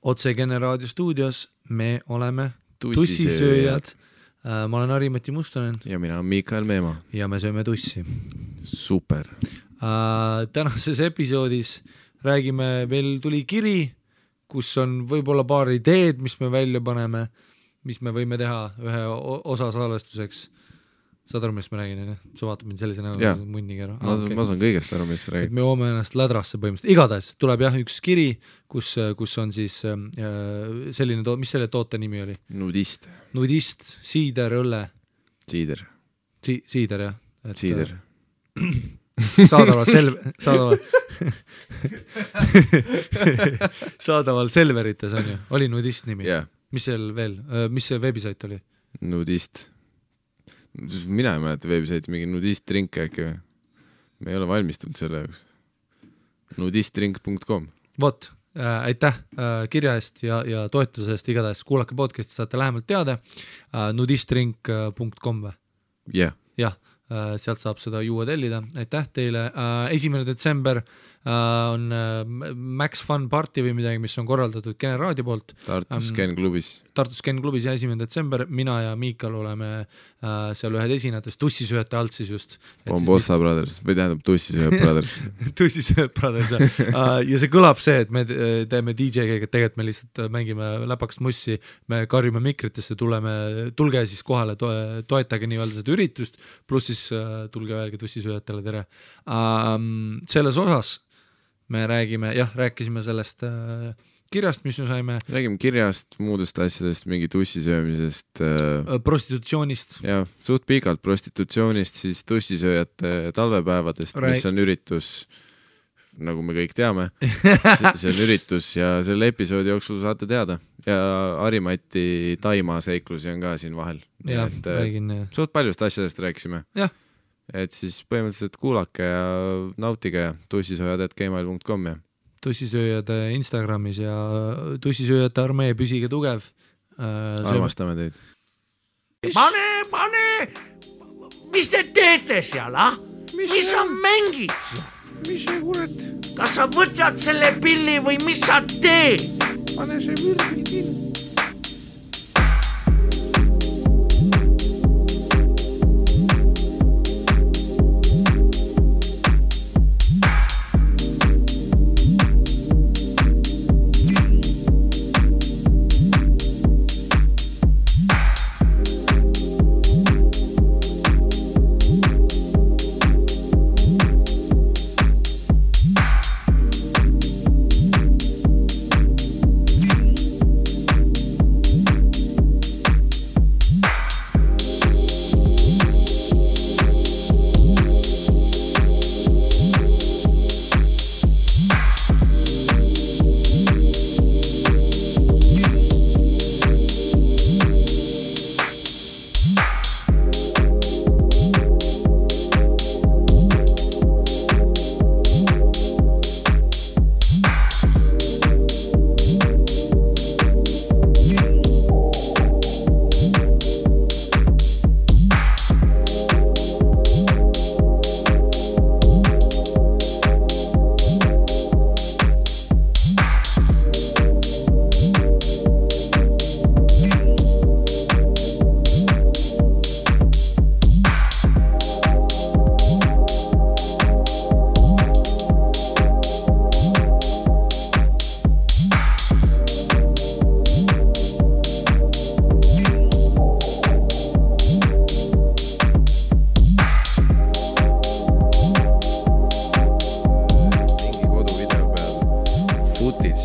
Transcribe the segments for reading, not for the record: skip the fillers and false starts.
Otse Kene raadio stuudios me oleme tussisööjad. Ma olen Harimati Mustonen. Ja mina olen Miikael Meemaa. Ja me sööme tussi. Super. Tänases episoodis räägime, veel tuli kiri, kus on võib-olla paar ideed, mis me välja paneme, mis me võime teha ühe osa salvestuseks. Saad aru, mis ma räägin? Sa vaatad mind sellise näo munniga. Ma saan kõigest aru, mis sa räägid. Me joome ennast lädrasse põhimõtteliselt. Igatahes tuleb üks kiri, kus on siis selline, mis selle toote nimi oli? Nudist, siider, õlle. Siider, jah. Siider. Saadaval Selverites on ju. Oli Nudist nimi. Yeah. Mis seal veel? Mis see veebisait oli? Nudist. Mina ei mäleta veebisaiti mingi nudist drink äkki või? Me ei ole valmistunud selle jaoks. Nudistdrink.com. Vot, aitäh kirja eest ja toetuse eest. Igatahes kuulake podcasti, saate lähemalt teada. Nudistdrink.com või? Yeah. Jah, sealt saab seda juua tellida. Aitäh teile. 1. detsember on Max Fun Party või midagi, mis on korraldatud Kene raadio poolt. Tartus Ken klubis ja 1. detsember. Mina ja Miikal oleme seal ühed esinejatest tussisööjate alt siis just. Bombossa Brothers või tähendab Tussisööjad Brothers. Tussisööjad Brothers. Ja see kõlab see, et me teeme DJ-ga, tegelikult me lihtsalt mängime läpakast mussi, me karjume mikritesse, tulge siis kohale, toetage nii-öelda seda üritust, pluss siis tulge veel ka tussisööjatele tere. Selles osas me rääkisime sellest kirjast, mis me saime. Räägime kirjast, muudest asjadest, mingi tussisöömisest. Prostitutsioonist. Ja, suht pikalt prostitutsioonist, siis tussisööjate talvepäevadest, mis on üritus, nagu me kõik teame. See on üritus ja selle episoodi jooksul saate teada. Ja Harimati Taima seiklusi on ka siin vahel. Ja, räägin. Suht paljust asjadest rääkisime. Jah. Et siis põhimõtteliselt kuulake ja nautige tussisööjad@gmail.com ja tussisööjad Instagramis ja tussisööjate armee, püsige tugev. Armastame teid. Pane! Mis te teete seal, Mis sa mängid seal? Mis see kurat? Kas sa võtad selle pilli või mis sa teed? Pane see virgil kinni.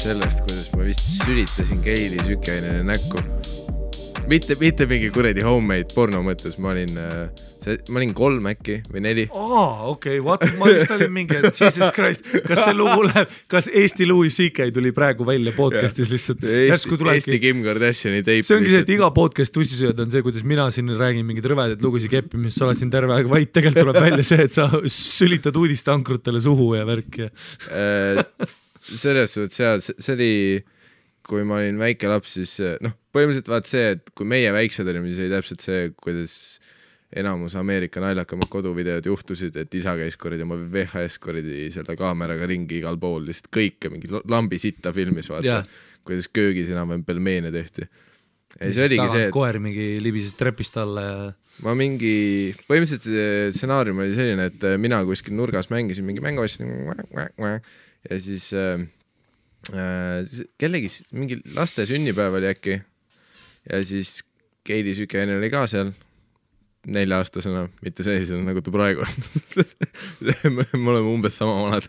sellest, kuidas ma vist sülitasin Keili sükeainele näkku. Mitte mingi kuredi homemade porno mõttes, ma olin 3 äkki või 4. Okei, what? Ma just olin mingi, Jesus Christ, kas see lugu läheb, kas Eesti Louis C.K. tuli praegu välja podcastis lihtsalt? Eesti Kim Kardashiani teip. See ongi see, et iga podcast tussisööd on see, kuidas mina siin räägin mingid rõvedad lugusid keppi, mis sa oled siin terve aeg vaid, tegelikult tuleb välja see, et sa sülitad uudisteankrutele suhu ja värk. Selles suhtes, see oli, kui ma olin väike laps, siis põhimõtteliselt vaat see, et kui meie väiksed olime, siis oli täpselt see, kuidas enamus Ameerika naljakamad koduvideod juhtusid, et isa käis korridi oma VHS korridi selle kaameraga ringi igal pool, lihtsalt kõike mingi lambi sitta filmis vaata, kuidas köögis enam pelmeene tehti. Ja see oligi see, et koer mingi libises trepist alla ja ma mingi, põhimõtteliselt see stsenaarium oli selline, et mina kuskil nurgas mängisin mingi mängu ja siis kellegi mingi laste sünnipäev oli äkki ja siis Keili Sükeinen oli ka seal 4-aastasena, mitte sellisena nagu ta praegu on. Me oleme umbes sama vanad.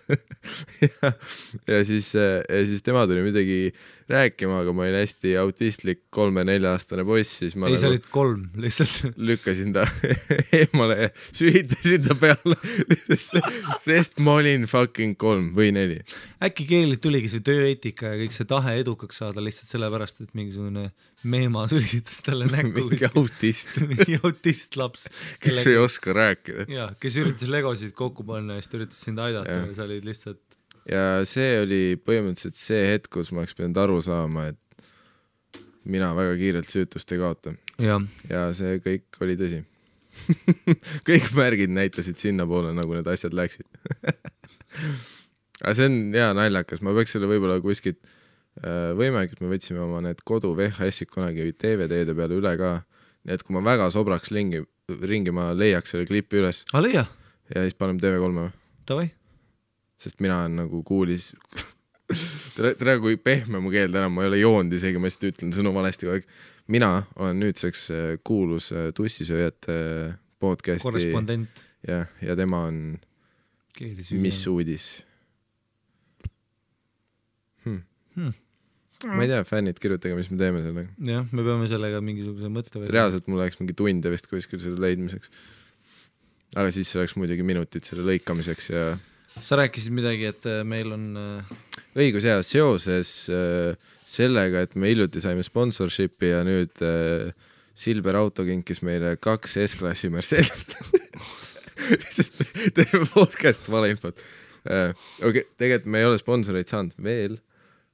ja siis tema tuli midagi rääkima, aga ma olin hästi autistlik 3-4-aastane poiss, siis ma sa olid 3 lihtsalt. Lükkasin ta eemale ja süütasin ta peale, sest ma olin fucking 3 või 4. Äkki Keililt tuligi see tööeetika ja kõik see tahe edukaks saada lihtsalt sellepärast, et mingisugune meema sülitas talle näkku. Mingi autist. Mingi autist laps. Kes ei oska rääkida. Ja, kes üritas legosid kokku panna ja siis üritas sind aidata ja sa olid lihtsalt... Ja see oli põhimõtteliselt see hetk, kus ma oleks pidanud aru saama, et mina väga kiirelt süütust ei kaota. Ja see kõik oli tõsi. Kõik märgid näitasid sinna poole, nagu need asjad läksid. Aga see on hea naljakas, ma peaks selle võib-olla kuskilt võimalik, et me võtsime oma need kodu VHS-id kunagi DVD-de peale üle ka, nii et kui ma väga sobraks ringi ma leiaks selle klipi üles. Leia? Ja siis paneme TV3. Tavai? Sest mina on nagu kuulis tere kui pehme mu keel täna, ma ei ole joonud isegi, ma lihtsalt ütlen sõnu valesti kogu aeg. Mina olen nüüdseks kuulus Tussisööjate podcasti korrespondent ja tema on Mis uudis ma ei tea, fännid, kirjutage, mis me teeme sellega. Jah, me peame sellega mingisuguse mõtte või... Reaalselt mul oleks mingi tunde vist kuskil selle leidmiseks. Aga siis oleks muidugi minutid selle lõikamiseks ja... Sa rääkisid midagi, et meil on... Õigus ja seoses sellega, et me hiljuti saime sponsorshipi ja nüüd Silver Auto kinkis meile 2 S-klassi Mercedes. Teeme podcast valeinfot. Okay, tegelikult me ei ole sponsoreid saanud veel.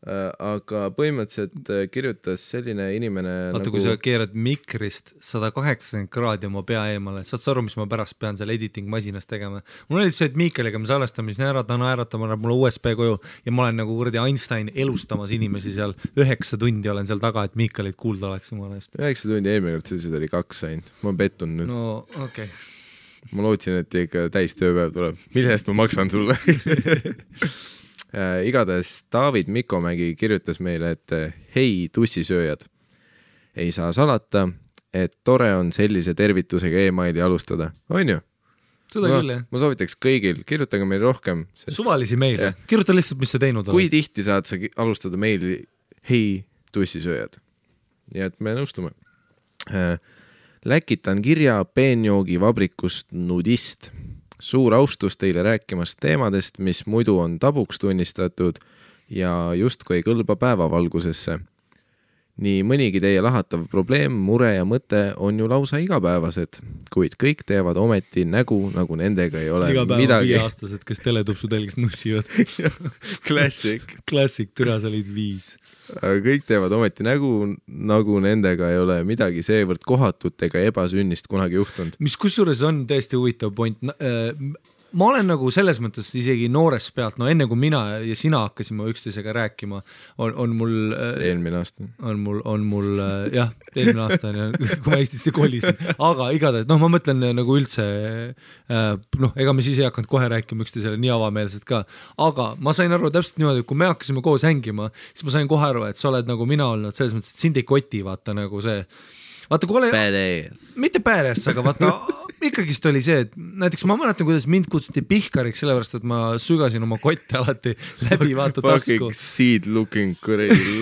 Aga põhimõtteliselt kirjutas selline inimene vaata, kui sa keerad mikrist 180 kraadi oma pea eemale, saad sa aru, mis ma pärast pean seal editing masinas tegema. Mul oli see, et Miikaliga me salestame, siis naeratama mulle USB koju ja ma olen nagu kuradi Einstein elustamas inimesi seal 9 tundi olen seal taga, et Miikalit kuulda oleks jumala eest. 9 tundi eelmine kord sellised oli 2 sain. Ma pettun nüüd. No, okei. Ma lootsin, et ikka täis tööpäev tuleb. Mille eest ma maksan sulle? Igatahes David Mikomägi kirjutas meile, et hei tussisööjad, ei saa salata, et tore on sellise tervitusega e-maili alustada. On ju? Seda küll, jah. Ma soovitaks kõigil, kirjutage meil rohkem. Suvalisi meile. Kirjuta lihtsalt, mis sa teinud oled. Kui tihti saad sa alustada meili hei tussisööjad? Ja et me nõustume. Läkitan kirja peenjoogi vabrikust Nudist. Suur austus teile rääkimast teemadest, mis muidu on tabuks tunnistatud ja justkui ei kõlba päevavalgusesse. Nii mõnigi teie lahatav probleem, mure ja mõte on ju lausa igapäevased, kuid kõik teevad ometi nägu, nagu nendega ei ole iga päeva midagi. 5-aastased, kes teletupsu telgist nussivad. Klassik, türa sa olid 5. Aga kõik teevad ometi nägu, nagu nendega ei ole midagi seevõrd kohatut ega ebasünnist kunagi juhtunud. Mis kusjuures on tõesti huvitav point. Ma olen nagu selles mõttes isegi noores pealt, no enne kui mina ja sina hakkasime üksteisega rääkima, on mul... Eelmine aasta. On mul jah, eelmine aasta on ja kui ma Eestisse kolisin. Aga igatahes, ma mõtlen nagu üldse, ega me siis ei hakanud kohe rääkima üksteisele nii avameelselt ka. Aga ma sain aru täpselt niimoodi, kui me hakkasime koos hängima, siis ma sain kohe aru, et sa oled nagu mina olnud, selles mõttes, et sind ei koti, vaata nagu see... Vaata, kui ole... Mitte badass, aga vaata... Ikkagist oli see, et näiteks ma mäletan, kuidas mind kutsuti pihkariks, sellepärast, et ma sügasin oma kotte alati läbi vaata tasku. Fucking seed looking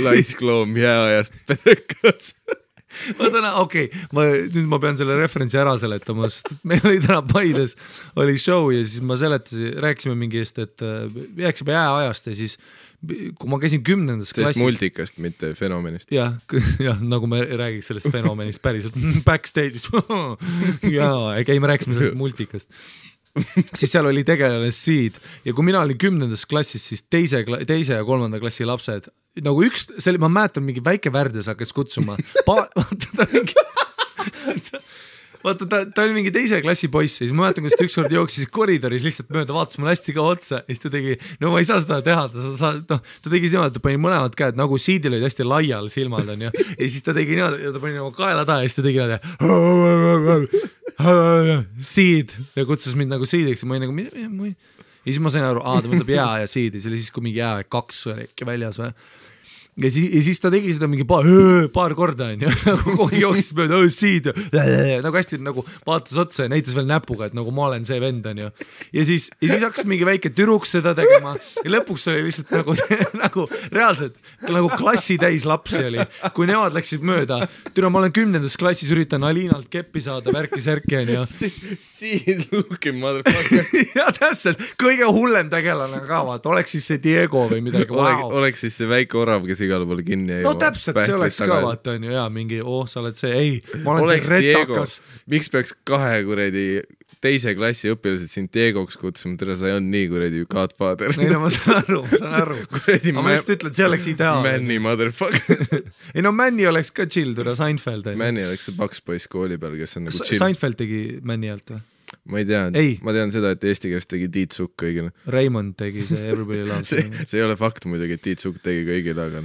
laiskloom jääajast pedekas. Okei, nüüd ma pean selle referentsi ära seletama, sest meil oli täna Paides oli show ja siis ma rääkisime mingi eest, et jääksime jääajast ja siis kui ma käisin 10. klassis... Sellest multikast, mitte fenomenist. Jah, nagu me räägiks sellest fenomenist päriselt backstage'is. Jaa, me rääkisime sellest multikast. Siis seal oli tegelane Seed ja kui mina olin 10. klassis, siis teise ja 3. klassi lapsed nagu ma mäletan mingi väike Värdes hakkas kutsuma vaata ta oli mingi teise klassi poiss ja siis ma mäletan, kus ta ükskord jooksis koridoris lihtsalt mööda, vaatas mulle hästi ka otsa ja siis ta tegi, no ma ei saa seda teha, ta tegi niimoodi, ta pani mõlemad käed, nagu siidil olid hästi laial silmad on ja siis ta tegi niimoodi, ta pani nagu kaela taha ja siis ta tegi niimoodi siid ja kutsus mind nagu siidiks ja ma olin nagu, ja siis ma sain aru, ta mõtleb jää ja siid ja see oli siis, kui mingi jää 2 või äkki väljas või. Ja siis ta tegi seda mingi paar korda on ja nagu kogu jooksis mööda siid nagu hästi nagu vaatas otsa ja näitas veel näpuga, et nagu ma olen see vend on ja siis hakkas mingi väike türuks seda tegema ja lõpuks oli lihtsalt nagu reaalselt nagu klassi täis lapsi oli, kui nemad läksid mööda, ma olen 10. klassis üritan Alinalt keppi saada värki-särki on ja siin looking motherfucker ja täpselt, kõige hullem tegelane ka vaata, oleks siis see Diego või midagi oleks siis see väike orav, kes igale poole kinni no täpselt, see oleks ka vaata on ju, jaa, mingi, sa oled see, ei, ma olen oleks see retakas. Miks peaks 2 kuradi teise klassi õpilased sind Diegoks kutsuma, tere, sa ei olnud nii kuradi Godfather. Ei no ma saan aru. Ma just ütlen, see oleks ideaalne. Manny motherfucker. Ei no Manny oleks ka chill, tere, Seinfeld. Manny oleks see Bugs Boys kooli peal, kes on nagu chill. Seinfeld tegi Manny alt või? Ma ei tea, ma tean seda, et eesti keeles tegi Tiit Sukk kõigile. Raymond tegi see Everybody Loves Me. See ei ole fakt muidugi, et Tiit Sukk tegi kõigile, aga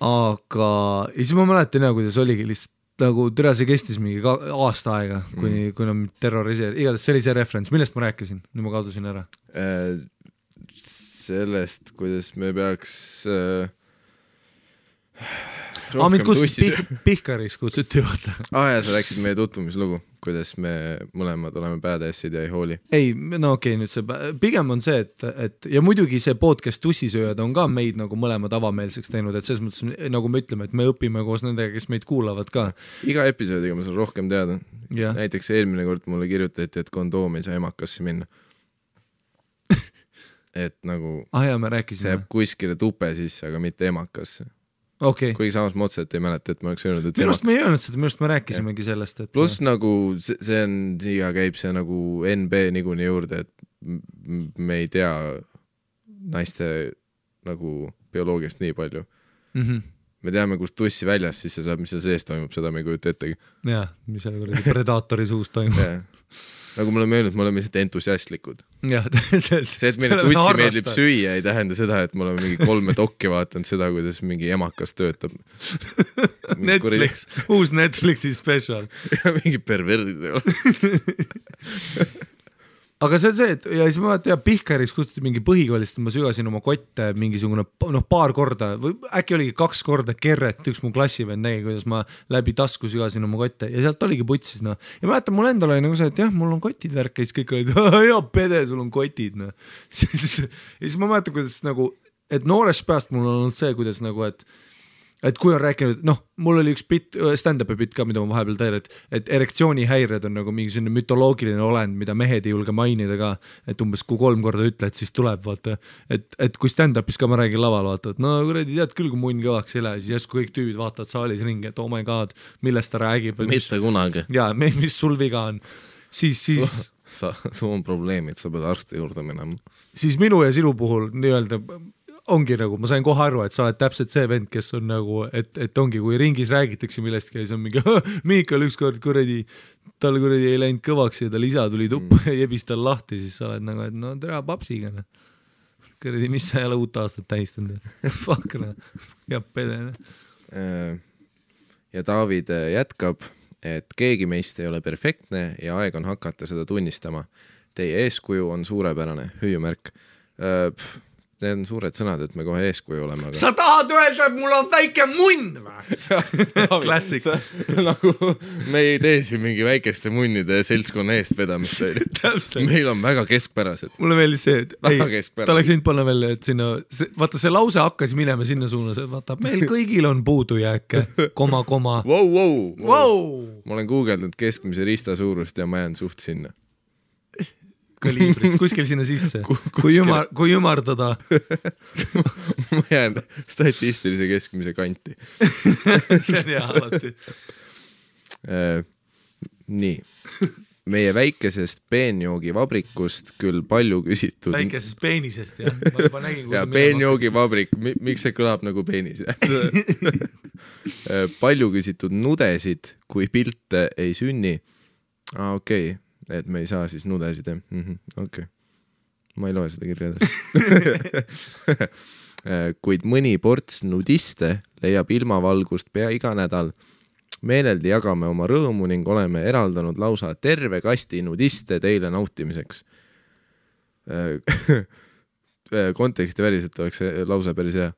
ja siis ma mäletan kuidas oligi lihtsalt nagu tere, see kestis mingi aasta aega, kuni nad terroriseerisid, igatahes see oli see referents, millest ma rääkisin, nüüd ma kadusin ära. Sellest, kuidas me peaks mind kutsus Pihkaris kutsuti vaata. Ja sa rääkisid meie tutvumislugu, kuidas me mõlemad oleme badass'id ja ei hooli. Ei, no okei, nüüd see pigem on see, et ja muidugi see podcast Tussisööjad on ka meid nagu mõlemad avameelseks teinud, et selles mõttes nagu me ütleme, et me õpime koos nendega, kes meid kuulavad ka. Iga episoodiga ma saan rohkem teada. Näiteks eelmine kord mulle kirjutati, et kondoom ei saa emakasse minna. Et nagu see jääb kuskile tupe sisse, aga mitte emakasse. Okay. Kuigi samas ma otseselt ei mäleta, et ma oleks öelnud, et minust me ei öelnud seda, minust me rääkisimegi sellest, et pluss nagu see on, siia käib see nagu NB niikuinii juurde, et me ei tea naiste nagu bioloogiast nii palju. Me teame, kus tussi väljas, siis see saab, mis seal sees toimub, seda me ei kujuta ettegi. Jah, mis seal predaatori suus toimub. Nagu me oleme öelnud, me oleme lihtsalt entusiastlikud. See, et meile tussi meeldib süüa, ei tähenda seda, et me oleme mingi 3 dokki vaatanud seda, kuidas mingi emakas töötab. Netflix, uus Netflixi special. Ja mingi perverdid ei ole. Aga see on see, et ja siis ma vaata, Pihkaris kutsuti mingi põhikoolist, ma sügasin oma kotte mingisugune paar korda või äkki oligi 2 korda kerret, üks mu klassivend nägi, kuidas ma läbi tasku sügasin oma kotte ja sealt oligi putsis, no. Ja ma mäletan, mul endal oli nagu see, et jah, mul on kotid värk ja siis kõik olid, ja pede, sul on kotid, no. Ja siis ma mäletan, kuidas nagu, et noorest pääst mul on olnud see, kuidas nagu, et kui on rääkinud, mul oli üks stand-up'i bit ka, mida ma vahepeal tean, et erektsioonihäired on nagu mingi selline mütoloogiline olend, mida mehed ei julge mainida ka, et umbes kui 3 korda ütled, siis tuleb, vaata, et kui stand-up'is ka ma räägin laval, vaata, et no kuradi tead küll, kui munn kõvaks ei lähe, siis järsku kõik tüübid vaatavad saalis ringi, et oh my god, millest ta räägib. Mitte kunagi. Jaa, mis sul viga on. Siis sul on probleemid, sa pead arsti juurde minema. Siis minu ja sinu puhul nii-öelda ongi nagu, ma sain kohe aru, et sa oled täpselt see vend, kes on nagu, et ongi, kui ringis räägitakse millestki ja siis on mingi, Miikal ükskord tal ei läinud kõvaks ja tal isa tuli tuppa ja jebis tal lahti, siis sa oled nagu, et no tere papsiga. Kuradi, mis sa ei ole uut aastat tähistanud? Fuck, ja pede. Ja David jätkab, et keegi meist ei ole perfektne ja aeg on hakata seda tunnistama. Teie eeskuju on suurepärane, hüüumärk. Need on suured sõnad, et me kohe eeskuju oleme. Aga... Sa tahad öelda, et mul on väike munn või? Klassik. Nagu me ei tee siin mingi väikeste munnide seltskonna eest vedamist. Meil on väga keskpärased. Mulle meeldis see, et ta oleks võinud panna veel, et sinna, vaata see lause hakkas minema sinna suunas, et vaata, meil kõigil on puudujääke, koma. Wow. Ma olen guugeldanud keskmise rista suurust ja ma jään suht sinna. Kaliibris, kuskil sinna sisse. Kui ümardada. Ma jään statistilise keskmise kanti. See on hea alati. Nii. Meie väikesest peenjoogivabrikust küll palju küsitud. Väikesest peenisest, jah. Ma juba nägin, ja peenjoogivabrik, miks see kõlab nagu peenis? Palju küsitud nudesid, kui pilte ei sünni. okei, et me ei saa siis nudesid, okei. Ma ei loe seda kirja kuid mõni ports nudiste leiab ilmavalgust pea iga nädal. Meeleldi jagame oma rõõmu ning oleme eraldanud lausa terve kasti nudiste teile nautimiseks. Konteksti väliselt oleks see lause päris hea.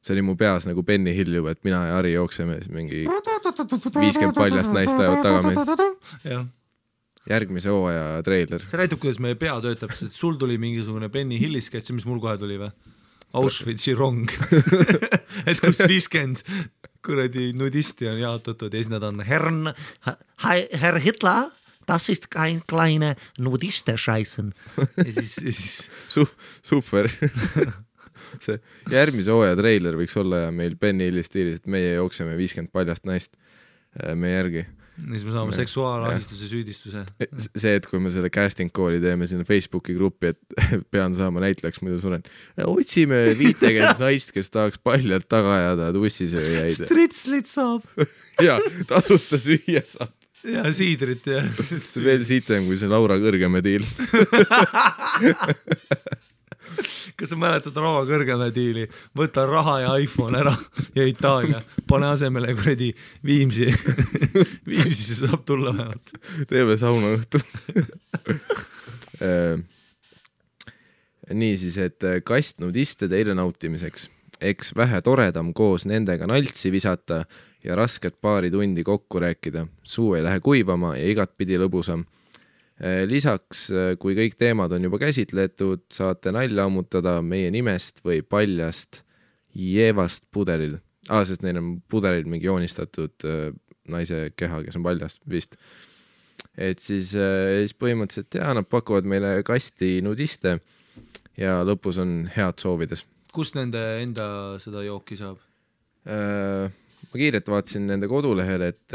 See oli mu peas nagu Benny Hill juba, et mina ja Ari jookseme mingi 50 paljast naist ajavad taga meid. Jah. Järgmise hooaja treiler. See näitab, kuidas meie pea töötab, sest sul tuli mingisugune Benny Hilli sketš, mis mul kohe tuli või? Auschwitzi rong. Et kus 50 kuradi nudisti on jaotatud ja siis nad on Herr Hitler, das ist kein kleine Nudiste-Scheißen. Ja siis... Super. See järgmise hooaja treiler võiks olla ja meil Benny Hilli stiilis, et meie jookseme 50 paljast naist meie järgi. Siis me saame seksuaalahistuse süüdistuse. See, et kui me selle casting call'i teeme sinna Facebooki gruppi, et pean saama näitlejaks, muidu suren. Otsime 50 naist, kes tahaks paljalt taga ajada tussisööjaid. Stritslit saab. Ja, tasuta süüa saab. Ja siidrit ja... See veel sitem kui see Laura Kõrgeme diil. Kas sa mäletad Raua Kõrgeme diili? Võta raha ja iPhone ära ja Itaalia. Pane asemele kuradi Viimsi. Viimsi saab tulla vähemalt. Teeme sauna õhtu. Nii siis, et kast nudiste teile nautimiseks. Eks vähe toredam koos nendega naltsi visata ja rasket paari tundi kokku rääkida. Suu ei lähe kuivama ja igat pidi lõbusam. Lisaks, kui kõik teemad on juba käsitletud, saate nalja ammutada meie nimest või paljast jeevast pudelil. Sest neil on pudelil mingi joonistatud naise keha, kes on paljast vist. Et siis põhimõtteliselt nad pakuvad meile kasti nudiste ja lõpus on head soovides. Kust nende enda seda jooki saab? Ma kiirelt vaatasin nende kodulehel, et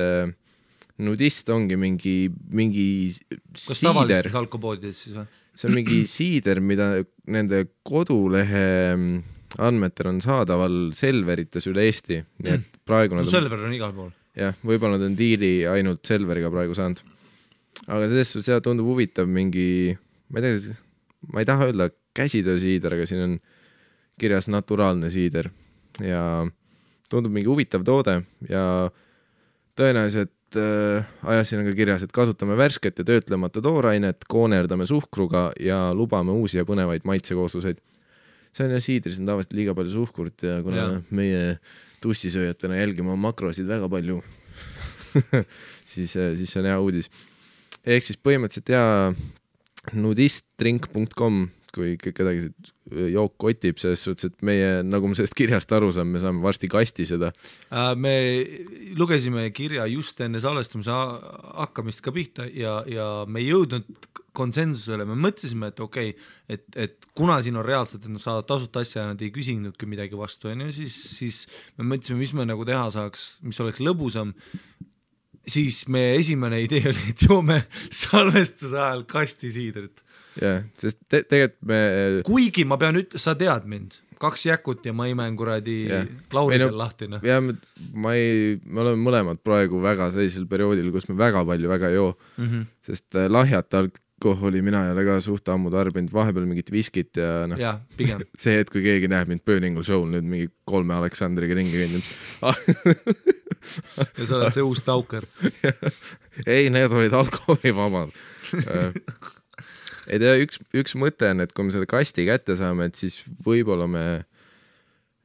nudist ongi mingi kas tavalistes alkopoodides siis või? See on mingi siider, mida nende kodulehe andmetel on saadaval Selverites üle Eesti. Nii et praegu no Selver on igal pool. Jah, võib-olla nad on diili ainult Selveriga praegu saanud. Aga see tundub huvitav mingi, ma ei taha öelda käsitöösiider, aga siin on kirjas naturaalne siider ja tundub mingi huvitav toode ja tõenäoliselt ajasin on ka kirjas, et kasutame värsket ja töötlemata toorainet, koonerdame suhkruga ja lubame uusi ja põnevaid maitsekoosluseid. See on ja siidris on tavaliselt liiga palju suhkurt ja kuna meie tussisööjatena jälgime oma makrosid väga palju, siis see on hea uudis. Ehk siis põhimõtteliselt nudistdrink.com, kui kedagi jook kotib, selles suhtes, et meie, nagu me sellest kirjast aru saame, me saame varsti kasti seda. Me lugesime kirja just enne salvestamise hakkamist ka pihta ja me ei jõudnud konsensusele, me mõtlesime, et okei, et kuna siin on reaalselt, et nad saavad tasuta asja ja nad ei küsinudki midagi vastu, siis me mõtlesime, mis me nagu teha saaks, mis oleks lõbusam, siis meie esimene idee oli, et joome salvestuse ajal kasti siidrit. Jah, sest tegelikult me... Kuigi ma pean sa tead mind, 2 jäkut ja ma imen kuradi Lauridel lahtina. Ja me oleme mõlemad praegu väga sellisel perioodil, kus me väga palju väga joo, sest lahjat alkoholi mina ei ole ka suht ammu tarbinud, vahepeal mingit viskit ja ja, pigem. See hetk, kui keegi näeb mind Burningu show'l nüüd mingi 3 Aleksandriga ringi kõndinud. Ja sa oled see uus tauker. Ei, need olid alkoholivabad. Et üks mõte on, et kui me selle kasti kätte saame, et siis võib-olla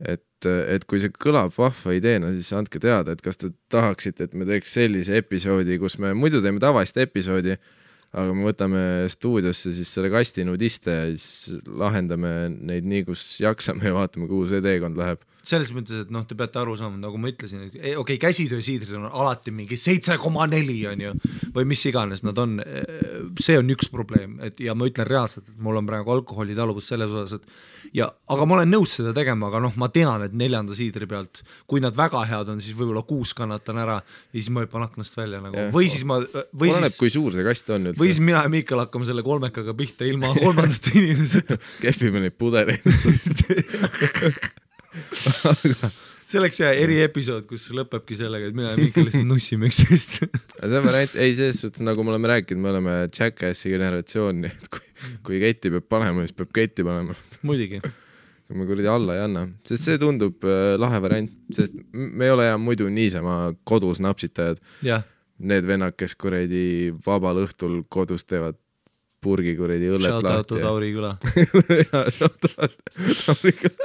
et kui see kõlab vahva ideena, siis andke teada, et kas te tahaksite, et me teeks sellise episoodi, kus me muidu teeme tavalist episoodi, aga me võtame stuudiosse siis selle kasti nudiste ja siis lahendame neid nii, kus jaksame ja vaatame, kuhu see teekond läheb. Selles mõttes, et te peate aru saama, nagu ma ütlesin, okei, käsitöösiidrid on alati mingi 7,4 on ju, või mis iganes nad on, see on üks probleem, ja ma ütlen reaalselt, et mul on praegu alkoholitaluvus selles osas, aga ma olen nõus seda tegema, aga ma tean, et 4. siidri pealt, kui nad väga head on, siis võib-olla 6 kannatan ära ja siis ma hüppan aknast välja nagu. Või siis oleneb, kui suur see kast on üldse. Või siis mina ja Miikal hakkame selle 3 pihta ilma 3. inimesed. Kehvime neid pudeleid. see oleks eriepisood, kus lõpebki sellega, et mina ja Miikal lihtsalt nussime üksteist. See on variant, ei selles suhtes, nagu me oleme rääkinud, me oleme Jackassi generatsioon, et kui ketti peab panema, siis peab ketti panema. Muidugi. Kui me kuradi alla ei anna, sest see tundub lahe variant, sest me ei ole muidu niisama kodus napsitajad. Jah. Need vennad, kes kuradi vabal õhtul kodus teevad purgi kuradi õllet lahti. Shout out to Tauri Küla. Jaa, shout out Tauri Küla.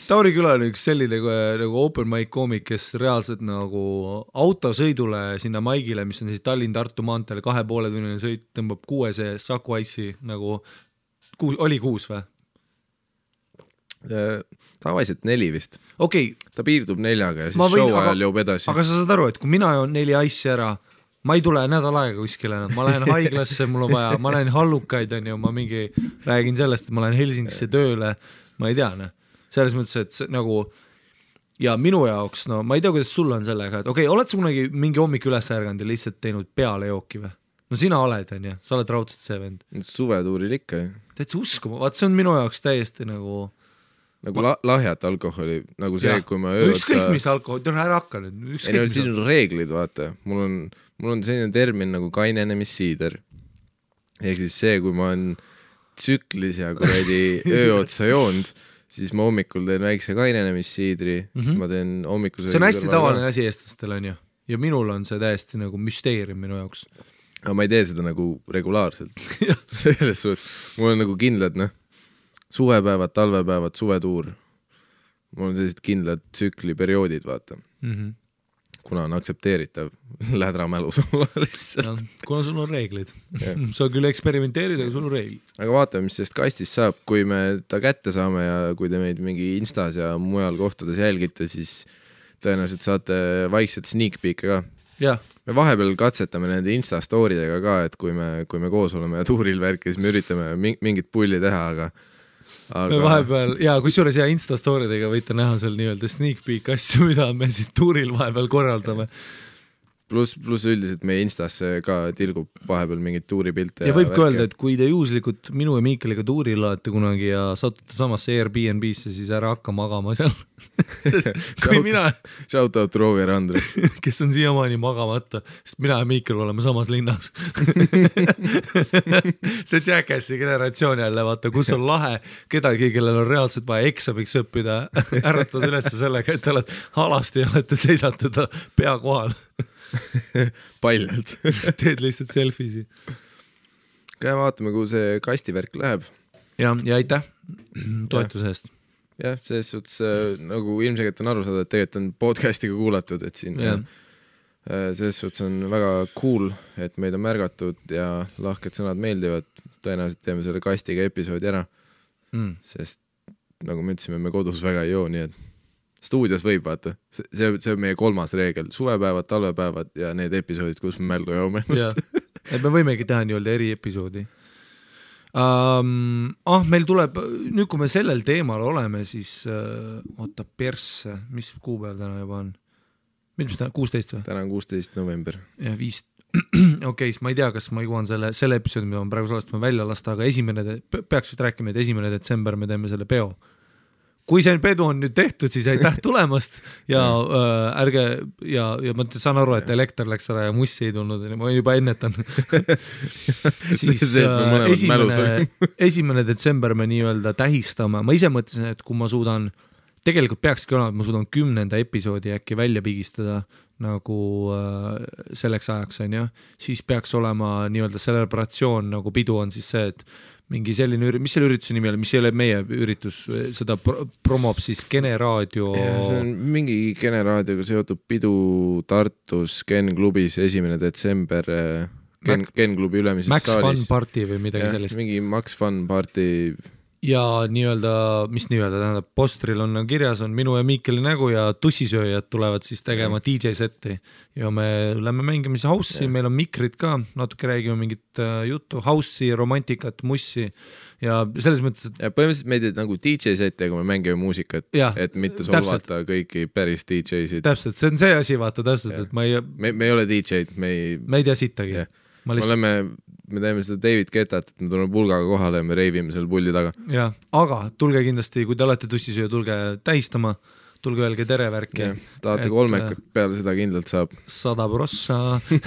Tauri Küla on üks selline nagu open mic koomik, kes reaalselt nagu autosõidule sinna maigile, mis on siis Tallinn-Tartu maanteel 2,5 tunnine sõit, tõmbab 6 Saku Ice'i nagu oli 6 või? Tavaliselt 4 vist. Okay. Ta piirdub 4-ga ja siis show ajal joob edasi. Aga sa saad aru, et kui mina joon 4 Ice'i ära, ma ei tule nädal aega kuskile, ma lähen haiglasse, mul on vaja, ma lähen hallukaid, on ju, ma mingi räägin sellest, et ma lähen Helsingisse tööle, ma ei tea, selles mõttes, et nagu ja minu jaoks, no ma ei tea, kuidas sul on sellega, et okei, oled sa kunagi mingi hommik üles ärganud ja lihtsalt teinud peale jooki või? No sina oled, on ju, sa oled raudselt see vend. Suvetuuril ikka. Täitsa uskuma, vaat see on minu jaoks täiesti nagu lahjat alkoholi, nagu see, kui ma ükskõik mis alkohol, ära hakka nüüd. Siin on reeglid, vaata. Mul on selline termin nagu kainenemisiider. Ehk siis see, kui ma olen tsüklis ja kuradi ööotsa joonud, siis ma hommikul teen väikse kainenemisiidri, ma teen hommikusöögi. See on hästi tavaline asi eestlastel, on ju. Ja minul on see täiesti nagu müsteerium minu jaoks. Aga ma ei tee seda nagu regulaarselt. Selles suhtes. Mul on nagu kindlad, suvepäevad, talvepäevad, suvetuur. Mul on sellised kindlad tsükliperioodid, vaata. Kuna on aktsepteeritav lädramälus olla lihtsalt. Kuna sul on reeglid. Sa küll eksperimenteerid, aga sul on reeglid. Aga vaatame, mis sellest kastist saab. Kui me ta kätte saame ja kui te meid mingi Instas ja mujal kohtades jälgite, siis tõenäoliselt saate vaikselt sneak peek'e ka. Ja. Me vahepeal katsetame nende Insta-storidega ka, et kui me koos oleme ja tuuril värki, siis me üritame mingit pulli teha, aga me vahepeal, ja kusjuures Insta-storidega võite näha seal nii-öelda sneak peek asju, mida me siit tuuril vahepeal korraldame. Plus üldiselt meie Instasse ka tilgub vahepeal mingid tuuripilte. Ja võib öelda, et kui te juhuslikult minu ja Miikaliga tuuril olete kunagi ja satute samasse Airbnb-sse, siis ära hakka magama seal. Sest kui mina... Shout out Roger Andre. Kes on siiamaani magamata, sest mina ja Miikal oleme samas linnas. See Jackassi generatsioon jälle, vaata, kus on lahe kedagi, kellel on reaalselt vaja eksamiks õppida, ärratad üles sellega, et te oled alasti ja olete seisatada pea kohal. Paljalt. Teed lihtsalt selfisi. Käe vaatame, kuhu see kastivärk läheb. Ja aitäh toetuse eest. Jah, selles suhtes nagu ilmselgelt on aru saada, et tegelikult on podcastiga kuulatud, et siin selles suhtes on väga cool, et meid on märgatud ja lahked sõnad meeldivad. Tõenäoliselt teeme selle kastiga episoodi ära, sest nagu me ütlesime, me kodus väga ei joo, nii et stuudios võib, vaata. See on meie 3. reegel. Suvepäevad, talvepäevad ja need episoodid, kus me mälgu joome ennast. Et me võimegi teha nii-öelda eri episoodi. Meil tuleb, nüüd kui me sellel teemal oleme, siis oota persse, mis kuupäev täna juba on? Mis täna, 16 või? Täna on 16 november. Ja 5. Okei, ma ei tea, kas ma jõuan selle episoodi, mida ma praegu salastama välja lasta, aga peaks vist rääkima, et 1. detsember me teeme selle peo. Kui see pedu on nüüd tehtud, siis aitäh tulemast ja ärge ja ma saan aru, et elekter läks ära ja mussi ei tulnud, ma juba ennetan. Siis 1. detsember me nii-öelda tähistame. Ma ise mõtlesin, et kui ma suudan, tegelikult peakski olema, et ma suudan 10. episoodi äkki välja pigistada nagu selleks ajaks, on ju, siis peaks olema nii-öelda celebratsioon, nagu pidu on siis see, et mingi selline, mis selle ürituse nimi oli, mis ei ole meie üritus, seda promob siis Kene Raadio. See on mingi Kene Raadioga seotud pidu Tartus Ken klubis 1. detsember Ken klubi ülemises Max saalis. Fun Party või midagi sellist. Mingi Max Fun Party. Ja nii-öelda, mis nii-öelda, tähendab, postril on kirjas, on minu ja Miikeli nägu ja tussisööjad tulevad siis tegema DJ-setti ja me lähme mängime siis house'i, meil on mikrid ka, natuke räägime mingit juttu, house'i, romantikat, mussi ja selles mõttes, et... Ja põhimõtteliselt meid nagu DJ-setti, kui me mängime muusikat, et mitte solvata kõiki päris DJ-sid. Täpselt, see on see asi, vaata täpselt, et me ei ole DJ-d, me ei tea sittagi. me teeme seda David Guettat, et me tuleme pulgaga kohale ja me reivime seal pulli taga. Ja, aga tulge kindlasti, kui te olete tussisööja, tulge tähistama, tulge öelge tere värki. Tahate kolmekat, peale seda kindlalt saab. 100%.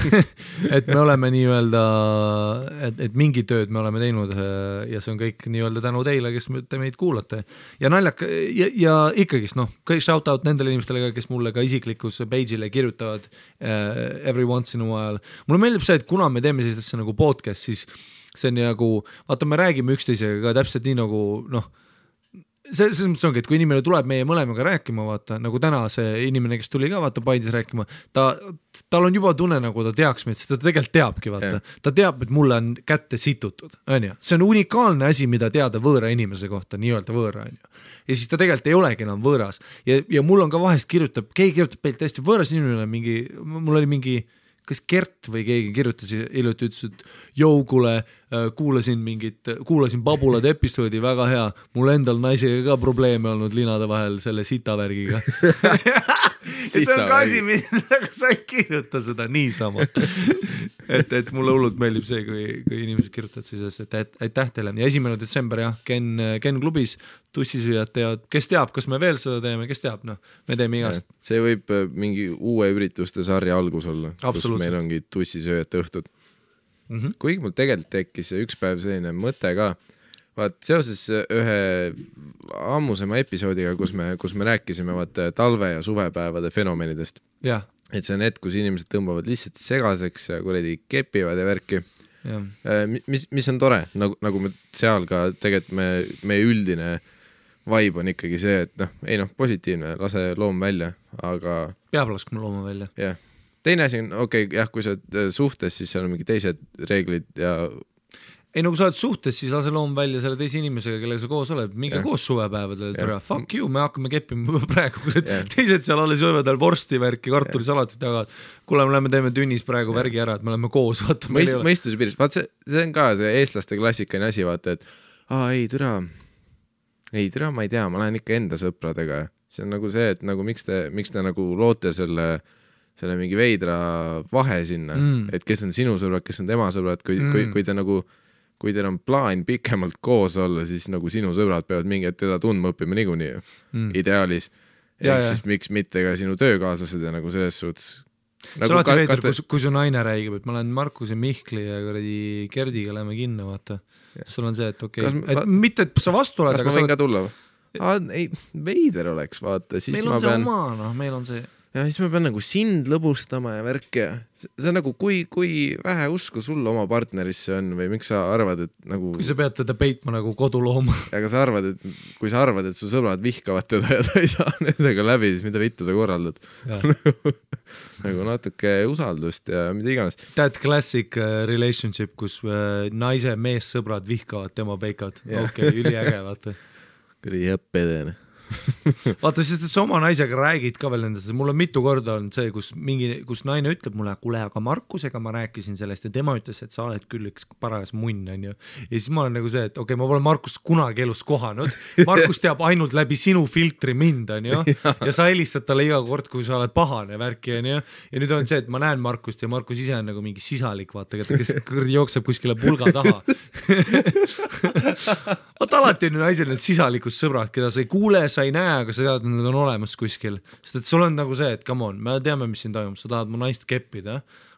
Et me oleme nii-öelda, et mingi tööd me oleme teinud ja see on kõik nii-öelda tänu teile, kes te meid kuulate. Ja naljak, ja ikkagist, kõik shout out nendele inimestele, kes mulle ka isiklikus page'ile kirjutavad every once in a while. Mulle meeldib see, et kuna me teeme sellist nagu podcast, siis see on nagu, vaata, me räägime üksteisega ka täpselt nii nagu, selles mõttes ongi, et kui inimene tuleb meie mõlemaga rääkima, vaata, nagu täna see inimene, kes tuli ka vaata Paidis rääkima, tal on juba tunne, nagu ta teaks meid, sest ta tegelikult teabki, vaata. Ta teab, et mulle on kätte situtud, on ju. See on unikaalne asi, mida teada võõra inimese kohta, nii-öelda võõra, on ju. Ja siis ta tegelikult ei olegi enam võõras. Ja mul on ka vahest keegi kirjutab peilt hästi võõras inimene, mul oli mingi kas Gert või keegi kirjutas hiljuti, ütles, et kuule, kuulasin Babulade episoodi, väga hea, mul endal naisega ka probleeme olnud linade vahel selle sitavärgiga. Ja see on ka asi, mida sa ei kirjuta seda niisama. Et mulle hullult meeldib see, kui inimesed kirjutavad siis, et aitäh teile. Ja 1. detsember, jah, Ken klubis tussisüüjad teavad, kes teab, kas me veel seda teeme, kes teab, me teeme igast. See võib mingi uue ürituste sarja algus olla, kus meil ongi tussisööjate õhtud. Kuigi mul tegelikult tekkis üks päev selline mõte ka, vaat seoses ühe ammusema episoodiga, kus me rääkisime talve- ja suvepäevade fenomenidest. Ja. Et see on hetk, kus inimesed tõmbavad lihtsalt segaseks ja kuradi kepivad ja värki. Mis on tore, nagu me seal ka tegelikult meie üldine vibe on ikkagi see, et positiivne, lase loom välja, aga peab laskma looma välja. Jah. Teine asi on, kui sa suhtes, siis seal on mingi teised reeglid ja ei, kui sa oled suhtes, siis lase loom välja selle teise inimesega, kellega sa koos oled, minge koos suvepäevadel, fuck you, me hakkame keppima praegu, teised seal alles jõuvad vorsti värki, kartulisalatit jagavad, kuule, me teeme tünnis praegu värgi ära, et me oleme koos, vaata. Mõistuse piiris, vaat see on ka see eestlaste klassikaline asi, vaata, et ei türa, ma ei tea, ma lähen ikka enda sõpradega. See on nagu see, et nagu miks te nagu loote selle mingi veidra vahe sinna, et kes on sinu sõbrad, kes on tema sõbrad, kui te nagu kui teil on plaan pikemalt koos olla, siis nagu sinu sõbrad peavad mingi hetk teda tundma õppima niikuinii ideaalis. Siis miks mitte ka sinu töökaaslased ja nagu selles suhtes. Sa olete veidr, kui su naine räägib, et ma lähen Markuse Mihkli ja Gerdiga lähme kinno, vaata. Sul on see, et et mitte, et sa vastu oled. Kas ma võin ka tulla? Ei, veider oleks, vaata. Meil on see oma, meil on see. Ja siis ma pean nagu sind lõbustama ja värk ja see on nagu, kui vähe usku sul oma partnerisse on või miks sa arvad, et nagu kui sa pead teda peitma nagu kodulooma. Aga sa arvad, kui sa arvad, et su sõbrad vihkavad teda ja ta ei saa nendega läbi, siis mida vittu sa korraldad. Nagu natuke usaldust ja mida iganes. That classic relationship, kus naise mees sõbrad vihkavad tema peikad. Üliäge, vaata. Kõri jäppedene. Vaata, sest et sa oma naisega räägid ka veel nendest, mul on mitu korda olnud see, kus naine ütleb mulle, kuule, aga Markusega ma rääkisin sellest ja tema ütles, et sa oled küll üks parajas munn, on ju. Ja siis ma olen nagu see, et ma pole Markust kunagi elus kohanud, Markus teab ainult läbi sinu filtri mind, on ju, ja sa helistad talle iga kord, kui sa oled pahane värki, on ju, ja nüüd on see, et ma näen Markust ja Markus ise on nagu mingi sisalik, vaata, kes jookseb kuskile pulga taha. Vaata, alati on ju naisel need sisalikus sõbrad, keda sa ei kuule, sa ei näe, aga sa tead, et nad on olemas kuskil. Sest et sul on nagu see, et come on, me teame, mis siin toimub, sa tahad mu naist keppida,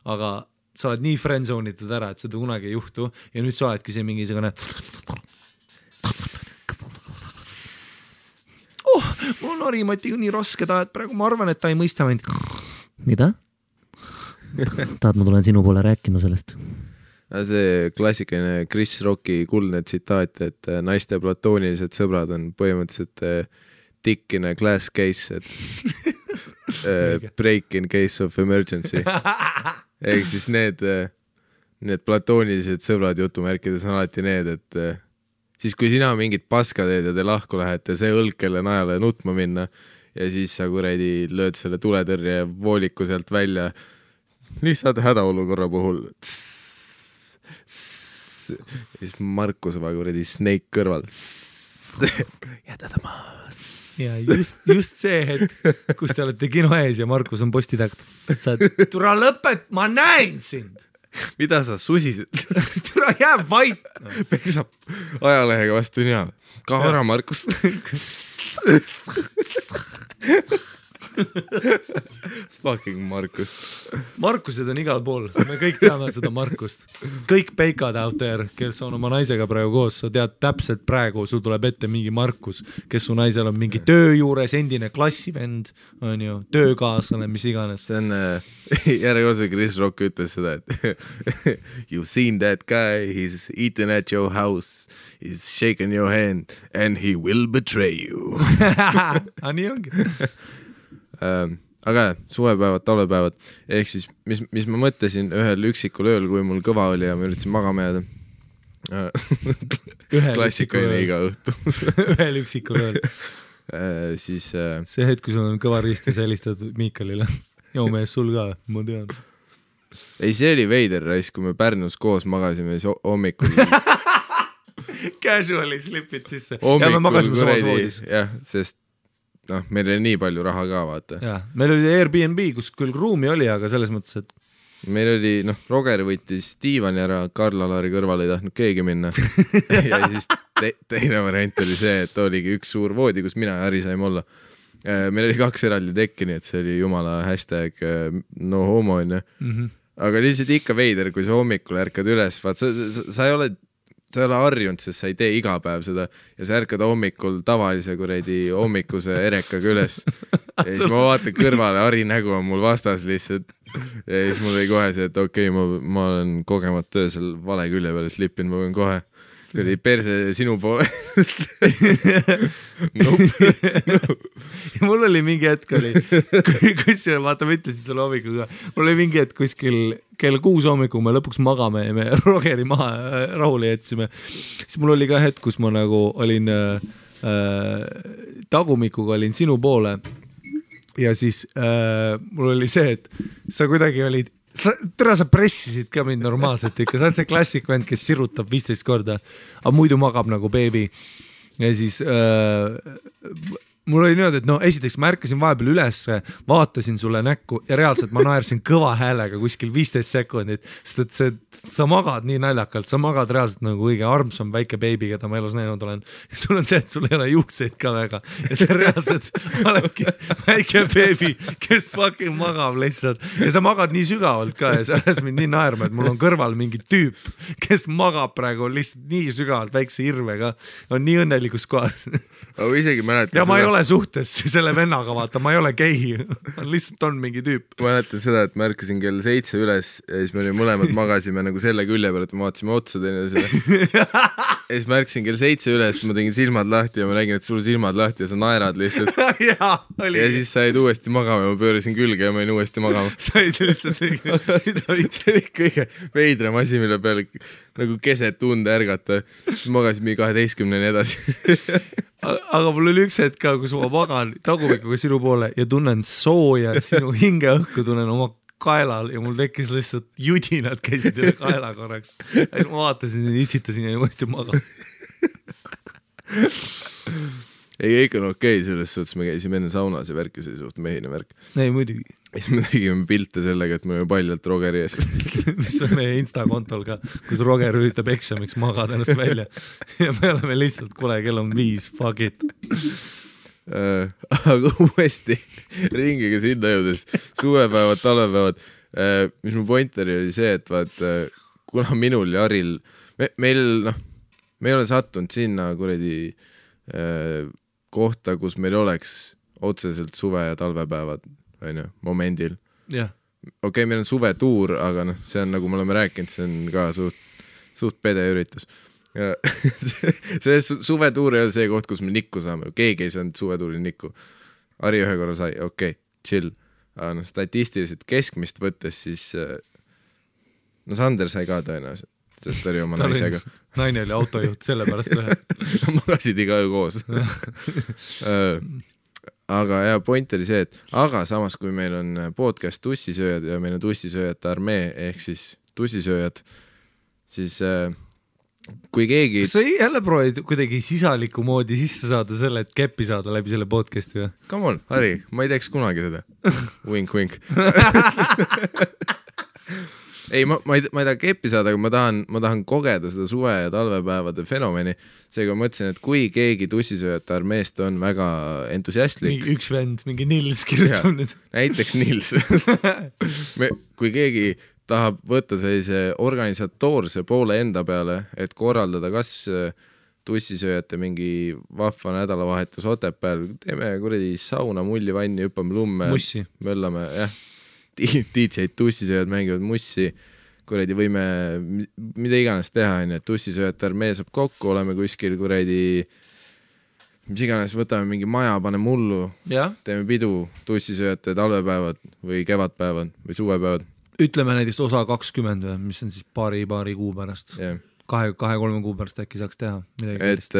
aga sa oled nii friendzone'itud ära, et seda kunagi ei juhtu ja nüüd sa oledki see mingi segane mul on Harimatiga nii raske taha, et praegu ma arvan, et ta ei mõista mind. Mida? Tahad, ma tulen sinu poole rääkima sellest? See klassikaline Chris Rocki kuldne tsitaat, et naiste platoonilised sõbrad on põhimõtteliselt dick in a glass case, et break in case of emergency. Ehk siis need platoonilised sõbrad jutumärkides on alati need, et siis kui sina mingid paska teed ja te lahku lähete, see õlg kelle najale nutma minna ja siis sa kuradi lööd selle tuletõrje vooliku sealt välja lihtsalt hädaolukorra puhul. Siis Markus va kuradi Snake kõrval. Jäta ta maas. Ja just see hetk, kus te olete kino ees ja Markus on posti taga. Tule lõpet, ma näen sind. mida sa susised? Türa jääb vait. Pesab ajalehega vastu nina. Ka ära, Markus. Fucking Markus. Markused on igal pool, me kõik teame seda Markust. Kõik peikad out there, kes on oma naisega praegu koos, sa tead täpselt praegu, sul tuleb ette mingi Markus, kes su naisel on mingi töö juures, endine klassivend, on ju, töökaaslane, mis iganes. See on, järjekordse Chris Rock ütles seda, et you've seen that guy, he's eaten at your house, he's shaken your hand and he will betray you. Nii ongi. Aga suvepäevad, talvepäevad, ehk siis mis ma mõtlesin ühel üksikul ööl, kui mul kõva oli ja ma üritasin magama jääda. Klassikaline iga õhtu. Ühel üksikul ööl. Siis see hetk, kui sul on kõva ristis helistatud Miikalile. Joo mees, sul ka, ma tean. Ei, see oli veider rais, kui me Pärnus koos magasime siis hommikul. Casually slipid sisse. Ja me magasime samas voodis. Jah, sest meil oli nii palju raha ka, vaata. Ja, meil oli Airbnb, kus küll ruumi oli, aga selles mõttes, et meil oli, Roger võttis diivani ära, Karl-Alari kõrval ei tahtnud keegi minna. Ja siis teine variant oli see, et oligi üks suur voodi, kus mina ja Harri saime olla. Meil oli 2 eraldi tekki, nii et see oli jumala hashtag no homo, aga lihtsalt ikka veider, kui sa hommikul ärkad üles, vaat sa ei ole harjunud, sest sa ei tee iga päev seda ja sa ärkad hommikul tavalise kuredi hommikuse erekaga üles ja siis ma vaatan kõrvale, Harri nägu on mul vastas lihtsalt ja siis mul oli kohe see, et okei, ma olen kogemata öösel vale külje peale slippinud, ma võin kohe tuli perse sinu poole. Mul oli mingi hetk kusjuures, vaata, ma ütlesin selle hommikul ka, mul oli mingi hetk kuskil kell 6 hommikul me lõpuks magame ja me Rogeri maha rahule jätsime. Siis mul oli ka hetk, kus ma nagu olin tagumikuga olin sinu poole ja siis mul oli see, et sa kuidagi olid sa pressisid ka mind normaalselt ikka, sa oled see klassik vend, kes sirutab 15 korda, aga muidu magab nagu beebi ja siis mul oli niimoodi, et esiteks ma ärkasin vahepeal üles, vaatasin sulle näkku ja reaalselt ma naersin kõva häälega kuskil 15 sekundit, sest et sa magad nii naljakalt, sa magad reaalselt nagu õige armsam väike beebi, keda ma elus näinud olen. Ja sul on see, et sul ei ole juukseid ka väga ja see reaalselt oledki väike beebi, kes fucking magab lihtsalt ja sa magad nii sügavalt ka ja sa ajas mind nii naerma, et mul on kõrval mingi tüüp, kes magab praegu lihtsalt nii sügavalt väikse irvega, on nii õnnelikus kohas. Aga isegi mäletan ja ma ei ole suhtes selle vennaga, vaata, ma ei ole gei, lihtsalt on mingi tüüp. Ma mäletan seda, et ma ärkasin kell 7 üles ja siis me mõlemad magasime nagu selle külje peal, et me vaatasime otsa teine selle. Ja siis ma ärkasin kell 7 üles, ma tegin silmad lahti ja ma nägin, et sul silmad lahti ja sa naerad lihtsalt. Ja siis said uuesti magama ja ma pöörasin külge ja ma olin uuesti magama. Said lihtsalt see oli kõige veidram asi, mille peale nagu keset tunde ärgata. Siis magasin mingi 12-ni edasi. Aga mul oli üks hetk ka, kus ma magan tagumikuga sinu poole ja tunnen sooja, sinu hingeõhku tunnen oma kaelal ja mul tekkis lihtsalt judinad käisid üle kaela korraks. Ja siis ma vaatasin ja itsitasin ja uuesti magan. Ei, kõik on okei, selles suhtes me käisime enne saunas ja värk ja see suht mehine värk. Ei, muidugi. Siis me tegime pilte sellega, et me oleme paljalt Rogeri eest. Mis on meie Insta-kontol ka, kus Roger üritab eksamiks magada ennast välja. Ja me oleme lihtsalt, kuule, kell on 5, fuck it. Aga uuesti ringiga sinna jõudes, suvepäevad, talvepäevad, mis mu pointeri oli see, et vaat, kuna minul ja Haril, me ei ole sattunud sinna kuredi kohta, kus meil oleks otseselt suve- ja talvepäevad momendil. Yeah. Okei, meil on suvetuur, aga see on, nagu me oleme rääkinud, see on ka suht pede üritus. See suvetuur ei ole see koht, kus me nikku saame. Keegi ei saanud suvetuuri nikku. Harri ühe korra sai, okei, chill. Aga statistiliselt keskmist võttes siis Sander sai ka tõenäoliselt, sest oli oma naisega. Naine oli autojuht, sellepärast ühe. Magasid iga öö koos. Aga ja point oli see, et aga samas kui meil on podcast tussisööjad ja meil on tussisööjate armee ehk siis tussisööjad, siis kui keegi... Kas sa jälle proovid kuidagi sisaliku moodi sisse saada selle, et keppi saada läbi selle podcasti või? Come on, Harri, ma ei teeks kunagi seda. Wink, wink. ei, ma ei taha keppi saada, aga ma tahan kogeda seda suve- ja talvepäevade fenomeni. Seega mõtlesin, et kui keegi tussisööjate armeest on väga entusiastlik. Üks vend, mingi Nils kirjutab nüüd. Näiteks Nils. Kui keegi tahab võtta sellise organisatoorse poole enda peale, et korraldada kas tussisööjate mingi vahva nädalavahetus Otepääl, teeme kuradi sauna, mullivanni, hüppame lumme, möllame, jah, DJ-d, tussisööjad mängivad mussi, kuradi võime mida iganes teha, et tussisööjate armee saab kokku, oleme kuskil kuradi, mis iganes, võtame mingi maja, paneme mullu, teeme pidu, tussisööjate talvepäevad või kevadpäevad või suvepäevad. Ütleme näiteks osa 20, mis on siis paari kuu pärast. Yeah. 2-3 kuu pärast äkki saaks teha midagi sellist.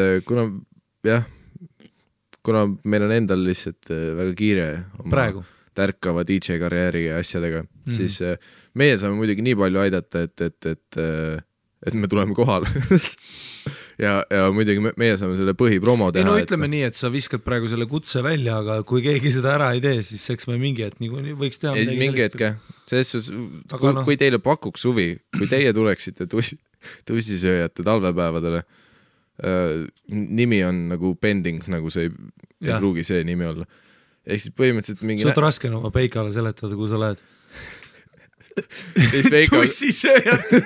Kuna meil on endal lihtsalt väga kiire oma tärkava DJ karjääri ja asjadega, siis meie saame muidugi nii palju aidata, et me tuleme kohale. ja muidugi meie saame selle põhipromo teha. No ütleme nii, et sa viskad praegu selle kutse välja, aga kui keegi seda ära ei tee, siis eks me mingi hetk nii võiks teha midagi mingi hetk, kui teile pakuks huvi, kui teie tuleksite tussisööjate talvepäevadele, nimi on nagu pending, nagu see ei pruugi see nimi olla. Ehk siis põhimõtteliselt mingi... Suht raske on oma peikale seletada, kui sa lähed. Tussisööjate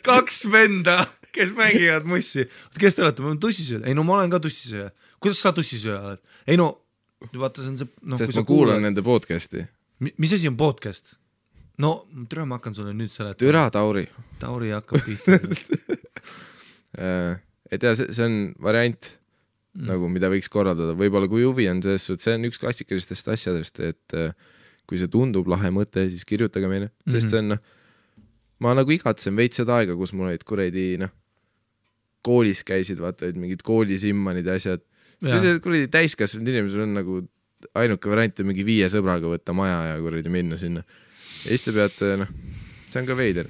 2 venda, kes mängivad mussi. Kes te olete? Ma olen tussisööja. Ei no ma olen ka tussisööja. Kuidas sa tussisööja oled? Ei no, vaata see on see... Sest ma kuulan nende podcasti. Mis asi on podcast? No, türa ma hakkan sulle nüüd seletama. Türa Tauri. Tauri hakkab tihti. Et ja, see on variant, nagu mida võiks korraldada. Võib-olla kui huvi on see on üks klassikalistest asjadest, et kui see tundub lahe mõte, siis kirjutage meile. Sest see on, ma nagu igatsen veits seda aega, kus mul olid kuredi, koolis käisid, vaata, mingid koolisimmanid ja asjad. Kuredi täiskasvanud inimesel on nagu ainuke variant mingi 5 sõbraga võtta maja ja kuredi minna sinna. Ja siis te peate, see on ka veider.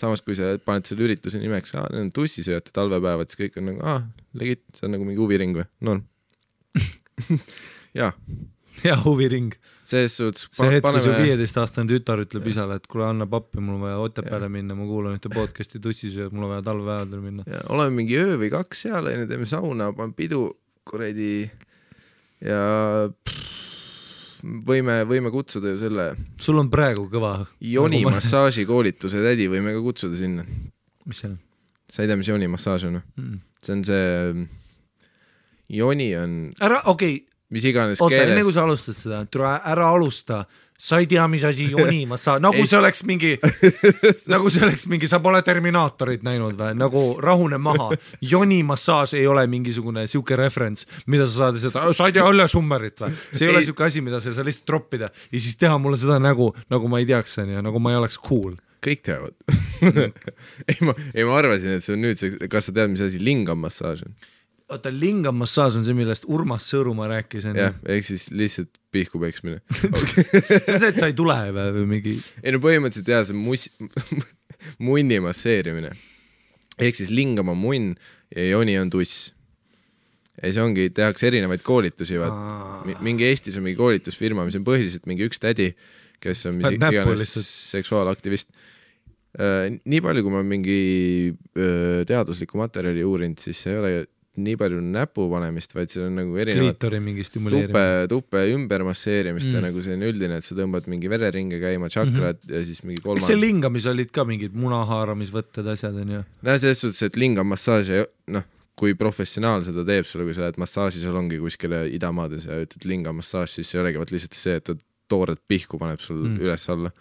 Samas, kui sa paned selle ürituse nimeks, need on tussisööjate talvepäevad, siis kõik on nagu, legit, see on nagu mingi huviring või? Norm. Jaa. Ja huviring. See hetk, kui su 15-aastane tütar ütleb isale, et kuule anna pappi, mul on vaja Otepääle minna, ma kuulan ühte podcasti tussisööjad, mul on vaja talvepäevadel minna. Ja, oleme mingi öö või 2 seal, teeme sauna, pan pidu, kuredi ja... Võime kutsuda ju selle... Sul on praegu kõva... Joni massaaži koolituse tädi võime ka kutsuda sinna. Mis see on? Sa ei tea, mis Joni massaaž on? See on see... Joni on... Mis iganes keeles... Oota, enne kui sa alustad seda, ära alusta. Sa ei tea, mis asi Joni massaaž... Nagu see oleks mingi... Sa pole Terminaatorit näinud või? Nagu rahune maha. Joni massaaž ei ole mingisugune siuke referents, mida sa saad seda... Sa ei tea Õlle Summerit või? See ei ole siuke asi, mida sa lihtsalt droppida ja siis teha mulle seda nägu, nagu ma ei teaks, nagu ma ei oleks cool. Kõik teavad. ma arvasin, et see on nüüd... Kas sa tead, mis asi lingam massaaž on? Oota, lingam massaaž on see, millest Urmas Sõõrumaa rääkis. Jah, ehk siis lihtsalt pihku peksmine. See on see, et sa ei tule või mingi... Ei no põhimõtteliselt jah, see munni masseerimine. Ehk siis lingam on munn ja Joni on tuss. Ja see ongi, tehakse erinevaid koolitusi. Mingi Eestis on mingi koolitusfirma, mis on põhiliselt mingi üks tädi, kes on iganes seksuaalaktivist. Nii palju, kui ma mingi teadusliku materjali uurinud, siis see ei ole nii palju näpu panemist, vaid see on nagu erinevad tuppe ümber masseerimist ja nagu see on üldine, et sa tõmbad mingi vereringe käima, tšakrad ja siis mingi kolmand. Eks see lingamis olid ka mingid munahaaramisvõtted asjad on ju? Selles suhtes, et lingamassaaž, kui professionaal seda teeb sulle, kui sa lähed massaažisalongi kuskile idamaades ja ütled lingamassaaž, siis see olegi lihtsalt see, et ta toored pihku paneb sul üles alla.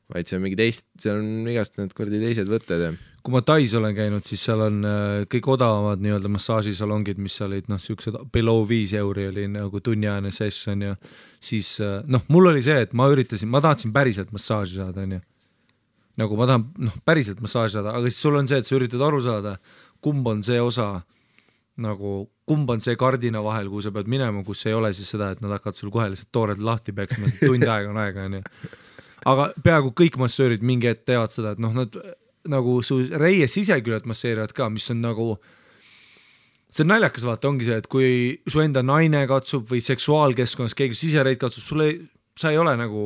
Vaid see on mingi seal on igast need kordi teised võtted. Kui ma Tais olen käinud, siis seal on kõik odavamad nii-öelda massaažisalongid, mis olid siuksed below 5 euri oli nagu tunniajane session ja siis mul oli see, et ma tahtsin päriselt massaaži saada, on ju. Nagu ma tahan päriselt massaaži saada, aga siis sul on see, et sa üritad aru saada, kumb on see osa, nagu kumb on see kardina vahel, kuhu sa pead minema, kus ei ole siis seda, et nad hakkavad sul kohe lihtsalt toored lahti peksma, tund aega on aega, on ju. Aga peaaegu kõik massöörid mingi hetk teevad seda, et nad nagu su reie siseküljed masseerivad ka, mis on nagu, see on naljakas vaata, ongi see, et kui su enda naine katsub või seksuaalkeskkonnas keegi sisereid katsub, sa ei ole nagu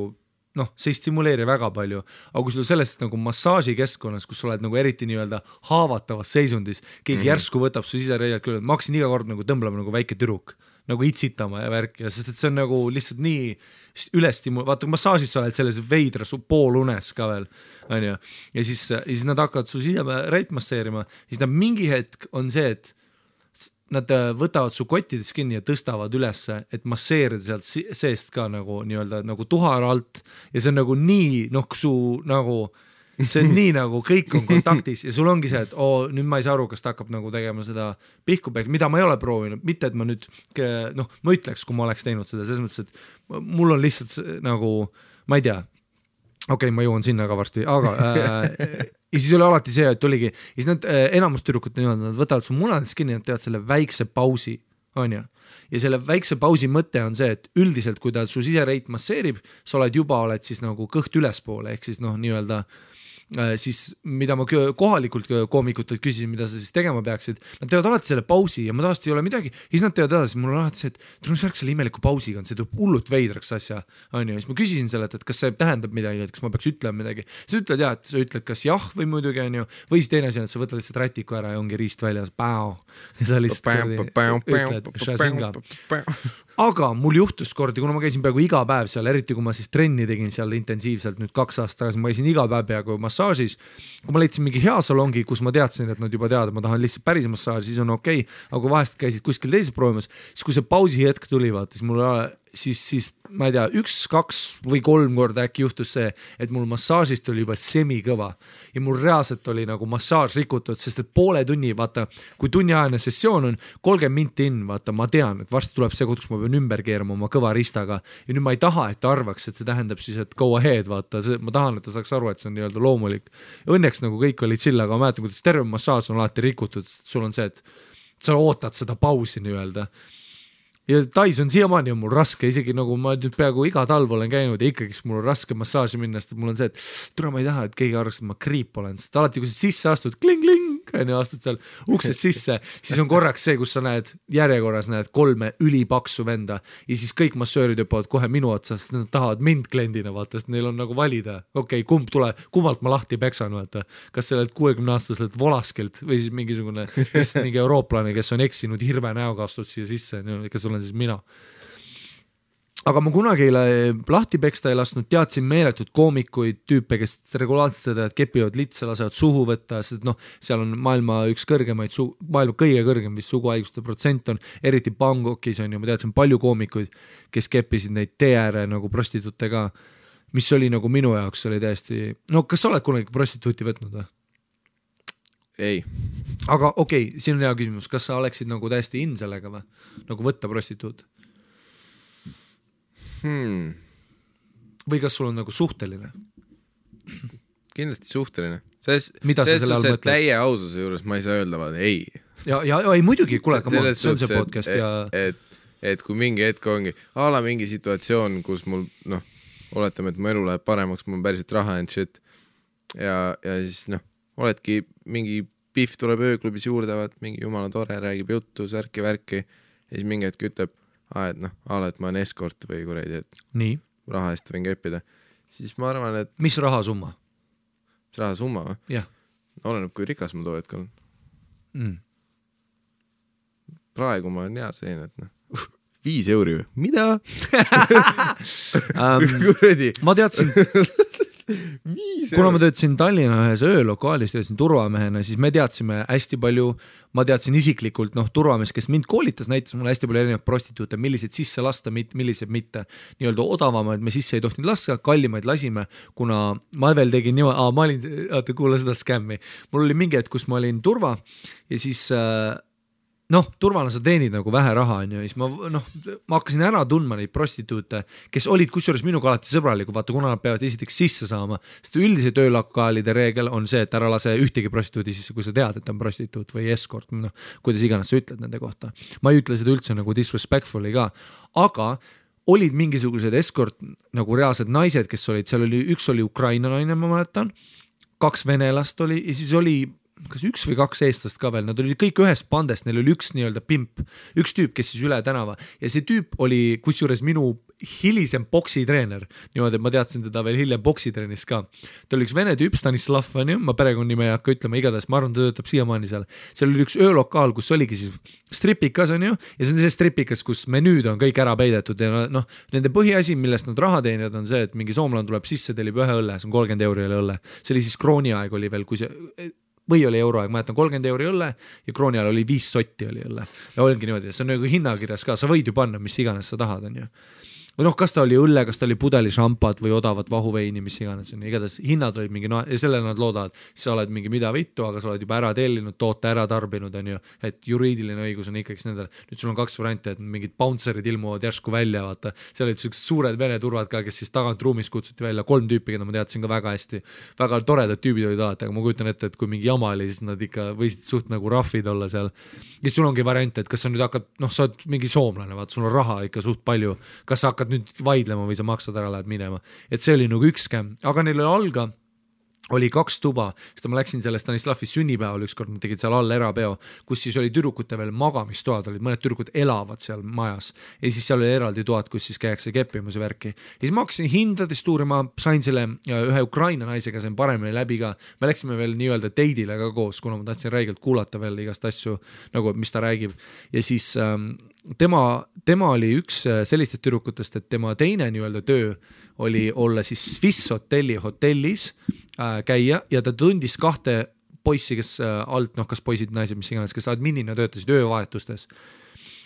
noh, see ei stimuleeri väga palju, aga kui sul sellest nagu massaažikeskkonnas, kus sa oled nagu eriti nii-öelda haavatavas seisundis, keegi järsku võtab su sisereialt küll, ma hakkasin iga kord nagu tõmblema nagu väike tüdruk, nagu itsitama ja värk ja sest et see on nagu lihtsalt nii vaata kui massaažis sa oled selles veidra su poolunes ka veel, on ju, ja siis nad hakkavad su sisereilt masseerima, siis nad mingi hetk on see, et nad võtavad su kottidest kinni ja tõstavad ülesse, et masseerida sealt seest ka nagu nii-öelda nagu tuhar alt ja see on nagu nii, noh, su nagu, see on nii nagu kõik on kontaktis ja sul ongi see, et nüüd ma ei saa aru, kas ta hakkab nagu tegema seda pihkupehk, mida ma ei ole proovinud, mitte et ma nüüd, noh, ma ütleks, kui ma oleks teinud seda, selles mõttes, et mul on lihtsalt nagu, ma ei tea, okei, ma jõuan sinna ka varsti, aga ja siis oli alati see, et oligi, ja siis nad enamus tüdrukud niimoodi, nad võtavad su munadest kinni, nad teevad selle väikse pausi, on ju. Ja selle väikse pausi mõte on see, et üldiselt, kui ta su sisereit masseerib, sa oled siis nagu kõht ülespoole, ehk siis noh, nii-öelda siis mida ma kohalikult koomikutelt küsisin, mida sa siis tegema peaksid, nad teevad alati selle pausi ja ma tavaliselt ei ole midagi, siis nad teevad edasi, mul on alati see, et tule mis värk selle imeliku pausiga on, see tuleb hullult veidraks asja, on ju, siis ma küsisin selle, et kas see tähendab midagi, et kas ma peaks ütlema midagi, sa ütled jah, et sa ütled kas jah või muidugi on ju, või siis teine asi on, et sa võtad lihtsalt rätiku ära ja ongi riist väljas, ja sa lihtsalt ütled, aga mul juhtus kordi, kuna ma käisin peaaegu iga päev seal, eriti kui ma siis trenni tegin seal intensiivselt nüüd 2 aastat tagasi, ma käisin iga päev peaaegu massaažis, kui ma leidsin mingi hea salongi, kus ma teadsin, et nad juba teavad, ma tahan lihtsalt päris massaaži, siis on okei, aga kui vahest käisid kuskil teises proovimas, siis kui see pausi hetk tuli, vaata, siis mul siis ma ei tea, 1, 2 või 3 korda äkki juhtus see, et mul massaažist oli juba semikõva ja mul reaalselt oli nagu massaaž rikutud, sest et poole tunni, vaata, kui tunniajane sessioon on 30 minti in, vaata, ma tean, et varsti tuleb see koht, kus ma pean ümber keerama oma kõva ristaga ja nüüd ma ei taha, et ta arvaks, et see tähendab siis, et go ahead, vaata, ma tahan, et ta saaks aru, et see on nii-öelda loomulik. Õnneks nagu kõik oli chill, aga ma mäletan, kuidas terve massaaž on alati rikutud, sul on see, et sa ootad seda pausi nii-öelda. Ja Tais on siiamaani on mul raske, isegi nagu ma nüüd peaaegu iga talv olen käinud ja ikkagi mul on raske massaaži minna, sest mul on see, et tule ma ei taha, et keegi arvaks, et ma kriip olen, sest alati, kui sa sisse astud, kling-kling, astud seal uksest sisse, siis on korraks see, kus sa näed järjekorras, näed 3 ülipaksu venda ja siis kõik massöörid hüppavad kohe minu otsa, sest nad tahavad mind kliendina, vaata, sest neil on nagu valida, okei, kummalt ma lahti peksan, vaata, kas sellelt 60-aastaselt volaskelt või siis mingisugune mingi eurooplane, kes on eksinud hirve näoga astud siia sisse, kes olen siis mina. Aga ma kunagi lahti peksta ei lasknud, teadsin meeletud koomikuid, tüüpe, kes regulaarselt teevad, kepivad litsa, lasevad suhu võtta, sest noh, seal on maailma üks kõrgemaid, maailma kõige kõrgem vist suguhaiguste protsent on, eriti Bangkokis on ju, ma teadsin palju koomikuid, kes kepisid neid tee-ääre nagu prostituute ka, mis oli nagu minu jaoks oli täiesti, no kas sa oled kunagi prostituuti võtnud või? Ei. Aga okei, siin on hea küsimus, kas sa oleksid nagu täiesti in sellega või? Nagu võtta prostituut? Või kas sul on nagu suhteline? Kindlasti suhteline. Mida sa selle all mõtled? Täie aususe juures ma ei saa öelda, vaid ei. Ja ei muidugi, kuule, see on see podcast ja... Et kui mingi hetk ongi, mingi situatsioon, kus mul, noh, oletame, et mu elu läheb paremaks, mul on päriselt raha and shit ja siis, noh, oledki mingi pihv tuleb ööklubis juurde, mingi jumala tore, räägib juttu, särki-värki ja siis mingi hetk ütleb, et noh, et ma olen eskort või kuradi, et nii. Raha eest võin keppida. Siis ma arvan, et... Mis rahasumma? Mis rahasumma või? Jah. Oleneb, kui rikas ma too hetk olen. Praegu ma olen hea selline, et noh, 5 euri või? Mida? Ma teadsin... Kuna ma töötasin Tallinna ühes öölokaalis, töötasin turvamehena, siis me teadsime hästi palju, ma teadsin isiklikult, noh, turvamees, kes mind koolitas, näitas mulle hästi palju erinevaid prostituute, millised sisse lasta, millised mitte. Nii-öelda odavamaid me sisse ei tohtinud lasta, kallimaid lasime, kuna ma veel tegin niimoodi, ma olin, kuule seda skämmi, mul oli mingi hetk, kus ma olin turva ja siis... noh, turvana sa teenid nagu vähe raha, on ju, ja siis ma hakkasin ära tundma neid prostituute, kes olid kusjuures minuga alati sõbralikud, vaata, kuna nad peavad esiteks sisse saama, sest üldise töölokaalide reegel on see, et ära lase ühtegi prostituudi sisse, kui sa tead, et on prostituut või escort, noh, kuidas iganes sa ütled nende kohta. Ma ei ütle seda üldse nagu disrespectfully ka, aga olid mingisugused escort nagu reaalsed naised, kes olid, seal oli, üks oli Ukraina naine, ma mäletan, 2 venelast oli ja siis oli kas 1 või 2 eestlast ka veel, nad olid kõik ühest pandest, neil oli üks nii-öelda pimp, üks tüüp, kes siis üle tänava ja see tüüp oli kusjuures minu hilisem boksitreener, niimoodi, et ma teadsin teda veel hiljem boksitrennis ka. Ta oli üks vene tüüp, Stanislav, ma perekonnime ei hakka ütlema, igatahes ma arvan, ta töötab siiamaani seal. Seal oli üks öölokaal, kus oligi siis stripikas on ju, ja see on see stripikas, kus menüüd on kõik ära peidetud ja noh, nende põhiasi, millest nad raha teenivad, on see, et mingi soomlane tuleb sisse, tellib ühe õlle, see on 30 € õlle. See oli siis krooni aeg oli veel, kui see või oli euroaeg, ma jätan 30 € õlle ja krooni ajal oli 5 sotti oli õlle. Ja oligi niimoodi, see on nagu hinnakirjas ka, sa võid ju panna, mis iganes sa tahad, on ju. Või noh, kas ta oli õlle, kas ta oli pudeli šampad või odavat vahuveini, mis iganes on. Igatahes hinnad olid mingi, ja selle nad loodavad, sa oled mingi mida vittu, aga sa oled juba ära tellinud, toote ära tarbinud, on ju, et juriidiline õigus on ikkagi nendel. Nüüd sul on 2 varianti, et mingid bouncerid ilmuvad järsku välja, vaata. Seal olid sellised suured vene turvad ka, kes siis tagant ruumis kutsuti välja 3 tüüpi, keda ma teadsin ka väga hästi. Väga toredad tüübid olid alati, aga ma kujutan ette, et kui mingi jama oli, siis nad ikka võisid suht nagu raffid olla seal. Ja sul ongi variant, et kas sa nüüd hakkad, sa oled mingi soomlane, vaata, sul on raha ikka suht palju. Kas sa hakkad nüüd vaidlema või sa maksad ära, lähed minema. Et see oli nagu üks skäm, aga neil alga oli 2 tuba, sest ma läksin selle Stanislavi sünnipäeval ükskord, nad tegid seal all erapeo, kus siis oli tüdrukute veel magamistoad, olid mõned tüdrukud elavad seal majas ja siis seal oli eraldi toad, kus siis käiakse keppimas ja värki. Ja siis ma hakkasin hindadest uurima, sain selle ühe Ukraina naisega, sain paremini läbi ka, me läksime veel nii-öelda teidile ka koos, kuna ma tahtsin räigelt kuulata veel igast asju, nagu mis ta räägib ja siis tema oli üks sellistest tüdrukutest, et tema teine nii-öelda töö oli olla siis Swiss hotellis käia ja ta tundis 2 poissi, kes alt, kas poisid, naised, mis iganes, kes adminina töötasid öövahetustes.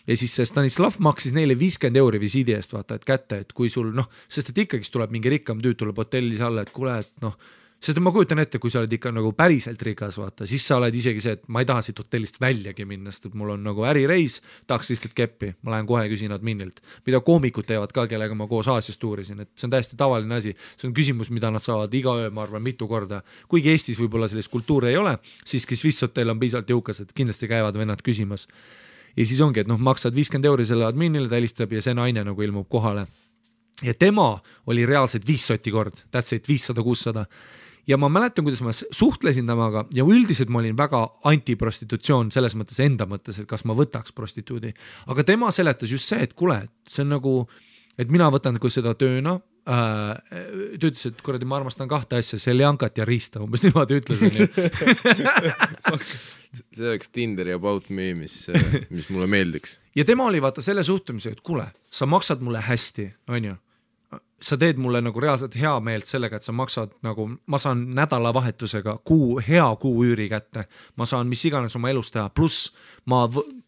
Ja siis Stanislav maksis neile 50 € visiidi eest, vaata, et kätte, et kui sul, sest et ikkagi tuleb mingi rikkam tüüd, tuleb hotellis alla, et kuule, et sest ma kujutan ette, kui sa oled ikka nagu päriselt rikas, vaata, siis sa oled isegi see, et ma ei taha siit hotellist väljagi minna, sest et mul on nagu ärireis, tahaks lihtsalt keppi, ma lähen kohe küsin adminilt, mida koomikud teevad ka, kellega ma koos Aasias tuurisin, et see on täiesti tavaline asi, see on küsimus, mida nad saavad iga öö, ma arvan, mitu korda, kuigi Eestis võib-olla sellist kultuuri ei ole, siiski Swiss hotell on piisavalt jõukas, et kindlasti käivad vennad küsimas ja siis ongi, et maksad 50 € selle adminile, ta helistab ja see naine nagu ilmub kohale ja tema oli reaalselt 5 sotti kord, that's it, 500-600 ja ma mäletan, kuidas ma suhtlesin temaga ja üldiselt ma olin väga antiprostitutsioon selles mõttes enda mõttes, et kas ma võtaks prostituudi. Aga tema seletas just see, et kuule, see on nagu, et mina võtan kui seda tööna, ta ütles, et kuradi ma armastan 2 asja, seljankat ja riista, umbes niimoodi ütlesin. See oleks Tinder ja About Me, mis mulle meeldiks. Ja tema oli vaata selle suhtumise, et kuule, sa maksad mulle hästi, on ju? Sa teed mulle nagu reaalselt hea meelt sellega, et sa maksad nagu, ma saan nädalavahetusega hea kuu üüri kätte, ma saan mis iganes oma elus teha, pluss ma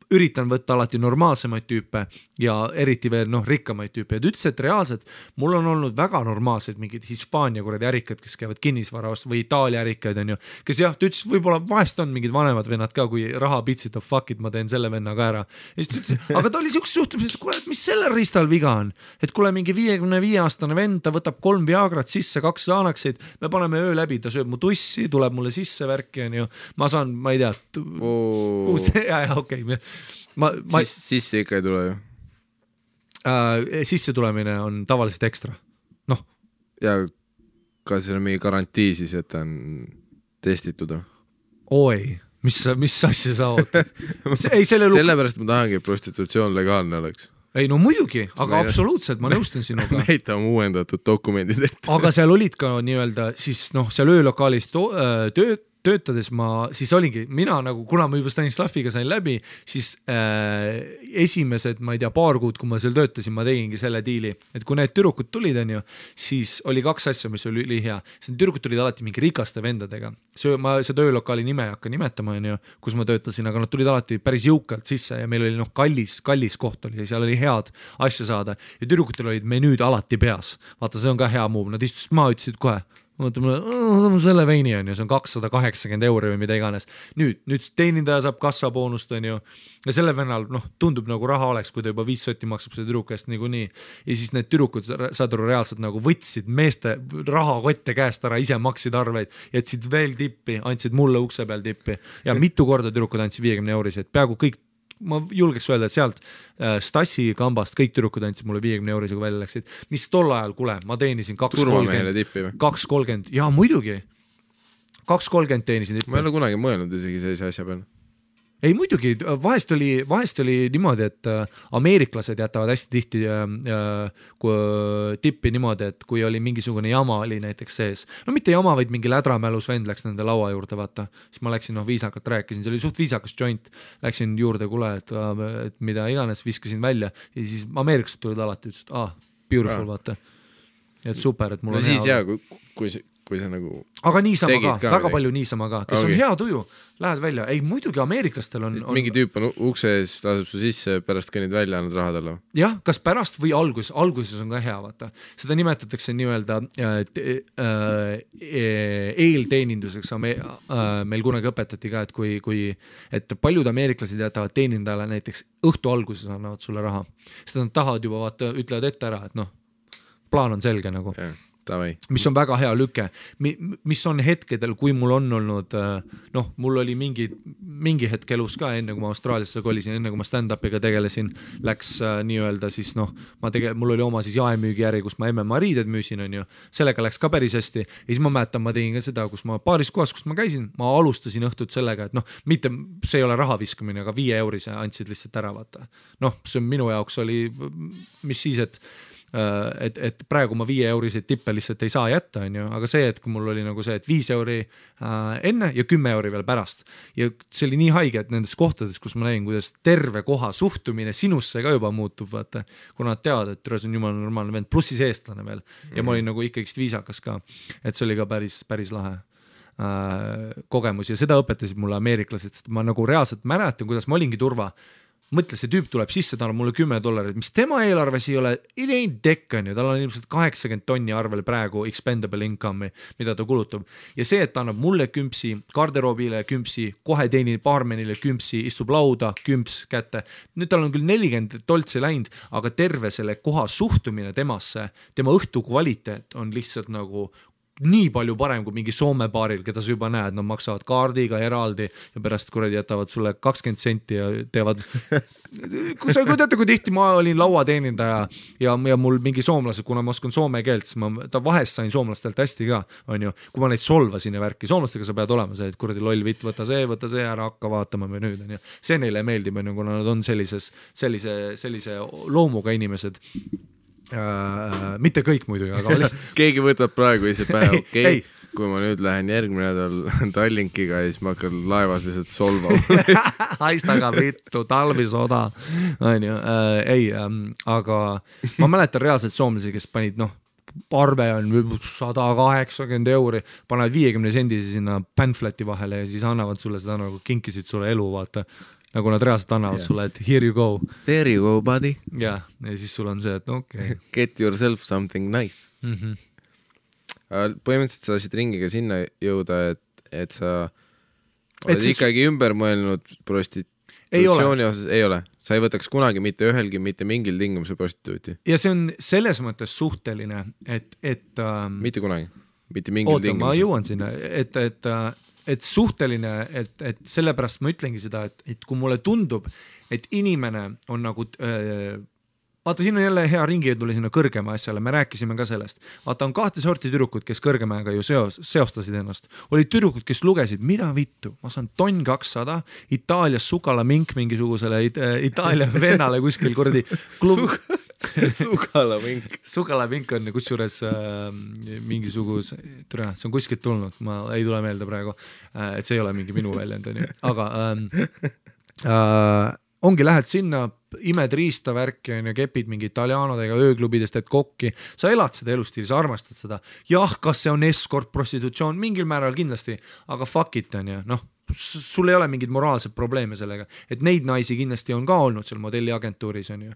üritan võtta alati normaalsemaid tüüpe ja eriti veel rikkamaid tüüpe ja ta ütles, et reaalselt mul on olnud väga normaalsed mingid Hispaania kuradi ärikad, kes käivad kinnisvarast või Itaalia ärikaid on ju, kes jah, ta ütles, võib-olla vahest on mingid vanemad vennad ka, kui raha pitsitab, fuck it, ma teen selle venna ka ära ja siis ta ütles, aga ta oli siukse suhtumises, et kuule, et mis sellel riistal viga on, et kuule mingi 55-aastane vend, ta võtab 3 Viagrat sisse, 2 Xanaxid, me paneme öö läbi, ta sööb mu tussi, tuleb mulle sisse värki on ju, ma saan, ma ei tea okei. Sisse ikka ei tule ju? Sisse tulemine on tavaliselt ekstra. Ja kas see on mingi garantii siis, et ta on testitud? Oi, mis asja sa ootad? Sellepärast ma tahangi, et prostitutsioon legaalne oleks. Ei no muidugi, aga absoluutselt, ma nõustun sinuga. Näita on uuendatud dokumendid ette. Aga seal olid ka nii-öelda, siis seal öölokaalis töötades ma, siis olingi, mina nagu, kuna ma juba Stanislaviga sain läbi, siis esimesed, ma ei tea, paar kuud, kui ma seal töötasin, ma tegingi selle diili, et kui need tüdrukud tulid, on ju, siis oli 2 asja, mis oli ülihea. Tüdrukud tulid alati mingi rikaste vendadega. Ma seda öölokaali nime ei hakka nimetama, on ju, kus ma töötasin, aga nad tulid alati päris jõukalt sisse ja meil oli kallis koht oli ja seal oli head asja saada ja tüdrukutel olid menüüd alati peas. Vaata, see on ka hea move, nad istusid maa, ütlesid kohe, mõtleme, selle veini on ju, see on 280 € või mida iganes. Nüüd teenindaja saab kassaboonust on ju ja selle vennal tundub nagu raha oleks, kui ta juba 5 sotti maksab selle tüdruku eest niikuinii ja siis need tüdrukud saad aru reaalselt nagu võtsid meeste rahakotte käest ära, ise maksid arveid, jätsid veel tippi, andsid mulle ukse peal tippi ja mitu korda tüdrukud andsid 50 €, et peaaegu kõik, ma julgeks öelda, et sealt Stassi kambast kõik tüdrukud andsid mulle 50 €, kui välja läksid, mis tol ajal, kuule, ma teenisin 2.30, ja muidugi 2.30 teenisin tippi. Ma ei ole kunagi mõelnud isegi sellise asja peale. Ei muidugi, vahest oli niimoodi, et ameeriklased jätavad hästi tihti tippi niimoodi, et kui oli mingisugune jama oli näiteks sees, no mitte jama, vaid mingi lädramälus vend läks nende laua juurde, vaata, siis ma läksin, viisakalt rääkisin, see oli suht viisakas joint, läksin juurde, kuule, et mida iganes, viskasin välja ja siis ameeriklased tulid alati, ütlesid, beautiful, vaata, et super, et mul on siis hea. Kui see nagu aga niisama ka, väga palju niisama ka, kes okay. On hea tuju, lähed välja, ei muidugi ameeriklastel on mingi tüüp on ukse ees, laseb su sisse, pärast kõnnid välja, annad raha talle. Jah, kas pärast või alguses on ka hea, vaata. Seda nimetatakse nii-öelda eelteeninduseks, meil kunagi õpetati ka, et paljud ameeriklased jätavad teenindajale näiteks õhtu alguses annavad sulle raha, sest nad tahavad juba, vaata, ütlevad ette ära, et plaan on selge nagu. Yeah. Tavai. Mis on väga hea lüke, mis on hetkedel, kui mul on olnud, mul oli mingi hetk elus ka, enne kui ma Austraaliasse kolisin, enne kui ma stand-upiga tegelesin, läks nii-öelda siis mul oli oma siis jaemüügijärgi, kus ma MMA riided müüsin, on ju, sellega läks ka päris hästi ja siis ma mäletan, ma tegin ka seda, kus ma paaris kohas, kus ma käisin, ma alustasin õhtut sellega, et mitte, see ei ole raha viskamine, aga 5 eurose andsid lihtsalt ära, vaata. See minu jaoks oli, mis siis, et praegu ma 5 euriseid tippe lihtsalt ei saa jätta, on ju, aga see, et kui mul oli nagu see, et 5 euri enne ja 10 euri veel pärast ja see oli nii haige, et nendes kohtades, kus ma nägin, kuidas terve koha suhtumine sinusse ka juba muutub, vaata, kuna nad teavad, et see on jumala normaalne vend, pluss siis eestlane veel ja ma olin nagu ikkagist viisakas ka, et see oli ka päris lahe kogemus ja seda õpetasid mulle ameeriklased, sest ma nagu reaalselt mäletan, kuidas ma olingi turva. Mõtle, see tüüp tuleb sisse, ta on mulle $10, mis tema eelarves ei ole, it ain't deck, on ju, tal on ilmselt 80 tonni arvel praegu expendable income'i, mida ta kulutab. Ja see, et ta annab mulle kümpsi, garderoobile kümpsi, kohe teenib baarmenile kümpsi, istub lauda, kümps kätte. Nüüd tal on küll 40 toltsi läinud, aga terve selle koha suhtumine temasse, tema õhtu kvaliteet on lihtsalt nagu nii palju parem kui mingi Soome baaril, keda sa juba näed, nad maksavad kaardiga eraldi ja pärast kuradi jätavad sulle 20 senti ja teevad kui teate, kui tihti ma olin lauateenindaja ja mul mingi soomlased, kuna ma oskan soome keelt, siis ma vahest sain soomlastelt hästi ka, on ju, kui ma neid solvasin ja värki, soomlastega sa pead olema see, et kuradi loll vitt, võta see ära, hakka vaatama või nüüd, on ju, see neile meeldib, on ju, kuna nad on sellise loomuga inimesed. Mitte kõik muidugi, aga lihtsalt keegi võtab praegu ise pähe, okei, kui ma nüüd lähen järgmine nädal Tallinkiga ja siis ma hakkan laevas lihtsalt solvama. Haistaga vittu, talvisoda, on ju, aga ma mäletan reaalselt soomlasi, kes panid, arve on 180 euri, panevad 50 sendisi sinna pamfleti vahele ja siis annavad sulle seda nagu kinkisid sulle elu, vaata. Nagu nad reaalselt annavad sulle, et here you go. There you go, buddy. Ja siis sul on see, et okei. Get yourself something nice. Põhimõtteliselt sa tasid ringiga sinna jõuda, et sa oled ikkagi ümber mõelnud prostitutsiooni osas, ei ole. Sa ei võtaks kunagi mitte ühelgi, mitte mingil tingimusel prostituuti. Ja see on selles mõttes suhteline, et mitte kunagi, mitte mingil tingimusel. Ma jõuan sinna, et suhteline, et sellepärast ma ütlengi seda, et kui mulle tundub, et inimene on nagu, vaata, siin on jälle hea ringi tuli sinna kõrgema asjale, me rääkisime ka sellest. Vaata, on 2 sorti tüdrukud, kes kõrgemaga ju seostasid ennast. Olid tüdrukud, kes lugesid, mida vittu, ma saan tonn 200, Itaalias sukalamink mingisugusele Itaalia vennale kuskil kuradi klub. Sukalamink on kusjuures mingisuguse, see on kuskilt tulnud, ma ei tule meelde praegu, et see ei ole mingi minu väljend, aga ongi, lähed sinna, imed riista värki ja kepid mingi italianodega ööklubidest, et kokki, sa elad seda elustiili, sa armastad seda, jah, kas see on escort, prostitutsioon, mingil määral kindlasti, aga fuck it on ju, sul ei ole mingid moraalsed probleeme sellega, et neid naisi kindlasti on ka olnud seal modelliagentuuris, on ju,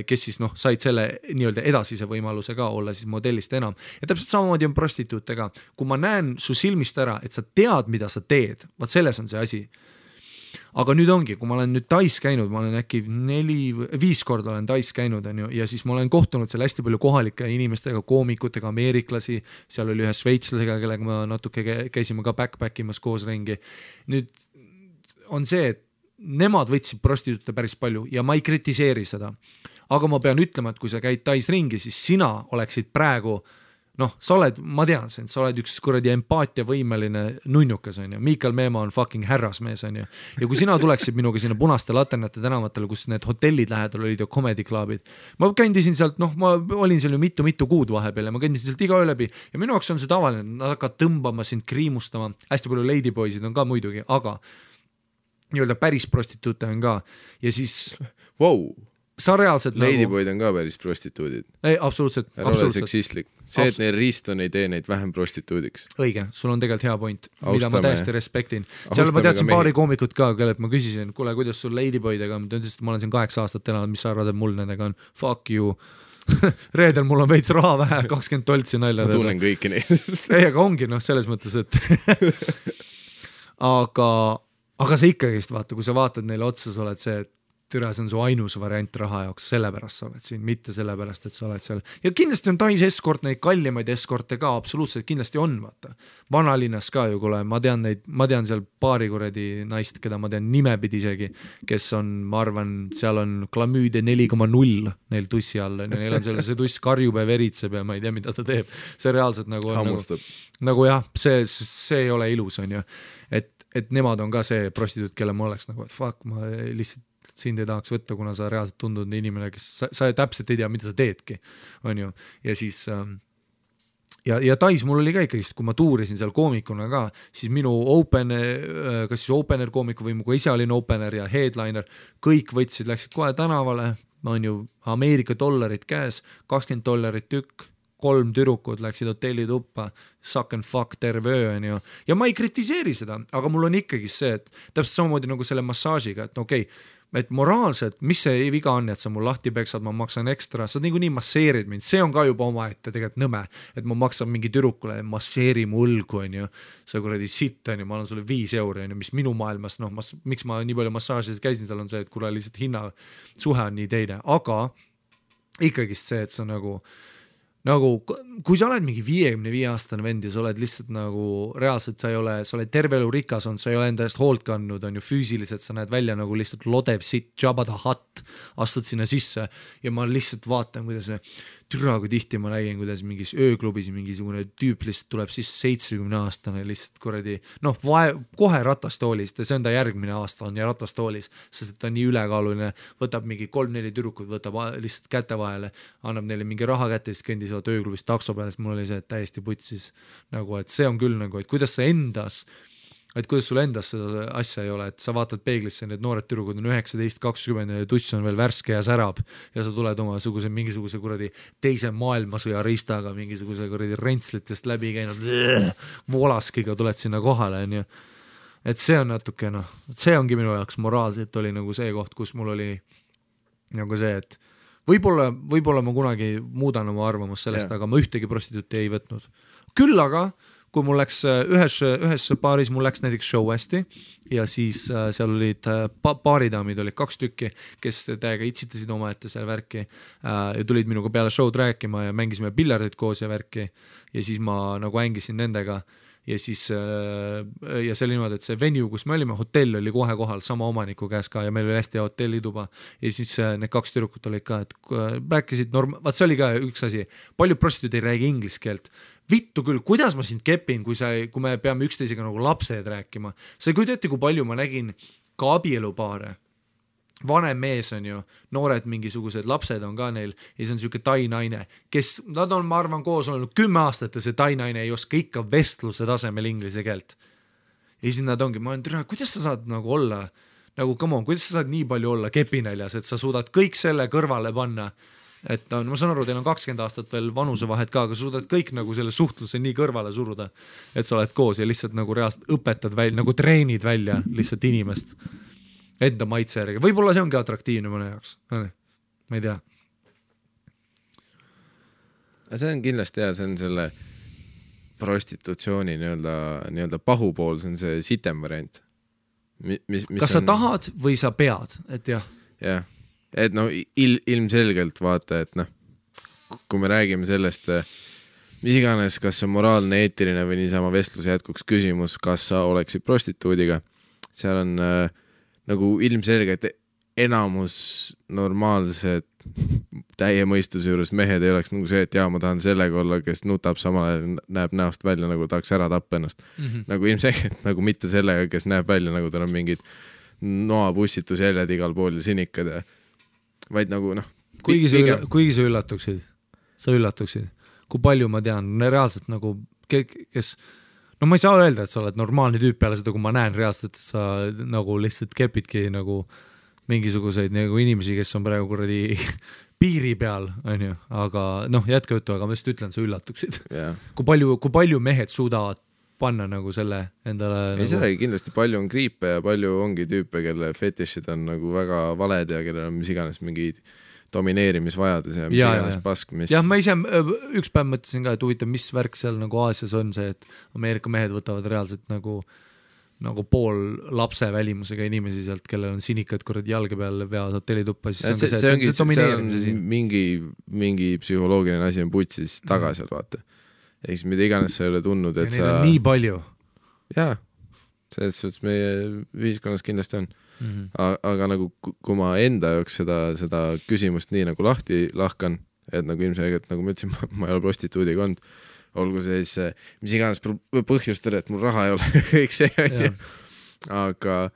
kes siis said selle nii-öelda edasise võimaluse ka olla siis modellist enam. Ja täpselt samamoodi on prostituutega. Kui ma näen su silmist ära, et sa tead, mida sa teed, vaat selles on see asi. Aga nüüd ongi, kui ma olen nüüd Tais käinud, ma olen äkki 4-5 korda olen Tais käinud, on ju, ja siis ma olen kohtunud seal hästi palju kohalike inimestega, koomikutega, ameeriklasi, seal oli ühe šveitslasega, kellega ma natuke käisime ka backpackimas koos ringi. Nüüd on see, et nemad võtsid prostituute päris palju ja ma ei kritiseeri seda. Aga ma pean ütlema, et kui sa käid Tais ringi, siis sina oleksid praegu noh, sa oled, ma tean sind, sa oled üks kuradi empaatiavõimeline nunnukas, on ju, Miikal Meemaa on fucking härrasmees, on ju, ja kui sina tuleksid minuga sinna Punaste laternate tänavatele, kus need hotellid lähedal olid ja comedy clubid, ma kõndisin sealt, noh, ma olin seal ju mitu kuud vahepeal ja ma kõndisin sealt iga öö läbi ja minu jaoks on see tavaline, nad hakkavad tõmbama sind, kriimustama, hästi palju ladyboysid on ka muidugi, aga nii-öelda päris prostituute on ka ja siis sa reaalselt ladyboyd on ka päris prostituudid. Ei, absoluutselt. Ära ole seksistlik. See, et neil riiston ei tee neid vähem prostituudiks. Õige, sul on tegelikult hea point, mida ma täiesti respektin. Seal ma teadsin paari koomikut ka, kellelt ma küsisin, kuule, kuidas sul ladyboydega on, ta ütles, et ma olen siin 8 aastat elanud, mis sa arvad, et mul nendega on? Fuck you. Reedel mul on veits raha vähe, 20 toltsi nalja. Ma tunnen kõiki neid. Ei, aga ongi, noh, selles mõttes, et aga sa ikkagist vaata, kui sa vaatad neile otsa, sa oled see, et türa, see on su ainus variant raha jaoks, sellepärast sa oled siin, mitte sellepärast, et sa oled seal. Ja kindlasti on Tais eskort, neid kallimaid eskorte ka, absoluutselt kindlasti on, vaata. Vanalinnas ka ju, kuule, ma tean seal paari kuradi naist, keda ma tean nimepidi isegi, kes on, ma arvan, seal on klamüüde 4,0 neil tussi all, neil on seal see tuss karjub ja veritseb ja ma ei tea, mida ta teeb. See reaalselt nagu on nagu jah, see ei ole ilus, on ju. Et nemad on ka see prostituut, kelle ma oleks nagu, et fuck, ma lihtsalt sind ei tahaks võtta, kuna sa reaalselt tundud inimene, kes sa täpselt ei tea, mida sa teedki, on ju, ja siis ja Tais mul oli ka ikkagi, kui ma tuurisin seal koomikuna ka, siis minu kas siis opener koomiku või mu ise olin opener ja headliner, kõik võtsid, läksid kohe tänavale, on ju Ameerika dollarid käes, $20 tükk, 3 türukud läksid hotellituppa, suck and fuck terve öö, on ju. Ja ma ei kritiseeri seda, aga mul on ikkagi see, et täpselt samamoodi nagu selle massaažiga, et okei, et moraalselt, mis see viga on, et sa mul lahti peksad, ma maksan ekstra, sa nii masseerid mind, see on ka juba oma ette tegelikult nõme, et ma maksan mingi tüdrukule, masseeri mu õlgu, on ju, sa kuradi sitt, on ju, ma annan sulle 5 €, on ju, mis minu maailmas, noh, miks ma nii palju massaažis käisin, seal on see, et kuule lihtsalt hinna suhe on nii teine, aga ikkagist see, et sa nagu, kui sa oled mingi 55-aastane vend ja sa oled lihtsalt nagu reaalselt, sa oled terve elu rikas on, sa ei ole enda eest hoolt kandnud, on ju füüsiliselt, sa näed välja nagu lihtsalt lodev sitt, Jabba the Hutt, astud sinna sisse ja ma lihtsalt vaatan, kuidas türa, kui tihti ma nägin, kuidas mingis ööklubis mingisugune tüüp lihtsalt tuleb siis 70-aastane lihtsalt kuradi, noh, kohe ratastoolist ja see on ta järgmine aasta on ja ratastoolis, sest ta on nii ülekaaluline, võtab mingi 3-4 tüdrukut, võtab lihtsalt käte vahele, annab neile mingi raha kätte, siis kõndisevad ööklubis takso peale, sest mul oli see täiesti putsis nagu, et see on küll nagu, et kuidas sul endas seda asja ei ole, et sa vaatad peeglisse, need noored tüdrukud on 19-20 ja tuss on veel värske ja särab ja sa tuled mingisuguse kuradi teise maailmasõja ristaga, mingisuguse kuradi rentslitest läbi käinud volaskiga tuled sinna kohale, on ju. Et see on natuke, noh, see ongi minu jaoks moraalselt oli nagu see koht, kus mul oli nagu see, et võib-olla ma kunagi muudan oma arvamust sellest, aga ma ühtegi prostituuti ei võtnud. Küll aga kui mul läks ühes paaris, mul läks näiteks show hästi ja siis seal olid paaridaamid, olid 2 tükki, kes täiega itsitasid oma ette seal värki ja tulid minuga peale show'd rääkima ja mängisime pillardit koos ja värki ja siis ma nagu hängisin nendega ja siis ja see oli niimoodi, et see venue, kus me olime, hotell oli kohe kohal sama omaniku käes ka ja meil oli hästi hea hotellituba ja siis need 2 tüdrukut olid ka, et rääkisid vaat see oli ka üks asi, palju prostituud ei räägi inglise keelt. Vittu küll, kuidas ma sind kepin, kui me peame üksteisega nagu lapsed rääkima. See kui teate, kui palju ma nägin ka abielupaare. Vanem mees on ju, noored mingisugused lapsed on ka neil ja see on siuke tai naine, kes, nad on, ma arvan, koos olnud 10 aastat ja see tai naine ei oska ikka vestluse tasemel inglise keelt. Ja siis nad ongi, ma olen türa, kuidas sa saad nagu olla, nagu come on, kuidas sa saad nii palju olla kepinäljas, et sa suudad kõik selle kõrvale panna, et ma saan aru, teil on 20 aastat veel vanusevahet ka, aga suudad kõik nagu selle suhtluse nii kõrvale suruda, et sa oled koos ja lihtsalt nagu reaalselt õpetad välja, nagu treenid välja lihtsalt inimest enda maitse järgi. Võib-olla see ongi atraktiivne mõne jaoks, ma ei tea. See on kindlasti hea, see on selle prostitutsiooni nii-öelda pahupool, see on see sitem variant. Kas sa tahad või sa pead, et jah? Jah. Et no ilmselgelt vaata, et noh, kui me räägime sellest, mis iganes, kas see moraalne, eetiline või niisama vestluse jätkuks küsimus, kas sa oleksid prostituudiga, seal on nagu ilmselgelt enamus normaalsed täie mõistuse juures mehed ei oleks nagu see, et ma tahan sellega olla, kes nutab samal ajal, näeb näost välja, nagu tahaks ära tappa ennast. Nagu ilmselgelt nagu mitte sellega, kes näeb välja, nagu tal on mingid noapussitusjäljed igal pool ja sinikad ja vaid nagu kuigi sa üllatuksid, kui palju ma tean, reaalselt nagu kes, ma ei saa öelda, et sa oled normaalne tüüp peale seda, kui ma näen reaalselt, et sa nagu lihtsalt kepidki nagu mingisuguseid nagu inimesi, kes on praegu kuradi piiri peal, on ju, aga jätka juttu, aga ma just ütlen, sa üllatuksid. Kui palju mehed suudavad panna nagu selle endale ei sedagi kindlasti palju on kriipe ja palju ongi tüüpe, kelle fetišid on nagu väga valed ja kellel on mis iganes mingi domineerimisvajadus ja mis iganes pask, mis... Jah, ma ise üks päev mõtlesin ka, et huvitav, mis värk seal nagu Aasias on see, et Ameerika mehed võtavad reaalselt nagu pool lapse välimusega inimesi sealt, kellel on sinikad kuradi jalge peal veavad hotellituppa, siis see on mingi psühholoogiline asi on putsis taga seal, vaata. Eks mida iganes sa ei ole tundnud, et ja sa... nii palju. Jaa, selles suhtes meie ühiskonnas kindlasti on. Aga nagu kui ma enda jaoks seda küsimust nii nagu lahti lahkan, et nagu ilmselgelt, nagu ma ütlesin, ma ei ole prostituudiga olnud, olgu see siis mis iganes põhjustel, et mul raha ei ole kõik see, aga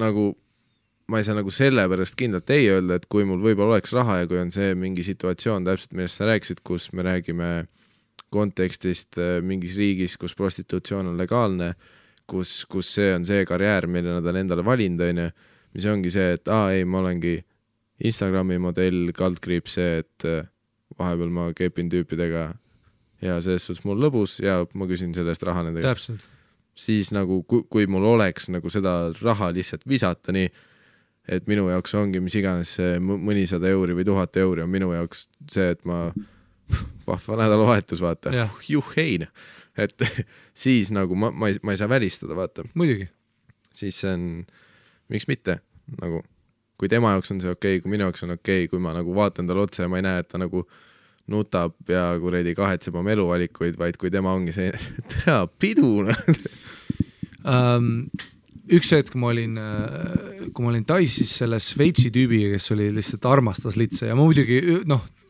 nagu ma ei saa nagu selle pärast kindlalt ei öelda, et kui mul võib-olla oleks raha ja kui on see mingi situatsioon täpselt, millest sa rääkisid, kus me räägime kontekstist mingis riigis, kus prostitutsioon on legaalne, kus see on see karjäär, mille nad on endale valinud, mis ongi see, et ma olengi Instagrami modell, kaldkriip see, et vahepeal ma kepin tüüpidega ja selles suhtes mul lõbus ja ma küsin selle eest raha nendega. Täpselt. Siis nagu, kui mul oleks nagu seda raha lihtsalt visata nii, et minu jaoks ongi mis iganes mõnisada euri või 1000 euri on minu jaoks see, et ma vahva nädalavahetus vaata, juhein, et siis nagu ma ei saa välistada, vaata. Muidugi. Siis see on, miks mitte, nagu, kui tema jaoks on see okei, kui minu jaoks on okei, kui ma nagu vaatan tal otse ja ma ei näe, et ta nagu nutab ja kuredi kahetseb oma eluvalikuid, vaid kui tema ongi see tea, piduna. Üks hetk, kui ma olin Tais, siis selle Šveitsi tüübiga, kes oli lihtsalt armastas litse ja ma muidugi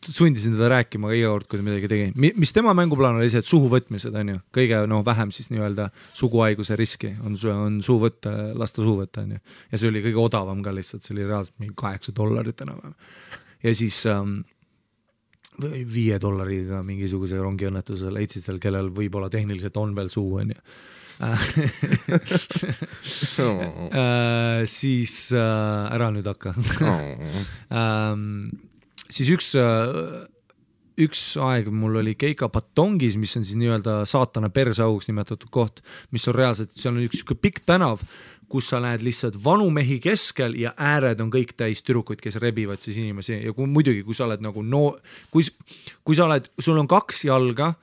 sundisin teda rääkima iga kord, kui ta midagi tegi. Mis tema mänguplaan oli see, et suhu võtmised on ju, kõige vähem siis nii-öelda suguhaiguse riski on suu võtta, lasta suu võtta on ju. Ja see oli kõige odavam ka lihtsalt, see oli reaalselt mingi $8 enam. Ja siis $5 mingisuguse rongiõnnetuse leidsid seal, kellel võib-olla tehniliselt on veel suu, on ju. Siis ära nüüd hakka. Siis üks aeg mul oli Keika Patongis, mis on siis nii-öelda saatana persauks nimetatud koht, mis on reaalselt, seal on üks pikk tänav, kus sa näed lihtsalt vanu mehi keskel ja ääred on kõik täis türukuid, kes rebivad siis inimesi ja muidugi, kui sa oled nagu kui sa oled, sul on 2 jalga,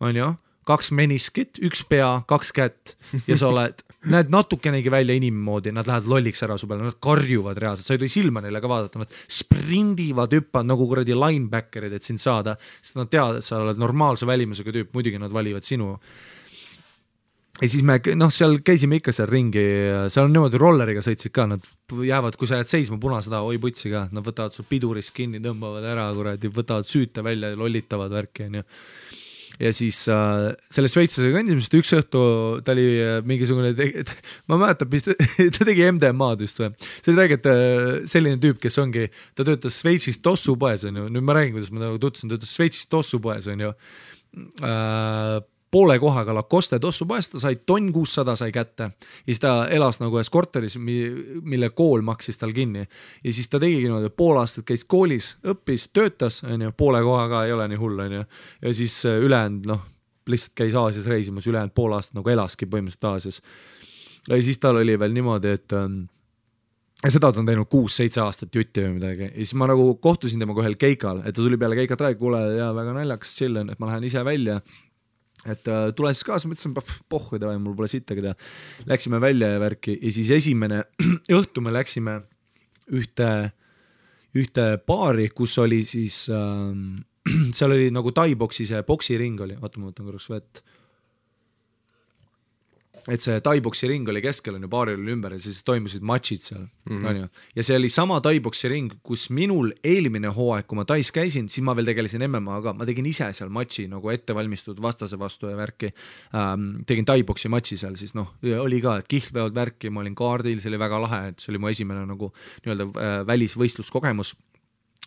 on ju, 2 meniskit, 1 pea, 2 kätt ja sa oled, näed natukenegi välja inimmoodi, nad lähevad lolliks ära su peale, nad karjuvad reaalselt, sa ei tohi silma neile ka vaadata, nad sprindivad, hüppavad nagu kuradi linebackerid, et sind saada, sest nad teavad, et sa oled normaalse välimusega tüüp, muidugi nad valivad sinu. Ja siis me seal käisime ikka seal ringi, seal on niimoodi rolleriga sõitsid ka, nad jäävad, kui sa jääd seisma punaseda, oi putsi ka, nad võtavad sul pidurist kinni, tõmbavad ära, kuradi, võtavad süüte välja ja lollitavad värki, on ju. Ja siis selle šveitslasega kõndimist üks õhtu ta oli mingisugune, ma mäletan, ta tegi MDMA-d just või. See oli räägid selline tüüp, kes ongi, ta töötas Šveitsis tossupoes, on ju. Nüüd ma räägin, kuidas ma tutvusin, töötas Šveitsis tossupoes, on ju. Poole kohaga Lacoste tossupoes, ta sai 1600 sai kätte ja siis ta elas nagu ühes korteris, mille kool maksis tal kinni ja siis ta tegigi niimoodi, pool aastat käis koolis, õppis, töötas, on ju, poole kohaga ei ole nii hull, on ju, ja siis ülejäänud, lihtsalt käis Aasias reisimas, ülejäänud pool aastat nagu elaski põhimõtteliselt Aasias ja siis tal oli veel niimoodi, et ja seda ta on teinud 6-7 aastat jutti või midagi ja siis ma nagu kohtusin temaga ühel keikal, et ta tuli peale keikat räägi, kuule, ja väga naljakas chillin, et ma lähen ise välja et tule siis kaasa, mõtlesin, pohhu, mul pole sittagi teha. Läksime välja ja värki ja siis esimene õhtu me läksime ühte baari, kus oli siis, seal oli nagu Tai-boksi see boksiring oli, vaata ma võtan korraks vett. et see Tai-boksi ring oli keskel, on ju, baaril oli ümber ja siis toimusid matšid seal, on ju. Ja see oli sama Tai-boksi ring, kus minul eelmine hooaeg, kui ma Tais käisin, siis ma veel tegelesin MMA-ga, ma tegin ise seal matši nagu ettevalmistunud vastase vastu ja värki. Tegin Tai-boksi matši seal, siis noh, oli ka, et kihlveod värki, ma olin kaardil, see oli väga lahe, et see oli mu esimene nagu nii-öelda välisvõistluskogemus.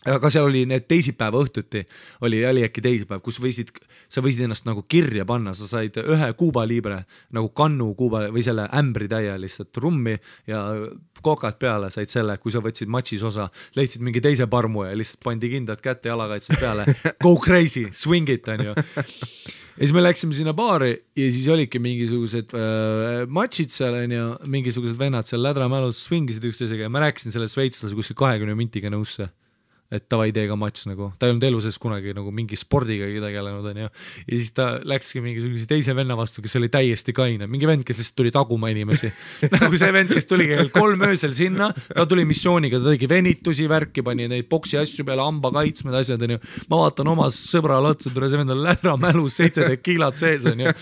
Aga seal oli need teisipäeva õhtuti, oli äkki teisipäev, kus sa võisid ennast nagu kirja panna, sa said ühe Kuuba libre, nagu kannu Kuuba või selle ämbri täie lihtsalt rummi ja kokad peale said selle, kui sa võtsid matšis osa, leidsid mingi teise parmu ja lihtsalt pandi kindad kätte jalakaitse peale, go crazy, swing it, on ju. Ja siis me läksime sinna baari ja siis olidki mingisugused matšid seal, on ju, mingisugused vennad seal lädramälus swingisid üksteisega ja ma rääkisin selle sveitslase kuskil 20 mintiga nõusse. Et tavai teega matš nagu, ta ei olnud elu sees kunagi nagu mingi spordiga tegelenud, on ju. Ja siis ta läkski mingi teise venna vastu, kes oli täiesti kaine, mingi vend, kes lihtsalt tuli taguma inimesi. Nagu see vend, kes tuli 3 öösel sinna, ta tuli missiooniga, ta tegi venitusi, värki, pani neid boksi asju peale, hamba kaitsmed, asjad, on ju. Ma vaatan oma sõbrale otsa, tule see vend on lädra mälus, 17 kiilad sees, on ju.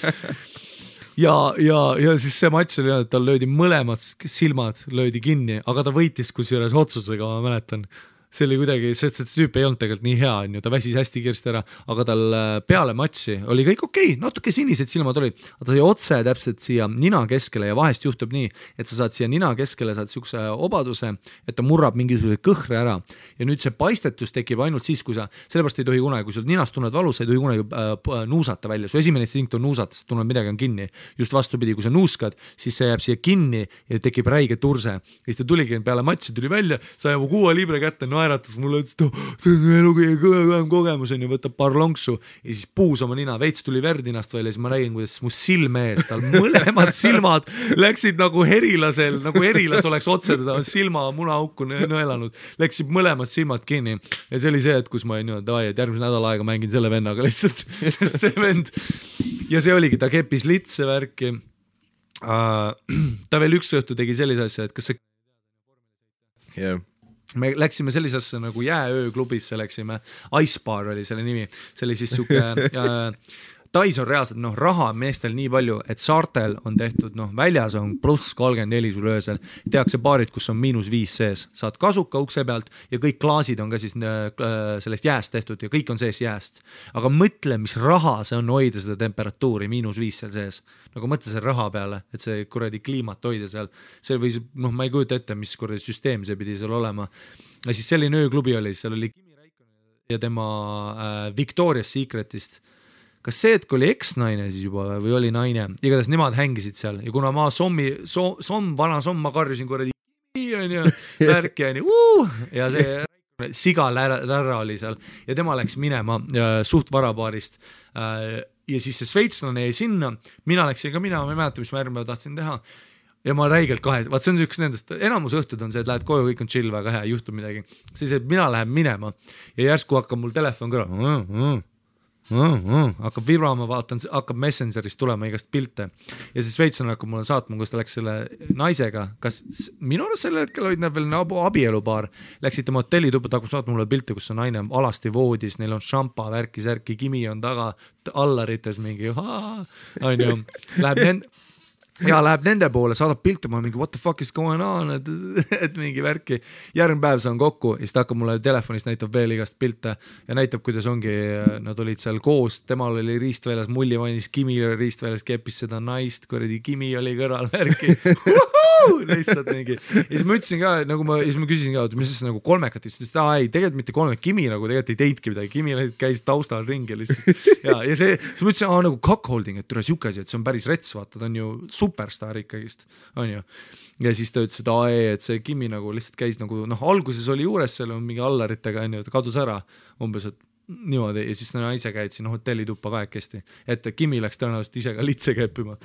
Ja siis see matš oli, et tal löödi mõlemad silmad, löödi kinni, aga ta võitis kusjuures otsusega, ma mäletan. See oli kuidagi, sest see tüüp ei olnud tegelikult nii hea, on ju, ta väsis hästi kiiresti ära, aga tal peale matši oli kõik okei, natuke sinised silmad olid, aga ta oli otse täpselt siia nina keskele ja vahest juhtub nii, et sa saad siia nina keskele, saad siukse obaduse, et ta murrab mingisuguse kõhre ära ja nüüd see paistetus tekib ainult siis, kui sa, sellepärast ei tohi kunagi, kui sul ninast tunned valus, sa ei tohi kunagi nuusata välja, su esimene instinkt on nuusata, sest tunned midagi on kinni, just vastupidi, kui sa nuuskad, siis see jääb siia kinni ja tekib räige turse ja siis ta tuligi peale matši, tuli välja, sai mu 6 libre kätte, naeratas mulle, ütles, et see on elu kõige kõvem kogemus, on ju, võtab paar lonksu ja siis puus oma nina, veits tuli verd ninast välja, siis ma räägin, kuidas mu silme ees, tal mõlemad silmad läksid nagu herilasel, nagu herilas oleks otse teda silma munaauku nõelanud, läksid mõlemad silmad kinni ja see oli see, et kus ma olin nii, et järgmise nädala aega mängin selle vennaga lihtsalt, sest see vend ja see oligi, ta keppis litse värki. Ta veel üks õhtu tegi sellise asja, et kas see me läksime sellisesse nagu jääööklubisse, läksime, Ice Bar oli selle nimi, see oli siis suke Tais on reaalselt raha meestel nii palju, et saartel on tehtud, väljas on pluss 34 sul öösel, tehakse baarid, kus on -5 sees, saad kasuka ukse pealt ja kõik klaasid on ka siis sellest jääst tehtud ja kõik on sees jääst, aga mõtle, mis raha see on hoida seda temperatuuri -5 seal sees, nagu mõtle selle raha peale, et see kuradi kliimat hoida seal, see võis, ma ei kujuta ette, mis kuradi süsteem see pidi seal olema ja siis selline ööklubi oli, seal oli Kimi Räikkönen ja tema Victoria's Secretist. Kas see, et kui oli eks-naine siis juba või oli naine, igatahes nemad hängisid seal ja kuna ma vana somm, ma karjusin kuradi on ju, värki on ju, ja see siga lärra oli seal ja tema läks minema suht varabaarist ja siis see sveitslane jäi sinna, mina läksin ka mina ei mäleta, mis ma järgmine tahtsin teha ja ma räigelt vaat see on üks nendest, enamus õhtud on see, et lähed koju, kõik on chill, väga hea, ei juhtu midagi, siis et mina lähen minema ja järsku hakkab mul telefon kõrval hakkab vibrama, vaatan, hakkab Messengerist tulema igast pilte ja siis sveitslane hakkab mulle saatma, kus ta läks selle naisega, kas minu arust sellel hetkel olid nad veel abielupaar, läksid tema hotellituppa, ta hakkab saatma mulle pilte, kus on naine alasti voodis, neil on šampa, värki, särki, Kimi on taga allarites mingi on ju, läheb nende poole, saadab pilte, ma mingi what the fuck is going on, et mingi värki, järgmine päev saan kokku ja siis ta hakkab mulle telefonist, näitab veel igast pilte ja näitab, kuidas ongi, nad olid seal koos, temal oli riistväljas, mulli mainis, Kimi oli riistväljas, keppis seda naist, kuradi Kimi oli kõrval värki, lihtsalt mingi ja siis ma ütlesin ka, nagu siis ma küsisin ka, mis siis nagu kolmekat, siis ei, tegelikult mitte kolmek, Kimi nagu tegelikult ei teidki midagi, Kimi käis taustal ringi lihtsalt ja see, siis ma ütlesin, nagu cockholding, et tule siuke asi, et see on päris rets, vaata, ta on ju superstar ikkagist, on ju. Ja siis ta ütles, et see Kimi nagu lihtsalt käis nagu, alguses oli juures seal mingi allaritega, on ju, ta kadus ära umbes, et niimoodi ja siis naise käid siin hotellituppa kahekesti, et Kimi läks tõenäoliselt ise ka litse keppima.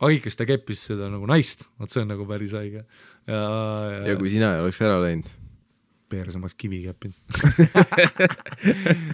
Aga ikka ta keppis seda nagu naist, see on nagu päris haige. Ja kui sina ei oleks ära läinud? peersamaks kivi käppinud.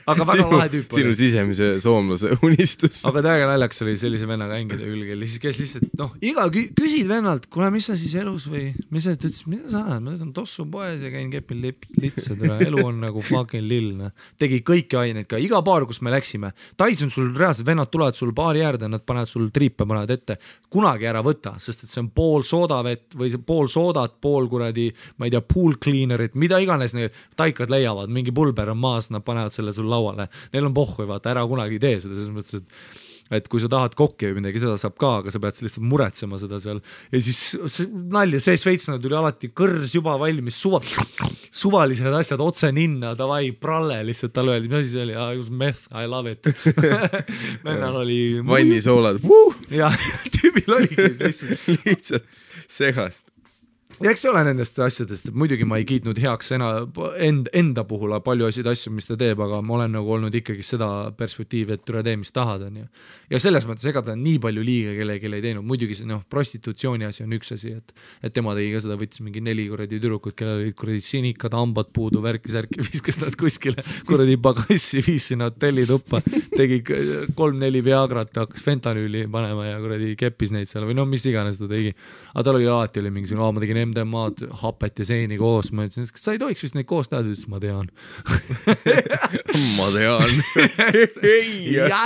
Aga väga lahe tüüp oli. Sinu sisemise soomlase unistus. Aga täiega naljakas oli sellise vennaga hängida külgel. Kes lihtsalt, iga küsid vennalt, kuule, mis sa siis elus või, mis sa ütles, mida sa ajad? Ma ütlen tossu poes ja käin kepil litsad. Elu on nagu fucking lill. Tegi kõiki aineid ka. Iga baar, kus me läksime. Tais on sul reaalselt, vennad tulevad sul baari äärde, nad panevad sul triipe, panevad ette. Kunagi ära võta, sest et see on pool soodavett või pool soodat, pool kuradi, ma ei tea, pool cleanerit, mida iganes taikad leiavad, mingi pulber on maas, nad panevad selle sul lauale. Neil on pohhu, vaata, ära kunagi tee seda, selles mõttes, et kui sa tahad kokki või midagi, seda saab ka, aga sa pead lihtsalt muretsema seda seal. Ja siis nalja, see Šveitslane tuli alati kõrs juba valmis, suvalised asjad otse ninna, davai, pralle lihtsalt tal öeldi, mis asi see oli, I was meth, I love it. Vennal oli vannisoolad. Ja tüübil oligi lihtsalt segast. Ja eks see ole nendest asjadest, et muidugi ma ei kiitnud heaks enda puhul palju asju, mis ta teeb, aga ma olen nagu olnud ikkagi seda perspektiivi, et üle tee, mis tahad on. Ja selles mõttes ega ta nii palju liiga kellegi ei teinud, muidugi see prostitutsiooni asi on üks asi, et tema tegi ka seda, võttis mingi 4 kuradi tüdrukut, kellel olid kuradi sinikad, hambad puudu, värki-särki, viskas nad kuskile kuradi pagassi, viis sinna hotelli tuppa, tegi 3-4 Viagrat, hakkas fentanüüli panema ja kuradi keppis neid seal või mis iganes ta tegi. Aga tal oli alati mingi ma tegin MDMA-d, hapet ja seeni koos, ma ütlesin, kas sa ei tohiks vist neid koos teada, ütles, ma tean. Ma tean. Ja.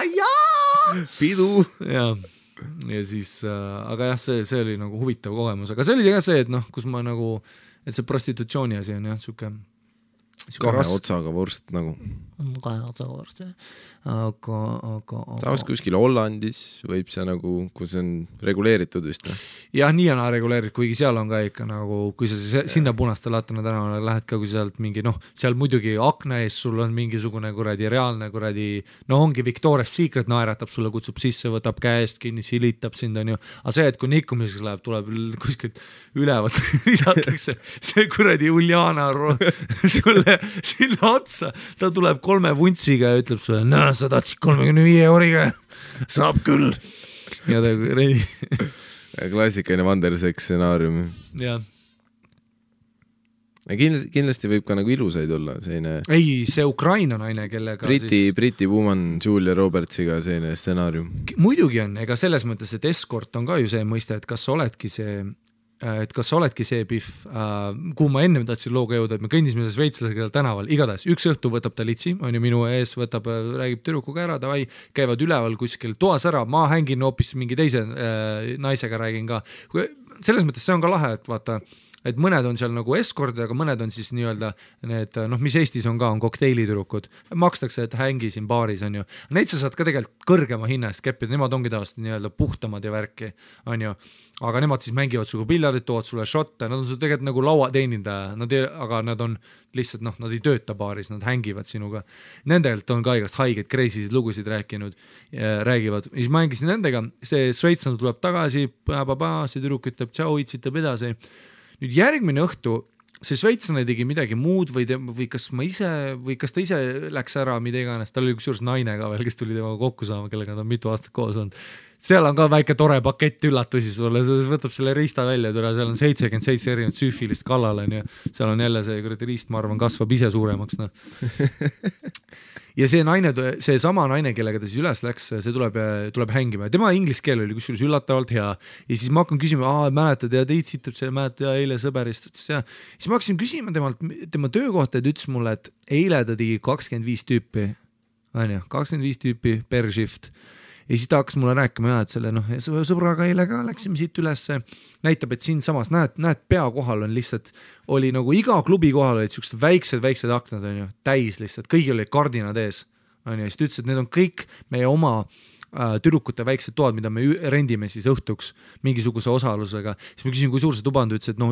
Pidu. Ja siis, aga jah, see oli nagu huvitav kogemus, aga see oli ka see, et kus ma nagu, et see prostitutsiooni asi on jah, siuke kahe otsaga vorst nagu. Kahe otsaga vorst, aga taas kuskil Hollandis võib see nagu, kus on reguleeritud vist. Jah, nii on reguleeritud, kuigi seal on ka ikka nagu, kui sa sinna Punaste Latana tänavale lähed ka, kui sealt mingi, seal muidugi akna ees sul on mingisugune kuradi reaalne kuradi, ongi Victoria's Secret naeratab sulle, kutsub sisse, võtab käest kinni, silitab sind on ju, aga see, et kui nikkumiseks läheb, tuleb kuskilt ülevalt, visatakse see kuradi Uljana sulle sinna otsa, ta tuleb 3 vuntsiga ja ütleb sulle, sa tahtsid 35 euriga, saab küll. Ja ta reidi. Klassikaline Vanderseks stsenaarium. Jah. Kindlasti võib ka nagu ilusaid olla selline... Ei, see Ukraina naine, kellega Briti woman Julia Robertsiga selline stsenaarium. Muidugi on, ega selles mõttes, et escort on ka ju see mõiste, et kas sa oledki see pihv, kuhu ma ennem tahtsin looga jõuda, et me kõndisime šveitslasega tänaval, igatahes üks õhtu võtab ta litsi, on ju minu ees, räägib tüdrukuga ära, davai, käivad üleval kuskil toas ära, ma hängin hoopis mingi teise naisega räägin ka. Selles mõttes see on ka lahe, et vaata, et mõned on seal nagu eskordid, aga mõned on siis nii-öelda need, mis Eestis on ka, on kokteilitürukud. Makstakse, et hängi siin baaris, on ju. Neid sa saad ka tegelikult kõrgema hinna eest keppida, nemad ongi tavaliselt nii-öelda puhtamad ja värki, on ju. Aga nemad siis mängivad suga piljardit, toovad sulle šotte, nad on sul tegelikult nagu lauateenindaja, aga nad on lihtsalt, nad ei tööta baaris, nad hängivad sinuga. Nendelt on ka igast haigeid, crazy'sid lugusid räägivad. Ja siis mängisin nendega, see Šveitslane tuleb tagasi, see tüdruk ütleb, tšau, itsitab edasi. Nüüd järgmine õhtu see šveitslane tegi midagi muud või kas ta ise läks ära, mida iganes, tal oli kusjuures naine ka veel, kes tuli temaga kokku saama, kellega nad on mitu aastat koos olnud. Seal on ka väike tore pakett üllatusi sulle, võtab selle riista välja, seal on 77 erinevat süüfilist kallal, seal on jälle see riist, ma arvan, kasvab ise suuremaks. Ja see sama naine, kellega ta siis üles läks, see tuleb hängima ja tema inglise keel oli kusjuures üllatavalt hea ja siis ma hakkan küsima, mäletad ja teid sitab selle, mäletad ja eile sõberist ja siis ma hakkasin küsima tema töökohta ja ta ütles mulle, et eile ta tegi 25 tüüpi, 25 tüüpi per shift ja siis ta hakkas mulle rääkima et selle sõbraga eile ka läksime siit üles, näitab, et siin samas näed pea kohal on lihtsalt, oli nagu iga klubi kohal olid siuksed väiksed aknad, on ju, täis lihtsalt, kõigil olid kardinad ees, on ju, ja siis ta ütles, et need on kõik meie oma tüdrukute väiksed toad, mida me rendime siis õhtuks mingisuguse osalusega, siis ma küsin, kui suur see tuba on, ta ütles, et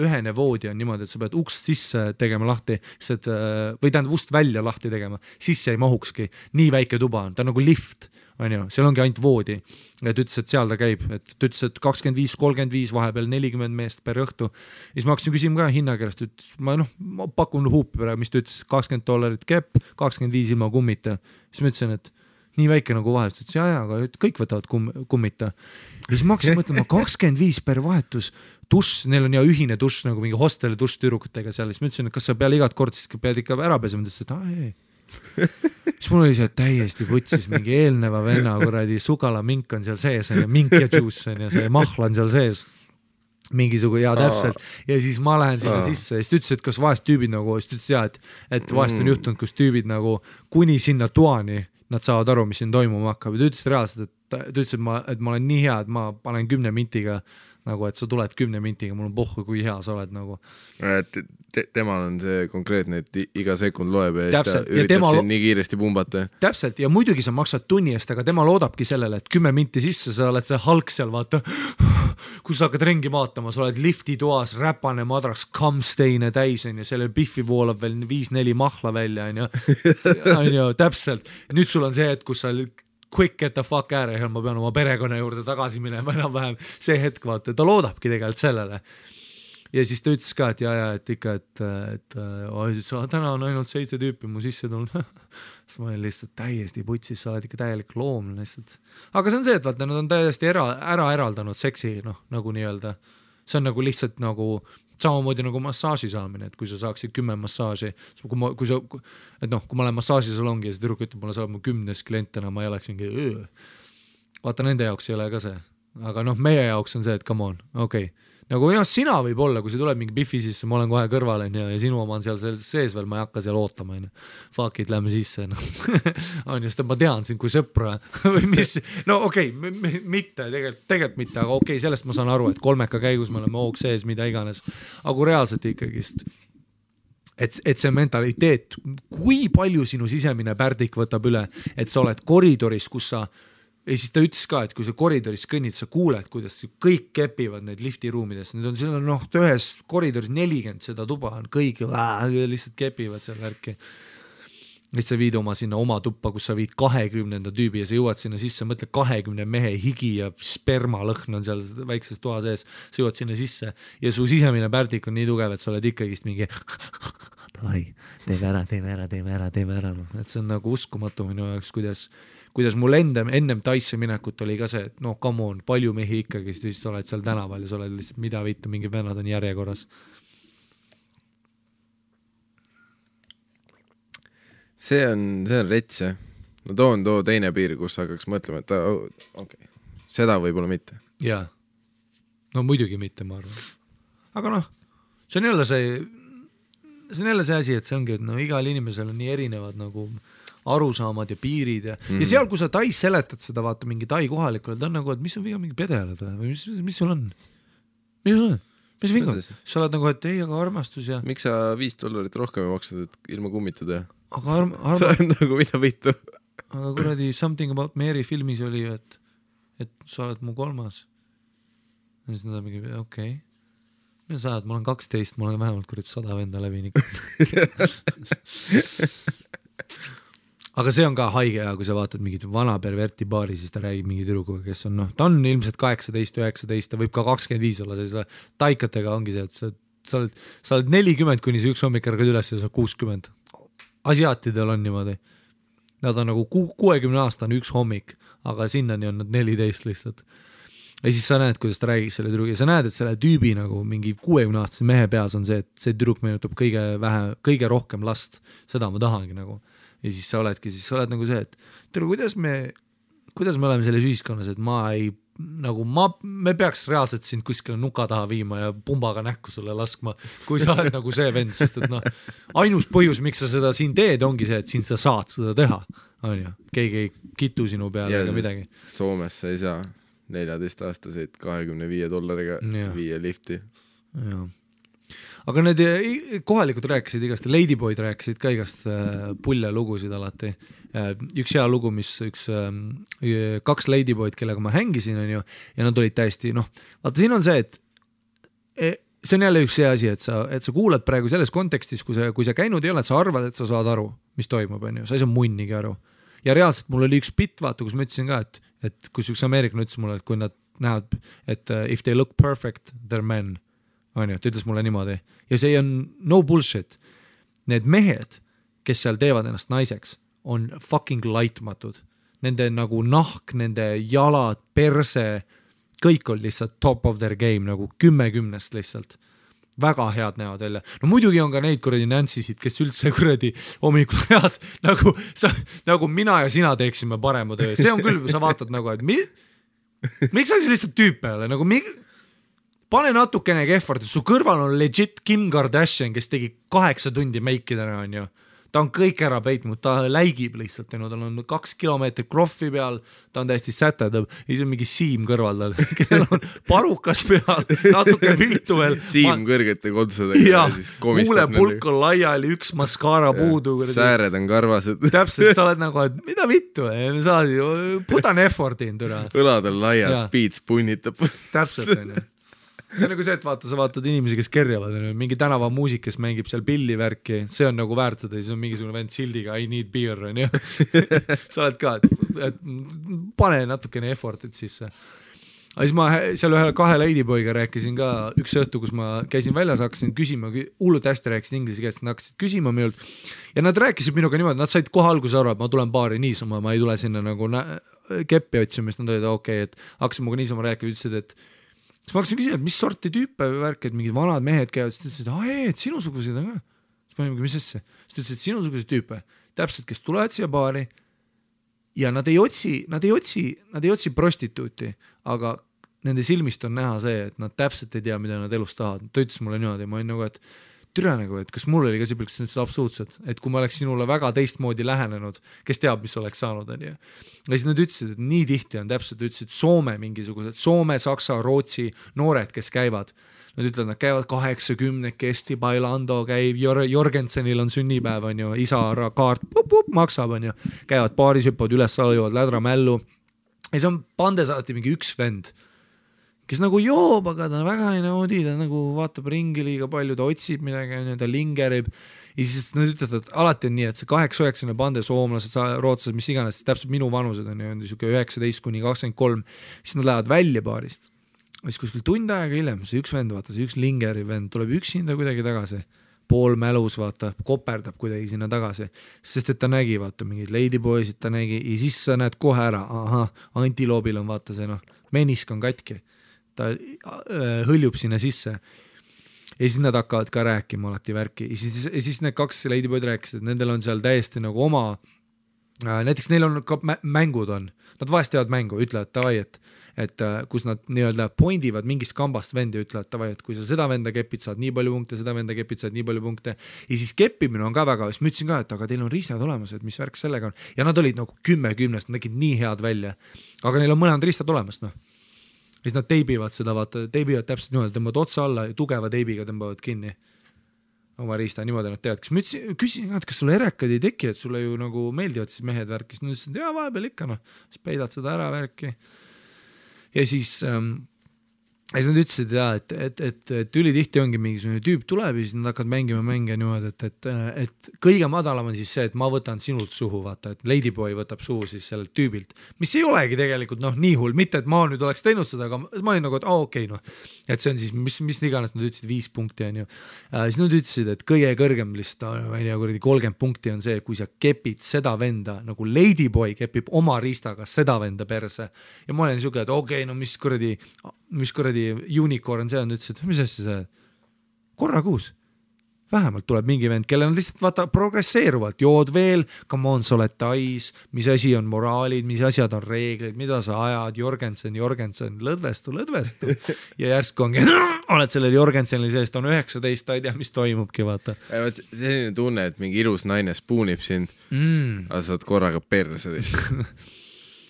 ühene voodi on niimoodi, et sa pead ukst sisse tegema lahti, või tähendab ust välja lahti tegema, sisse ei mahukski, nii väike tuba on, ta on nagu lift, on ju, seal ongi ainult voodi, et ütles, et seal ta käib, et ta ütles, et 25-35, vahepeal 40 meest per õhtu, siis ma hakkasin küsima ka hinnakeelest, ütles, ma pakun huupi praegu, mis ta ütles, $20 kepp, 25 ilma kummita, siis ma ütlesin, et nii väike nagu vahetus, ütles aga kõik võtavad kummita. Ja siis ma hakkasin mõtlema 25 per vahetus dušš, neil on ühine dušš nagu mingi hosteli dušš tüdrukutega seal, siis ma ütlesin, et kas sa peale igat kord siis pead ikka ära pesema, ütles, et ei. Siis mul oli see täiesti putsis mingi eelneva venna kuradi sugalamink on seal sees ja mink ja juice on ja see mahla on seal sees mingisugune täpselt ja siis ma lähen sinna sisse ja siis ta ütles, et kas vahest tüübid nagu, siis ta ütles et vahest on juhtunud, kus tüübid nagu kuni sinna toani nad saavad aru, mis siin toimuma hakkab ja ta ütles reaalselt, et ta ütles, et ma olen nii hea, et ma panen 10 mintiga nagu, et sa tuled 10 mintiga, mul on pohhu, kui hea sa oled nagu. Temal on see konkreetne, et iga sekund loeb ja ta üritab siin nii kiiresti pumbata. Täpselt, ja muidugi sa maksad tunni eest, aga tema loodabki sellele, et 10 minti sisse sa oled see halk seal, vaata, kus sa hakkad ringi vaatama, sa oled lifti toas, räpane madras, kamsteine täis, on ju, selle biffi voolab veel 5-4 mahla välja, on ju, täpselt. Nüüd sul on see, et kus sa quick get the fuck ära ja ma pean oma perekonna juurde tagasi minema enam-vähem see hetk, vaata, ta loodabki tegelikult sellele. Ja siis ta ütles ka, et et ikka, et täna on ainult 7 tüüpi mu sisse tulnud. Siis ma olin lihtsalt täiesti putsis, sa oled ikka täielik loom lihtsalt. Aga see on see, et vaata, nad on täiesti ära eraldanud seksi, nagu nii-öelda. See on nagu lihtsalt nagu samamoodi nagu massaaži saamine, et kui sa saaksid 10 massaaži, kui ma olen massaažisalongi ja see tüdruk ütleb, mulle saab mu 10. klientena, ma ei oleks mingi vaata, nende jaoks ei ole ka see. Aga meie jaoks on see, et come on, okei. Nagu sina võib olla, kui see tuleb mingi biffi sisse, ma olen kohe kõrval ja sinu oma on seal sees veel, ma ei hakka seal ootama. Fuck it, lähme sisse. On just, et ma tean sind kui sõpra. Või mis? No okei, mitte, tegelikult mitte, aga okei, sellest ma saan aru, et kolmeka käigus me oleme hoog sees, mida iganes. Aga reaalselt ikkagist, et see mentaliteet, kui palju sinu sisemine pärdik võtab üle, et sa oled koridoris, kus sa ja siis ta ütles ka, et kui sa koridoris kõnnid, sa kuuled, kuidas kõik kepivad neid liftiruumides. Need on seal ühes koridoris 40 seda tuba on, kõik lihtsalt kepivad seal värki. Siis sa viid oma sinna oma tuppa, kus sa viid 20. tüübi ja sa jõuad sinna sisse, mõtle 20 mehe higi ja spermalõhn on seal väikses toa sees, sa jõuad sinna sisse ja su sisemine pärdik on nii tugev, et sa oled ikkagist mingi teeme ära. Et see on nagu uskumatu minu jaoks, kuidas mul ennem Taisse minekut oli ka see, et come on, palju mehi ikkagi, siis sa oled seal tänaval ja sa oled lihtsalt mida vittu, mingi vennad on järjekorras. See on rets, jah. No too teine piir, kus hakkaks mõtlema, et okei, seda võib-olla mitte. Jaa, no muidugi mitte, ma arvan. Aga see on jälle see asi, et see ongi, et igal inimesel on nii erinevad nagu arusaamad ja piirid ja seal, kui sa Tais seletad seda, vaata mingi Tai kohalikule, ta on nagu, et mis on viga mingi pedealad või mis sul on? Mis viga? Sa oled nagu, et ei, aga armastus ja... Miks sa $5 rohkem ei maksad, et ilma kummitada? Aga sa on nagu mida vitu. Aga kuradi Something About Mary filmis oli, et sa oled mu 3. Ja siis nad on mingi, okei. Mida sa oled? Ma olen 12, ma olen vähemalt kuradi 100 venda läbi Aga see on ka haige ja kui sa vaatad mingit vana perverti baari, siis ta räägib mingi tüdrukuga, kes on, ta on ilmselt 18, 19, ta võib ka 25 olla, sellise taikatega ongi see, et sa oled 40, kuni see üks hommik ärgad üles ja sa 60. Asiaatidel on niimoodi. Nad on nagu 60 aastane üks hommik, aga sinnani on nad 14 lihtsalt. Ja siis sa näed, kuidas ta räägib selle tüdrugi ja sa näed, et selle tüübi nagu mingi 60-aastase mehe peas on see, et see tüdruk meenutab kõige rohkem last. Seda ma tahangi nagu. Ja siis sa oled nagu see, et kuidas me oleme selles ühiskonnas, et me peaks reaalselt sind kuskile nuka taha viima ja pumbaga näkku sulle laskma, kui sa oled nagu see vend, sest et ainus põhjus, miks sa seda siin teed, ongi see, et siin sa saad seda teha, on ju, keegi ei kitu sinu peale ega midagi. Soomes sa ei saa 14-aastaseid $25 viia lifti. Jaa. Aga need kohalikud rääkisid igast, Ladyboyd rääkisid ka igast pulle lugusid alati. Üks hea lugu, mis 2 Ladyboyd, kellega ma hängisin, on ju, ja nad olid täiesti, vaata siin on see, et see on jälle üks see asi, et sa kuulad praegu selles kontekstis, kui sa käinud ei ole, et sa arvad, et sa saad aru, mis toimub, on ju, sa ei saa munnigi aru. Ja reaalselt mul oli üks bitt, vaata, kus ma ütlesin ka, et kus üks ameeriklane ütles mulle, et kui nad näevad, et if they look perfect, they're men. On ju, ta ütles mulle niimoodi. Ja see on no bullshit. Need mehed, kes seal teevad ennast naiseks, on fucking laitmatud. nende nagu nahk, nende jalad, perse, kõik on lihtsalt top of their game nagu 10-10 lihtsalt. Väga head näevad välja. No muidugi on ka neid kuradi Nancysid, kes üldse kuradi hommikul heas nagu mina ja sina teeksime parema töö. See on küll, sa vaatad nagu, et miks sa siis lihtsalt tüüpe ole? Nagu pane natukene effort, su kõrval on legit Kim Kardashian, kes tegi 8 tundi meikidena, on ju. Ta on kõik ära peitnud, ta läigib lihtsalt, tal on 2 kilomeetrit kroffi peal, ta on täiesti sätedab, ja siis on mingi Siim kõrval tal, kellel on parukas peal, natuke viltu veel. Siim kõrgete kontsadega ja siis komistab. Huulepulk on laiali, üks maskaara puudu. Sääred on karvased. Täpselt, sa oled nagu, et mida vittu, put an effort in. Õlad on laiad, piits punnitab. Täpselt, on ju. See on nagu see, et sa vaatad inimesi, kes kerjavad, mingi tänavamuusik, kes mängib seal pillivärki, see on nagu väärt seda, siis on mingisugune vend sildiga I need beer, on ju. Sa oled ka, et pane natukene effortit sisse. Aga siis ma seal 2 ladyboyga rääkisin ka üks õhtu, kus ma käisin väljas, hakkasin küsima, hullult hästi rääkisin inglise keelt, nad hakkasid küsima minult ja nad rääkisid minuga niimoodi, nad said kohe alguse aru, et ma tulen baari niisama, ma ei tule sinna nagu keppi otsima, siis nad olid okei, et hakkasin muga niisama rääkima, ütlesid, et siis ma hakkasin küsima, et mis sorti tüüpe värk, et mingid vanad mehed käivad, siis ta ütles, et sinusuguseid on ka. Siis ma mõtlesin, mis sesse? Siis ta ütles, et sinusuguseid tüüpe, täpselt, kes tulevad siia baari ja nad ei otsi prostituuti, aga nende silmist on näha see, et nad täpselt ei tea, mida nad elus tahavad. Ta ütles mulle niimoodi, ma olin nagu, et türa nagu, et kas mul oli ka sibliks absoluutselt, et kui ma oleks sinule väga teistmoodi lähenenud, kes teab, mis oleks saanud, on ju. Ja siis nad ütlesid, et nii tihti on täpselt, ütlesid Soome mingisugused, Soome, Saksa, Rootsi noored, kes käivad. Nad ütlevad, nad käivad 80, Kesti, Bailando käib, Jorgensenil on sünnipäev, on ju, isa kaart maksab, on ju, käivad baaris, hüppavad üles, jõuavad lädra mällu. Ja see on pandes alati mingi üks vend, kes nagu joob, aga ta väga ei naudi, ta nagu vaatab ringi liiga palju, ta otsib midagi, ta lingerib. Ja siis nad ütlevad, et alati on nii, et see 8-9 pande soomlased, rootslased, mis iganes, täpselt minu vanused on ju 19-23, siis nad lähevad välja baarist. Ja siis kuskil tund aega hiljem, see üks vend, vaata, see üks lingeri vend tuleb üksinda kuidagi tagasi, pool mälus, vaata, koperdab kuidagi sinna tagasi, sest et ta nägi, vaata, mingid ladyboysid ta nägi ja siis sa näed kohe ära, antiloobil on, vaata see, menisk on katki. Ta hõljub sinna sisse ja siis nad hakkavad ka rääkima alati värki ja siis need 2 ladyboyd rääkisid, et nendel on seal täiesti nagu oma, näiteks neil on ka mängud on, nad vahest teevad mängu, ütlevad tavai, et kus nad nii-öelda poindivad mingist kambast vendi, ütlevad tavai, et kui sa seda venda kepid, saad nii palju punkte, seda venda kepid, saad nii palju punkte ja siis keppimine on ka väga, siis ma ütlesin ka, et aga teil on riistad olemas, et mis värk sellega on ja nad olid nagu 10-10, nad nägid nii head välja, aga neil on mõlemad riistad olemas, siis nad teibivad seda, vaata, teibivad täpselt niimoodi, tõmbavad otsa alla ja tugeva teibiga tõmbavad kinni oma riista, niimoodi nad teavad. Küsin, et kas sulle erekad ei teki, et sulle ju nagu meeldivad siis mehed värkis. Nad ütlesid, et vahepeal ikka, siis peidad seda ära värki. Ja siis nad ütlesid, et ülitihti ongi mingisugune tüüp tuleb ja siis nad hakkavad mängima mänge niimoodi, et kõige madalam on siis see, et ma võtan sinult suhu, vaata, et ladyboy võtab suhu siis sellelt tüübilt, mis ei olegi tegelikult nii hull, mitte et ma nüüd oleks teinud seda, aga ma olin nagu, et okei, et see on siis, mis iganes nad ütlesid 5 punkti on ju. Siis nad ütlesid, et kõige kõrgem lihtsalt, 30 punkti on see, kui sa kepid seda venda, nagu ladyboy kepib oma riistaga seda venda perse ja ma olen niisugune, et okei, mis kuradi unicorn see on, ütles, et mis asja see korra kuus vähemalt tuleb mingi vend, kelle nad lihtsalt vaata progresseeruvalt, jood veel, come on, sa oled tais, mis asi on moraalid, mis asjad on reeglid, mida sa ajad, Jorgensen, lõdvestu ja järsku ongi, oled sellel Jorgensenil sees, ta on 19, ta ei tea, mis toimubki, vaata. Selline tunne, et mingi ilus naine spoonib sind, aga sa oled korraga perse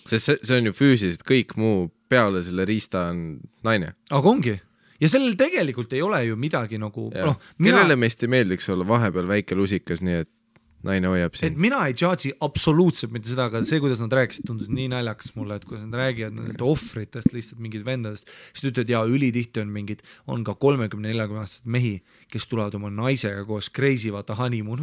sest see on ju füüsiliselt, kõik muu peale selle riista on naine. Aga ongi. Ja sellel tegelikult ei ole ju midagi nagu... Kellele meist ei meeldiks olla vahepeal väike lusikas, nii et naine hoiab sind. Et mina ei judge'i absoluutselt mitte seda, aga see, kuidas nad rääkisid, tundus nii naljakas mulle, et kuidas nad räägivad nendest ohvritest, lihtsalt mingid vendadest, siis ütlevad, ülitihti on mingid, on ka 30-40 mehi, kes tulevad oma naisega koos crazy, vaata honeymoon,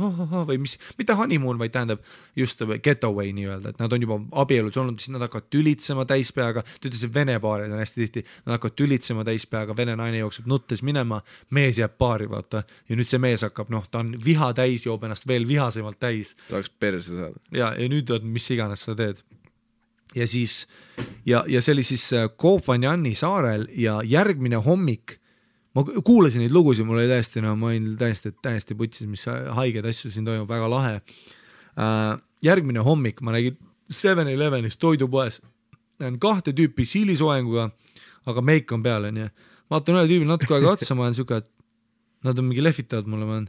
või mis, mitte honeymoon, vaid tähendab just getaway nii-öelda, et nad on juba abielus olnud, siis nad hakkavad tülitsema täispeaga, ta ütles, et vene paarid on hästi tihti, nad hakkavad tülitsema täispeaga, vene naine jookseb nuttes minema, mees jääb paari, vaata, ja nüüd see mees hakkab, ta on viha täis, joob ennast veel vihasem täis. Tahaks perse saada. Ja nüüd on, mis iganes sa teed. ja siis ja see oli siis Koh Phangan'i saarel ja järgmine hommik ma kuulasin neid lugusid, mul oli täiesti, no ma olin täiesti putsis, mis haiged asju siin toimub, väga lahe. Järgmine hommik ma nägin 7-Elevenis toidupoes, näen 2 tüüpi siilisoenguga, aga meik on peal, nii. Vaatan üle tüübil natuke aega otsa, ma olen siuke, et nad on mingi lehvitavad mulle, ma olen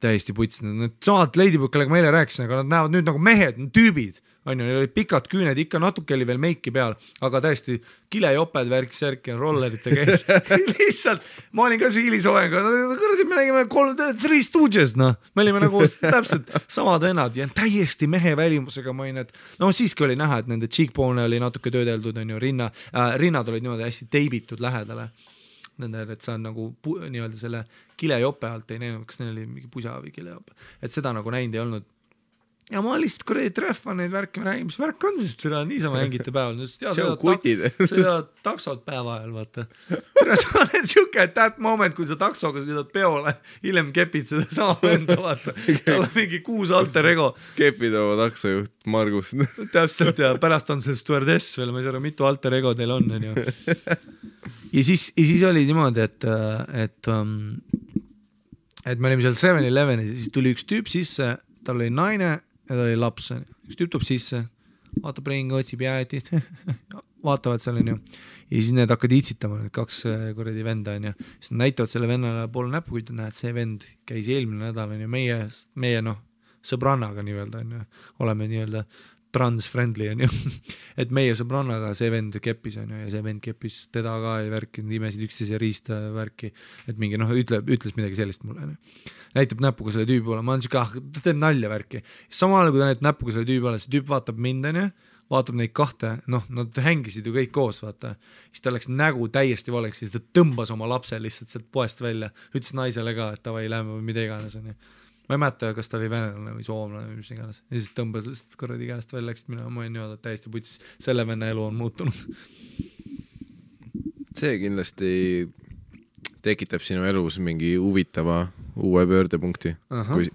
täiesti putsid, need samad Ladybug, kellega ma eile rääkisin, aga nad näevad nüüd nagu mehed, tüübid, on ju, neil olid pikad küüned, ikka natuke oli veel meiki peal, aga täiesti kilejoped, värk-särk ja rollerite käis. Lihtsalt, ma olin ka siilisoenga, kõrdi me nägime 3 Stooges, noh, me olime nagu täpselt samad vennad ja täiesti mehe välimusega ma olin, et no siiski oli näha, et nende cheekbone oli natuke töödeldud, on ju, rinnad olid niimoodi hästi teibitud lähedale. Nende, et sa on nagu nii-öelda selle kilejope alt ei näinud, kas neil oli mingi pusa või kilejope, et seda nagu näinud ei olnud. Ja ma lihtsalt kuradi treffan neid värki, ma räägin, mis värk on siis, niisama hängite päeval. See on kutid. Sõidavad taksod päeva ajal, vaata. Sa oled siuke, et that moment, kui sa taksoga sõidad peole, hiljem kepid seda sama venda, vaata. Tal on mingi 6 alter ego. Kepid oma taksojuht Margus. Täpselt ja pärast on see stewardess veel, ma ei saa aru, mitu alter ego teil on. Ja siis oli niimoodi, et me olime seal 7-Elevenis ja siis tuli üks tüüp sisse, tal oli naine ja tal oli laps. Üks tüüp tuleb sisse, vaatab ringi, otsib jäätist, vaatavad seal on ju. Ja siis need hakkad itsitama, need 2 kuradi venda on ju. Siis nad näitavad selle vennale poole näpu, kui näed, see vend käis eelmine nädal on ju meie sõbrannaga nii-öelda on ju. Oleme nii-öelda trans-friendly on ju, et meie sõbrannaga see vend keppis on ju ja see vend keppis teda ka ja värki, imesid üksteise riista värki, et mingi ütles midagi sellist mulle. Näitab näpuga selle tüübi poole, ma olen siuke, ta teeb nalja värki. Samal kui ta näitab näpuga selle tüübi poole, see tüüp vaatab mind on ju, vaatab neid 2, noh, nad hängisid ju kõik koos, vaata. Siis ta läks nägu täiesti valeks, siis ta tõmbas oma lapse lihtsalt sealt poest välja, ütles naisele ka, et tavai lähme või mida iganes on ju. Ma ei mäleta, kas ta oli venelane või soomlane või mis iganes. Ja siis tõmbas korradi käest välja, läksid mina, ma olin niimoodi täiesti putis, selle venna elu on muutunud. See kindlasti tekitab sinu elus mingi huvitava uue pöördepunkti,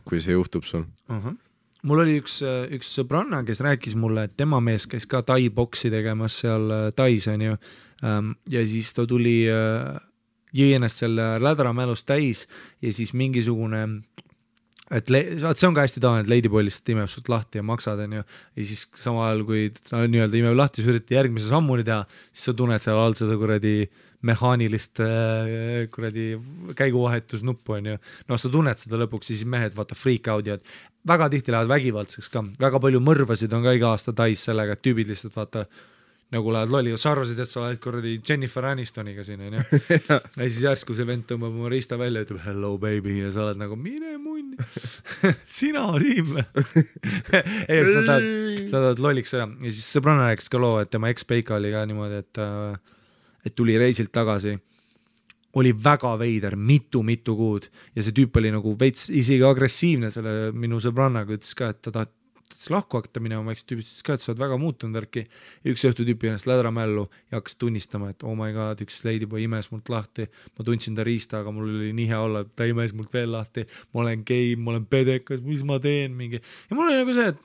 kui see juhtub sul. Mul oli üks sõbranna, kes rääkis mulle, et tema mees käis ka tai-boksi tegemas seal tais on ju. Ja siis ta tuli jõi ennast selle lädramälust täis ja siis mingisugune et see on ka hästi tavaline, et Ladyboy lihtsalt imeb sult lahti ja maksad on ju ja siis sama ajal, kui ta nii-öelda imeb lahti, siis üritad järgmise sammuni teha, siis sa tunned seal all seda kuradi mehaanilist kuradi käiguvahetusnuppu on ju, no sa tunned seda lõpuks, siis mehed vaata freak out ja väga tihti lähevad vägivaldseks ka, väga palju mõrvasid on ka iga aasta tais sellega, et tüübid lihtsalt vaata nagu lähed lolli, sa arvasid, et sa oled korradi Jennifer Anistoniga siin on ju ja siis järsku see vend tõmbab oma riista välja ja ütleb hello baby ja sa oled nagu mine munni sina Siim ei, sa tahad lolliks seda ja siis sõbranna rääkis ka loo, et tema ex-peika oli ka niimoodi, et tuli reisilt tagasi, oli väga veider mitu kuud ja see tüüp oli nagu veits isegi agressiivne selle minu sõbrannaga, ütles ka, et ta tahab lahku hakata minema, ma tüübist ka, et sa oled väga muutunud värki. Üks õhtu tüüpi ennast lädramällu ja hakkas tunnistama, et oh my god, üks Ladyboy imes mult lahti, ma tundsin ta riista, aga mul oli nii hea olla, ta imes mult veel lahti, ma olen gei, ma olen pedekas, mis ma teen mingi. Ja mul oli nagu see, et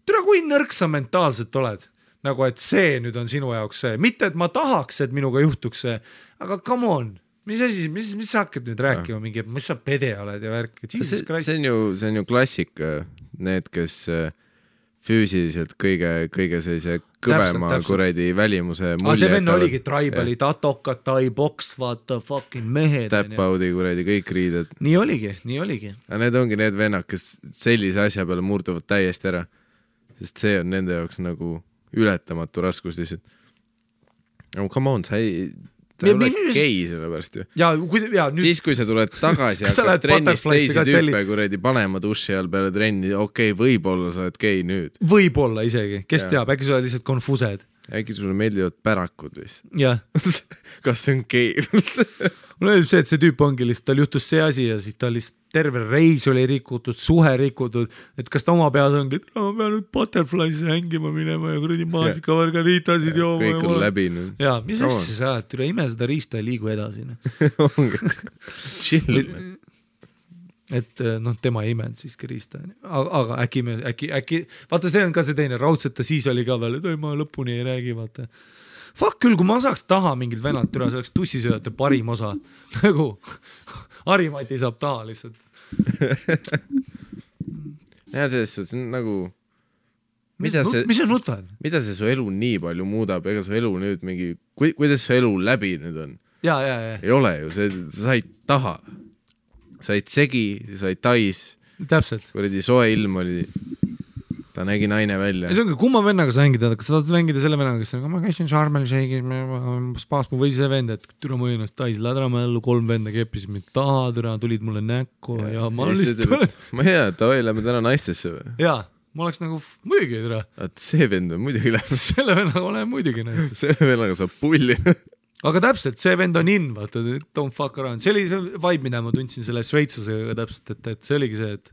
tere, kui nõrk sa mentaalselt oled, nagu et see nüüd on sinu jaoks see, mitte et ma tahaks, et minuga juhtuks see, aga come on, mis asi, mis sa hakkad nüüd rääkima mingi, mis sa pede oled ja värk, see on ju klassik, need, kes füüsiliselt kõige sellise kõvema kuredi välimuse mulje. See venn oligi tribali, tatokad, tai-boks, vaata, fucking mehed. Tap-audi kuredi, kõik riided. Nii oligi. Aga need ongi need vennad, kes sellise asja peale murduvad täiesti ära. Sest see on nende jaoks nagu ületamatu raskus lihtsalt. No come on, sa ei ole gei selle pärast ju. Nüüd... Siis kui sa tuled tagasi ja hakkad trennist teisi tüüpe kuredi panema duši all peale trenni, okei, võib-olla sa oled gei nüüd. Võib-olla isegi, kes teab, äkki sa oled lihtsalt konfused. Äkki sulle meeldivad pärakud lihtsalt. Jah. Kas see on gei? Mul öeldib see, et see tüüp ongi lihtsalt, tal juhtus see asi ja siis ta lihtsalt terve reis oli rikutud, suhe rikutud, et kas ta oma peas ongi, et ma pean nüüd Butterfly'sse hängima minema ja kuradi maasika margaritasid jooma. Kõik on läbi nüüd. Jaa, mis asja sa oled, üle ime seda riista ja liigu edasi. Chill. et noh, tema ei imenud siiski riista, aga äkki, vaata see on ka see teine, raudselt ta siis oli ka veel, et ei, ma lõpuni ei räägi, vaata. Fuck küll, kui ma saaks taha mingid vennad türa, see oleks tussisööjate parim osa, nagu Harimati saab taha lihtsalt. Ja selles suhtes nagu mis see nutad? Mida see su elu nii palju muudab, ega su elu nüüd mingi, kuidas su elu läbi nüüd on? Ja. Ei ole ju, sa said taha, said segi, said tais. Täpselt. Kuradi soe ilm oli, ta nägi naine välja. Ja see ongi, kumma vennaga sa mängid, kas sa tahad mängida selle vennaga, kes on, ma käisin Sharmel Shake'is, spaas mu või see vend, et türa ma ennast tais lädrama ellu, 3 venda keppisid mind taha, türa tulid mulle näkku ja ma lihtsalt... Ma hea, et oi, lähme täna naistesse või? Jaa. Ma oleks nagu muidugi türa. See vend on muidugi lähe. Selle vennaga olen muidugi naistes. Selle vennaga saab pulli. Aga täpselt, see vend on in, vaata, don't fuck around. See oli see vibe, mida ma tundsin selle Šveitsusega täpselt, et see oligi see, et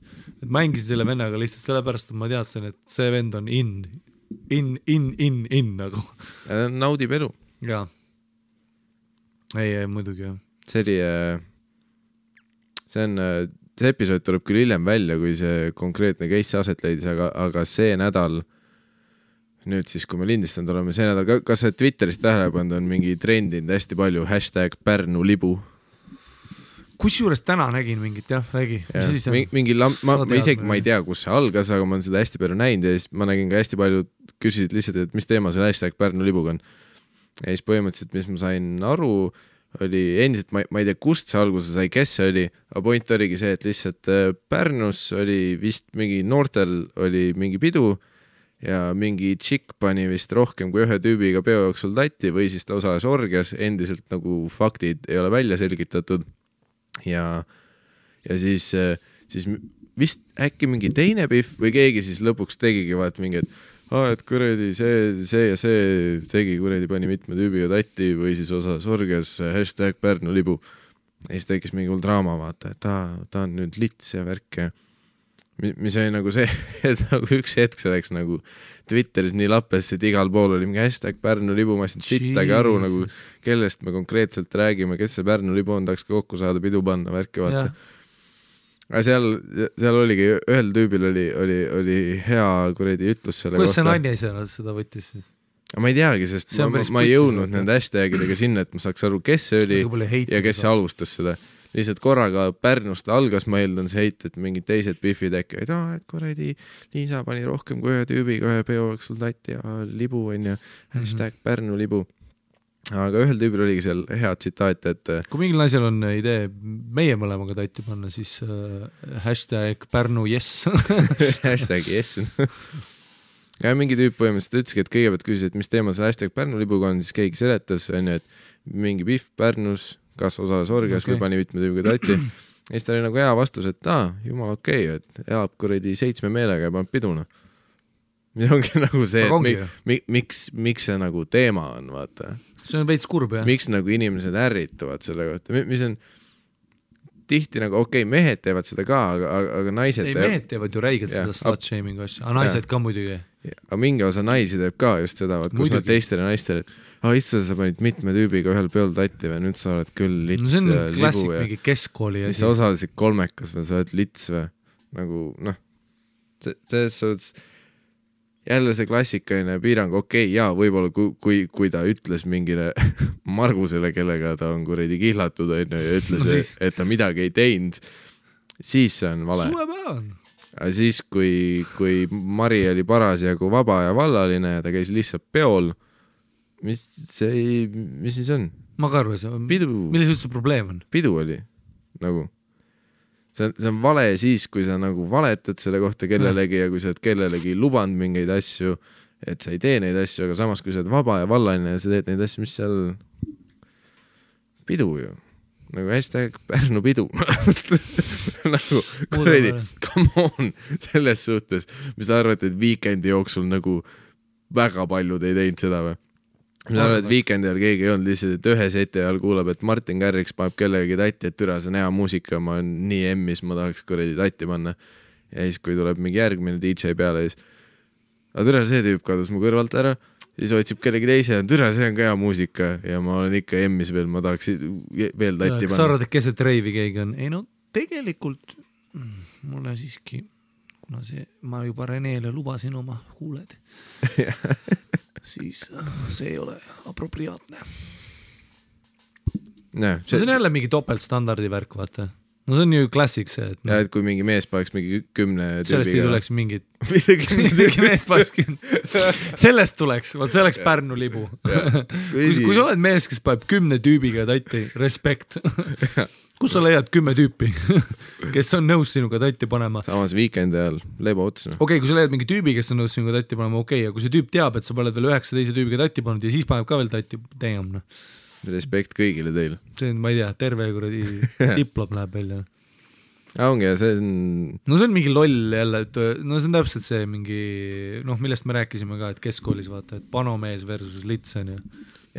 mängisin selle vennaga lihtsalt sellepärast, et ma teadsin, et see vend on in nagu. Naudib elu. Jaa. Ei, muidugi jah. See episood tuleb küll hiljem välja, kui see konkreetne case aset leidis, aga see nädal, nüüd siis, kui me lindistanud oleme, see nädal, kas see Twitterist tähelepand on mingi trendinud hästi palju #PärnuLibu? Kusjuures täna nägin mingit, jah, räägi. Mingi ma isegi ma ei tea, kus see algas, aga ma olen seda hästi palju näinud ja siis ma nägin ka hästi palju, küsisid lihtsalt, et mis teema see #PärnuLibuga on. Ja siis põhimõtteliselt, mis ma sain aru, oli endiselt, ma ei tea, kust see alguse sai, kes see oli, aga point oligi see, et lihtsalt Pärnus oli vist mingi noortel oli mingi pidu ja mingi tšikk pani vist rohkem kui ühe tüübiga peo jooksul tatti või siis ta osales orgias, endiselt nagu faktid ei ole välja selgitatud ja siis vist äkki mingi teine pihv või keegi siis lõpuks tegigi vaat mingi, et kuradi see ja see tegi kuradi pani mitme tüübiga tatti või siis osas orgias #PärnuLibu. Ja siis tekkis mingi hull draama, vaata, et ta on nüüd lits ja värk ja mis oli nagu see, et nagu üks hetk see läks nagu Twitteris nii lappes, et igal pool oli mingi #PärnuLibu, ma ei sittagi aru nagu, kellest me konkreetselt räägime, kes see PärnuLibu on, tahaks ka kokku saada, pidu panna, värki vaata. Aga seal oligi, ühel tüübil oli hea kuredi ütlus selle kohta. Kuidas see naine ise seda võttis siis? Ma ei teagi, sest ma ei jõudnud nende hashtagidega sinna, et ma saaks aru, kes see oli ja kes see alustas seda. Lihtsalt korraga Pärnust algas, ma eeldan see heit, et mingid teised biffid äkki, et kuradi Liisa pani rohkem kui ühe tüübiga, ühe peo sul tatti ja libu on ja #PärnuLibu. Aga ühel tüübil oligi seal hea tsitaat, et kui mingil naisel on idee meie mõlemaga tatti panna, siis #PärnuYes #yes ja mingi tüüp põhimõtteliselt ütleski, et kõigepealt küsis, et mis teema see #PärnuLibuga on, siis keegi seletas, et mingi biff Pärnus kas osales orgias või pani mitme tüübiga tatti. Ja siis ta oli nagu hea vastus, et jumal okei, et elab kuradi 7 meelega ja paneb piduna. Ja ongi nagu see, et miks see nagu teema on, vaata. See on veits kurb, jah. Miks nagu inimesed ärrituvad selle kohta, mis on tihti nagu mehed teevad seda ka, aga naised mehed teevad ju räigelt seda slut-shaming asja, aga naised ka muidugi. Aga mingi osa naisi teeb ka just seda, kus nad teistele naistele, istuda sa panid mitme tüübiga ühel peol tatti või nüüd sa oled küll lits ja libu. See on klassik ja mingi keskkooli asi. Sa osalesid kolmekas või sa oled lits või nagu selles suhtes jälle see klassikaline piirang, jaa, võib-olla kui ta ütles mingile Margusele, kellega ta on kuradi kihlatud ja ütles, et ta midagi ei teinud, siis see on vale. Aga siis, kui Mari oli parasjagu vaba ja vallaline ja ta käis lihtsalt peol, mis siis on? Ma ka arvan, milles üldse probleem on? Pidu oli, nagu see on vale siis, kui sa nagu valetad selle kohta kellelegi ja kui sa oled kellelegi lubanud mingeid asju, et sa ei tee neid asju, aga samas kui sa oled vaba ja vallaline ja sa teed neid asju, mis seal pidu ju, nagu #PärnuPidu nagu kuredi, come on selles suhtes, mis sa arvad, et Weekendi jooksul nagu väga paljud ei teinud seda või? Mis arvad, et Weekendi ajal keegi ei olnud lihtsalt, et ühe seti ajal kuulab, et Martin Garriks paneb kellegi tatti, et türa, see on hea muusika, ma olen nii emmis, ma tahaks kuredi tatti panna. Ja siis, kui tuleb mingi järgmine DJ peale, siis aga türa, see tüüp kadus mu kõrvalt ära, siis otsib kellegi teise, türa, see on ka hea muusika ja ma olen ikka emmis veel, ma tahaks veel tatti panna. Kas sa arvad, et keset reivi keegi on? Ei no tegelikult mulle siiski, kuna ma juba Renele lubasin oma huuled, siis see ei ole apropriaatne. See on jälle mingi topeltstandardi värk, vaata. No see on ju klassik see, et... Ja, et kui mingi mees paneks mingi 10 tüübiga... Sellest ei tuleks mingit... mingi mees paneks 10... Sellest tuleks, vaat see oleks Pärnu libu. Kui sa oled mees, kes paneb 10 tüübiga tatti, respekt. Kus sa leiad 10 tüüpi, kes on nõus sinuga tatti panema? Samas weekendi ajal lebo otsina. Okei, kui sa leiad mingi tüübi, kes on nõus sinuga tatti panema, okei, ja kui see tüüp teab, et sa paned veel 9 teise tüübiga tatti pannud ja siis paneb ka veel tatti, teemna. Respekt kõigile teile. See on, ma ei tea, terve kuradi diplom läheb välja. Ongi, ja see on... No see on mingi loll jälle, no see on täpselt see mingi, noh, millest me rääkisime ka, et keskkoolis vaata, et panomees versus litsen.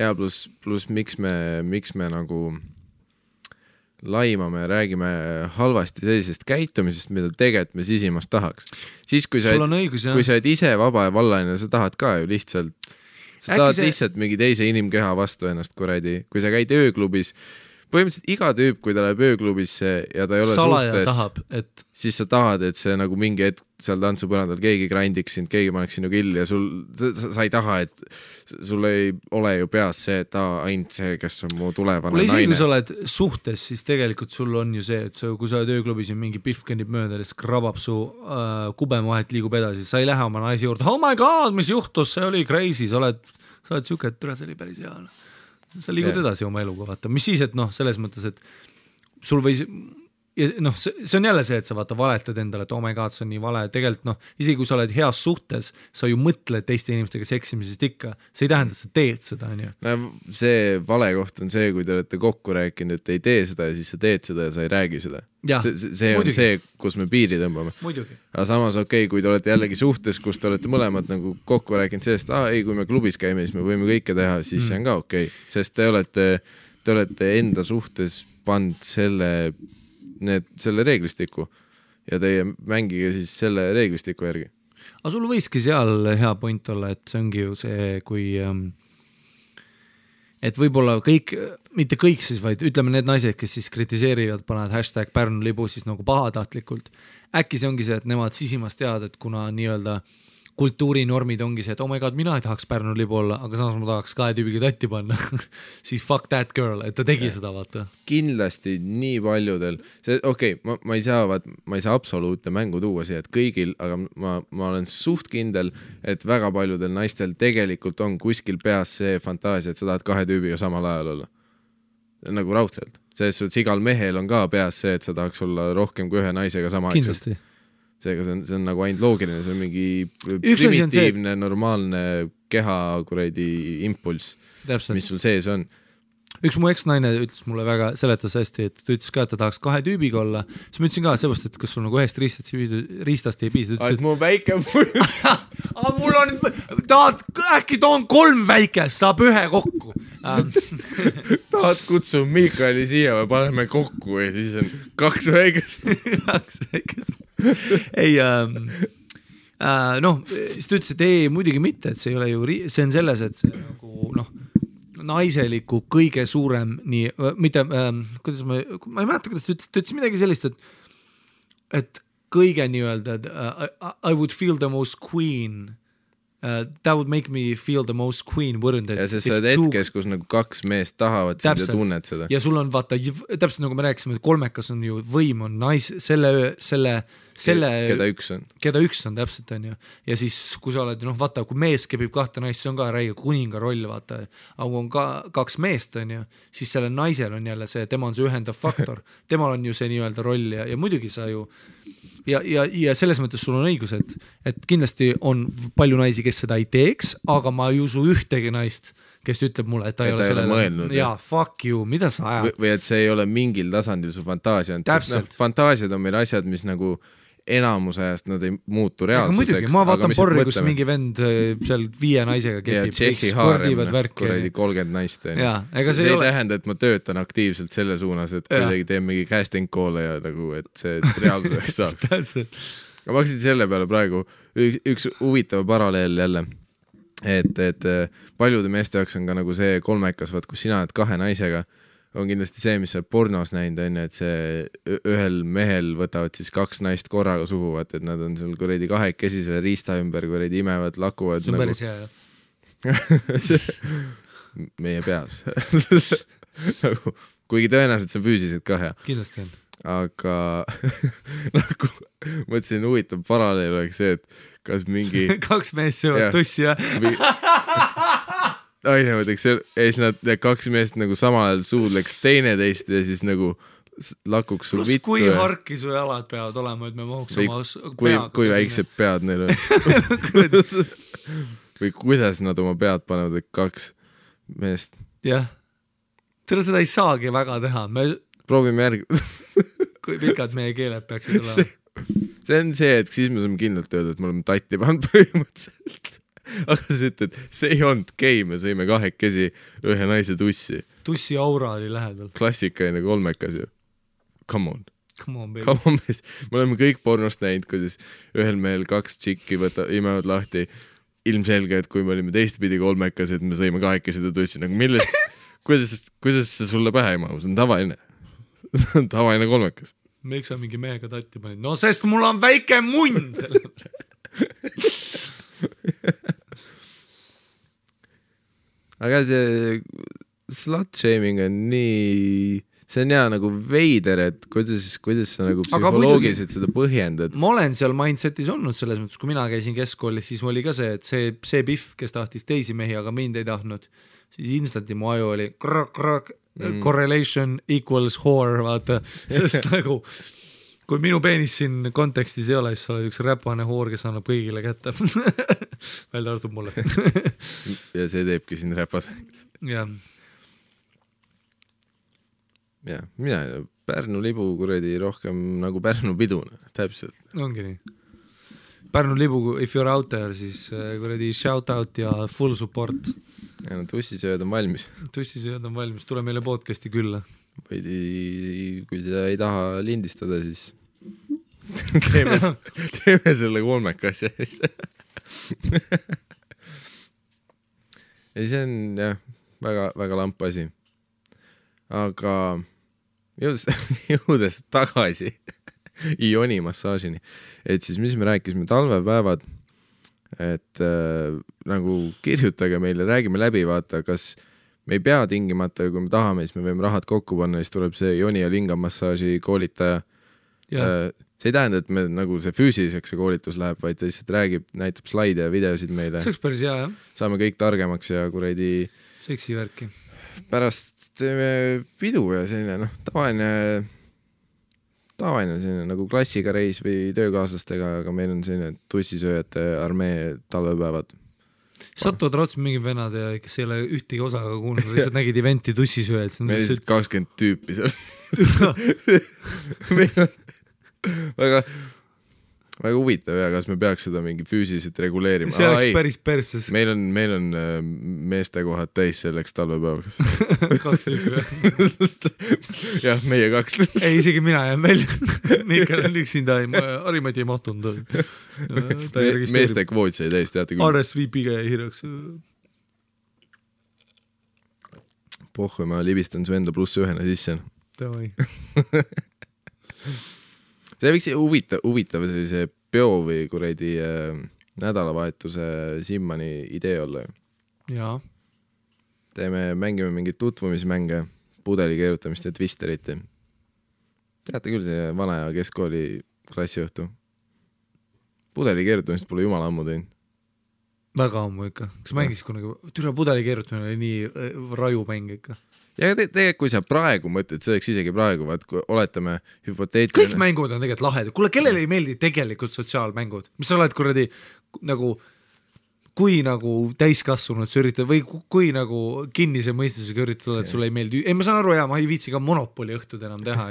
Ja plus miks me nagu laimame ja räägime halvasti sellisest käitumisest, mida tegelikult me sisimast tahaks. Siis kui sa oled ise vaba ja vallaline, sa tahad ka ju lihtsalt... Sa tahad lihtsalt mingi teise inimkeha vastu ennast kuradi. Kui sa käid ööklubis, põhimõtteliselt iga tüüp, kui ta läheb ööklubisse ja ta ei ole suhtes, tahab, siis sa tahad, et see nagu mingi hetk seal tantsupõrandal keegi grindiks sind, keegi paneks sinu killi ja sa ei taha, et sul ei ole ju peas see, et ainult see, kes on mu tulevane naine. Kui sa oled suhtes, siis tegelikult sul on ju see, et kui sa oled ööklubis ja mingi pihv kõnnib mööda ja siis krabab su kubemahet liigub edasi, sa ei lähe oma naisi juurde, oh my god, mis juhtus, see oli crazy, sa oled siuke, et see oli päris hea. Sa liigud edasi oma eluga, vaata. Mis siis, et noh, selles mõttes, et sul võis... Ja noh, see on jälle see, et sa vaata valetad endale, et oh my god, see on nii vale. Tegelikult noh, isegi kui sa oled heas suhtes, sa ju mõtled teiste inimestega seksimisest ikka. See ei tähenda, et sa teed seda, on ju. No, see vale koht on see, kui te olete kokku rääkinud, et ei tee seda ja siis sa teed seda ja sa ei räägi seda. See on muidugi. See, kus me piiri tõmbame. Muidugi. Aga samas okei, kui te olete jällegi suhtes, kus te olete mõlemad nagu kokku rääkinud sellest, ei, kui me klubis käime, siis me võime kõike teha, siis see on ka okei. Sest te olete enda suhtes pand selle reeglistiku ja teie mängige siis selle reeglistiku järgi. Aga sul võiski seal hea point olla, et see ongi ju see, kui et võib-olla kõik, mitte kõik siis, vaid ütleme need naised, kes siis kritiseerivad, panevad #Pärnu libu siis nagu pahatahtlikult. Äkki see ongi see, et nemad sisimas teavad, et kuna nii-öelda kultuurinormid ongi see, et oh my god, mina ei tahaks Pärnu libu olla, aga samas ma tahaks 2 tüübiga tatti panna. Siis fuck that girl, et ta tegi seda, vaata. Kindlasti nii paljudel. Ma ei saa absoluutne mängu tuua siia, et kõigil, aga ma olen suht kindel, et väga paljudel naistel tegelikult on kuskil peas see fantaasia, et sa tahad 2 tüübiga samal ajal olla. Nagu raudselt. Selles suhtes igal mehel on ka peas see, et sa tahaks olla rohkem kui 1 naisega sama kindlasti. Seega see on nagu ainult loogiline, see on mingi primitiivne, normaalne keha kuradi impulss, mis sul sees on. Üks mu eksnaine ütles mulle väga, seletas hästi, et ta ütles ka, et ta tahaks 2 tüübiga olla. Siis ma ütlesin ka seepärast, et kas sul nagu ühest riistast ei piisa. Et mu väike mul on, äkki toon 3 väikest, saab 1 kokku. Tahad kutsu Miikali siia või paneme kokku ja siis on 2 väikest. 2 väikest. Ei, noh, siis ta ütles, et ei, muidugi mitte, et see ei ole ju, see on selles, et see nagu, noh, naiseliku kõige suurem, nii, mitte, kuidas ma ei mäleta, kuidas ta ütles midagi sellist, et kõige nii-öelda, I would feel the most queen, that would make me feel the most queen, wouldn't it? Ja see saad hetkes, kus nagu 2 meest tahavad sind ja tunned seda. Ja sul on vaata, täpselt nagu me rääkisime, et 3-kas on ju võim on keda üks on täpselt on ju. Ja siis kui sa oled, noh vaata, kui mees kebib 2 naist, see on ka räige kuninga roll, vaata. Aga kui on 2 meest on ju, siis selle naisel on jälle see, tema on see ühendav faktor. Temal on ju see nii-öelda roll ja muidugi sa ju ja selles mõttes sul on õigus, et kindlasti on palju naisi, kes seda ei teeks, aga ma ei usu ühtegi naist, kes ütleb mulle, et ta ei ole sellele mõelnud. Jaa, fuck you, mida sa ajad? Või et see ei ole mingil tasandil su fantaasia. Fantaasiad on meil asjad, mis nagu enamus ajast nad ei muutu reaalsuseks. Muidugi, ma vaatan porri, kus mingi vend seal 5 naisega kepib. Ja Tšehhi haarem, kuradi 30 naist. See ei tähenda, et ma töötan aktiivselt selle suunas, et kuidagi teen mingi casting call'e ja nagu, et see reaalsuseks saaks. Täpselt. Ma hakkasin selle peale praegu üks huvitav paralleel jälle, et paljude meeste jaoks on ka nagu see 3-kas, kus sina oled 2 naisega, on kindlasti see, mis sa pornos näinud on, et see ühel mehel võtavad siis 2 naist korraga suhu, et nad on seal kuradi kahekesi selle riista ümber kuradi imevad, lakuvad. See on nagu... päris hea, jah. meie peas. Nagu, kuigi tõenäoliselt see on füüsiliselt ka hea. Kindlasti on. Aga nagu mõtlesin huvitav paralleel oleks see, et kas mingi 2 meest söövad tussi, jah? Aine võtaks ja siis nad 2 meest nagu samal ajal suudleks teineteist ja siis nagu lakuks sul vittu. Kui harki su jalad peavad olema, et me mahuks oma peaga. Kui väiksed pead neil on. Või kuidas nad oma pead panevad, et 2 meest. Jah. Seda ei saagi väga teha. Proovime järgi. Kui pikad meie keeled peaksid olema. See on see, et siis me saame kindlalt öelda, et me oleme tatti pannud põhimõtteliselt. Aga sa ütled, see ei olnud gei, me sõime 2 ühe naise tussi. Tussi aura oli lähedal. Klassikaline 3 ju. Come on. Come on, baby. Come on, mees. Me oleme kõik pornost näinud, kuidas ühel mehel 2 tšikki imevad lahti. Ilmselge, et kui me olime teistpidi 3, et me sõime 2 tussi. Nagu millest, kuidas see sulle pähe ei mahu? See on tavaline. Tavaline 3. Miks sa mingi mehega tatti panid? No sest mul on väike munn selle pärast. Aga see slut-shaming on nii, see on hea nagu veider, et kuidas sa nagu psühholoogiliselt seda põhjendad. Ma olen seal mindsetis olnud selles mõttes, kui mina käisin keskkoolis, siis oli ka see, et see pihv, kes tahtis teisi mehi, aga mind ei tahtnud, siis instanti mu aju oli correlation equals whore, vaata, sest nagu kui minu peenis siin kontekstis ei ole, siis sa oled üks räpane hoor, kes annab kõigile kätte. Välja arvab mulle. Ja see teebki siin räpas. Jah. Ja, mina Pärnu libu kuradi rohkem nagu Pärnu piduna, täpselt. Ongi nii. Pärnu libu, if you're out there, siis kuradi shout out ja full support. Ja no tussisööd on valmis. Tussisööd on valmis, tule meile podcasti külla. Või kui sa ei taha lindistada, siis teeme selle 3 asja. Ja see on jah, väga, väga lamp asi. Aga jõudes tagasi Ioni massaažini, et siis mis me rääkisime talvepäevad, et nagu kirjutage meile, räägime läbi, vaata, kas me ei pea tingimata, kui me tahame, siis me võime rahad kokku panna, siis tuleb see Joni ja Linga massaaži koolitaja. See ei tähenda, et me nagu see füüsiliseks see koolitus läheb, vaid ta lihtsalt räägib, näitab slaide ja videosid meile. See oleks päris hea, jah. Saame kõik targemaks ja kuradi seksi värki. Pärast teeme pidu ja selline tavaline selline nagu klassiga reis või töökaaslastega, aga meil on selline tussisööjate armee talvepäevad. Satuvad raudselt mingid venad ja kes ei ole ühtegi osaga kuulnud, lihtsalt nägid eventi tussisööjad. Meil on lihtsalt 20 tüüpi seal. Meil on väga huvitav ja kas me peaks seda mingi füüsiliselt reguleerima. See oleks päris perses. Meil on meestekohad täis selleks talvepäevaks. 2 tüüpi. Jah, meie 2. Ei, isegi mina jään välja. Mikkel on üksinda, Harimati ei mahtunud. Meeste kvoot sai täis, teate küll. RSVP-ga jäi hirjaks. Pohhu, ma libistan su enda +1 sisse. Davai. See võiks huvitav sellise peo või kuradi nädalavahetuse Simmani idee olla. Jaa. Mängime mingit tutvumismänge, pudeli keerutamist ja twisterit. Teate küll see vana ja keskkooli klassiõhtu. Pudeli keerutamist pole jumala ammu teinud. Väga ammu ikka. Kas mängis kunagi? Türa pudeli keerutamine oli nii raju mäng ikka. Ja tegelikult, kui sa praegu mõtled, see oleks isegi praegu, vaat kui oletame hüpoteetiline. Kõik mängud on tegelikult lahedad. Kuule, kellele ei meeldi tegelikult sotsiaalmängud? Mis sa oled kuradi nagu, kui nagu täiskasvanud sa üritad või kui nagu kinnise mõistusega üritad, et sulle ei meeldi. Ei, ma saan aru, ma ei viitsi ka Monopoli õhtud enam teha.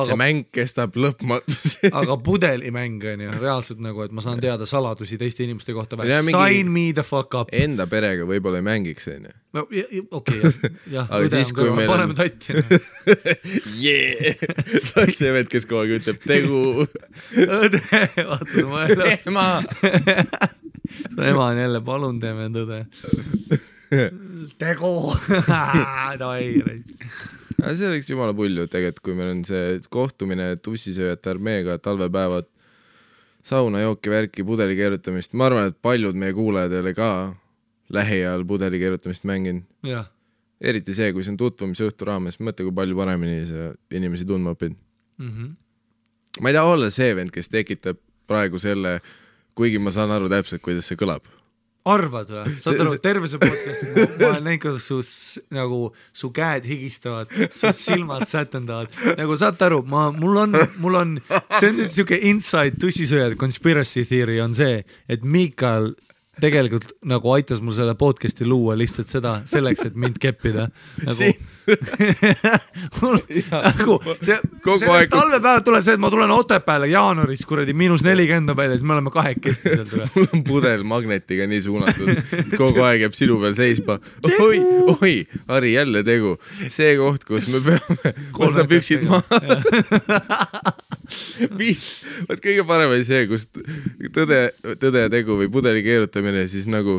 See mäng kestab lõpmatus. Aga pudelimäng on reaalselt nagu, et ma saan teada saladusi teiste inimeste kohta. Sign me the fuck up. Enda perega võib-olla ei mängiks. No, okei, jah. Aga siis, kui meil paneme tatti. Sa oled see vend, kes kogu aeg ütleb tegu. Õde, vaata, ma Ema! Su ema on jälle, palun teeme tõde. tegu. See oleks jumala pulju tegelikult, kui meil on see kohtumine tussisööjate armeega, talvepäevad, saunajooki, värki, pudeli keerutamist. Ma arvan, et paljud meie kuulajad ei ole ka lähiajal pudeli keerutamist mänginud. Jah. Eriti see, kui see on tutvumise õhtu raames, mõtle, kui palju paremini sa inimesi tundma õpid. Ma ei taha olla see vend, kes tekitab praegu selle, kuigi ma saan aru täpselt, kuidas see kõlab. Arvad või? Saad aru, terve see podcast, ma olen näinud, kuidas su käed higistavad, su silmad sätendavad. Nagu saad aru, mul on, see on nüüd siuke inside tussisööjad conspiracy theory on see, et Miikal tegelikult nagu aitas mul selle podcasti luua lihtsalt seda selleks, et mind keppida. Nagu sellest talvepäevad tuleb see, et ma tulen Otepääle jaanuaris kuradi -40 peale, siis me oleme kahekesti seal tule. Mul on pudel magnetiga nii suunatud, kogu aeg jääb sinu peal seisma. Oi, Harri, jälle tegu. See koht, kus me peame võtta püksid maha. Võt kõige parem oli see, kus tõde ja tegu või pudeli keerutamine, siis nagu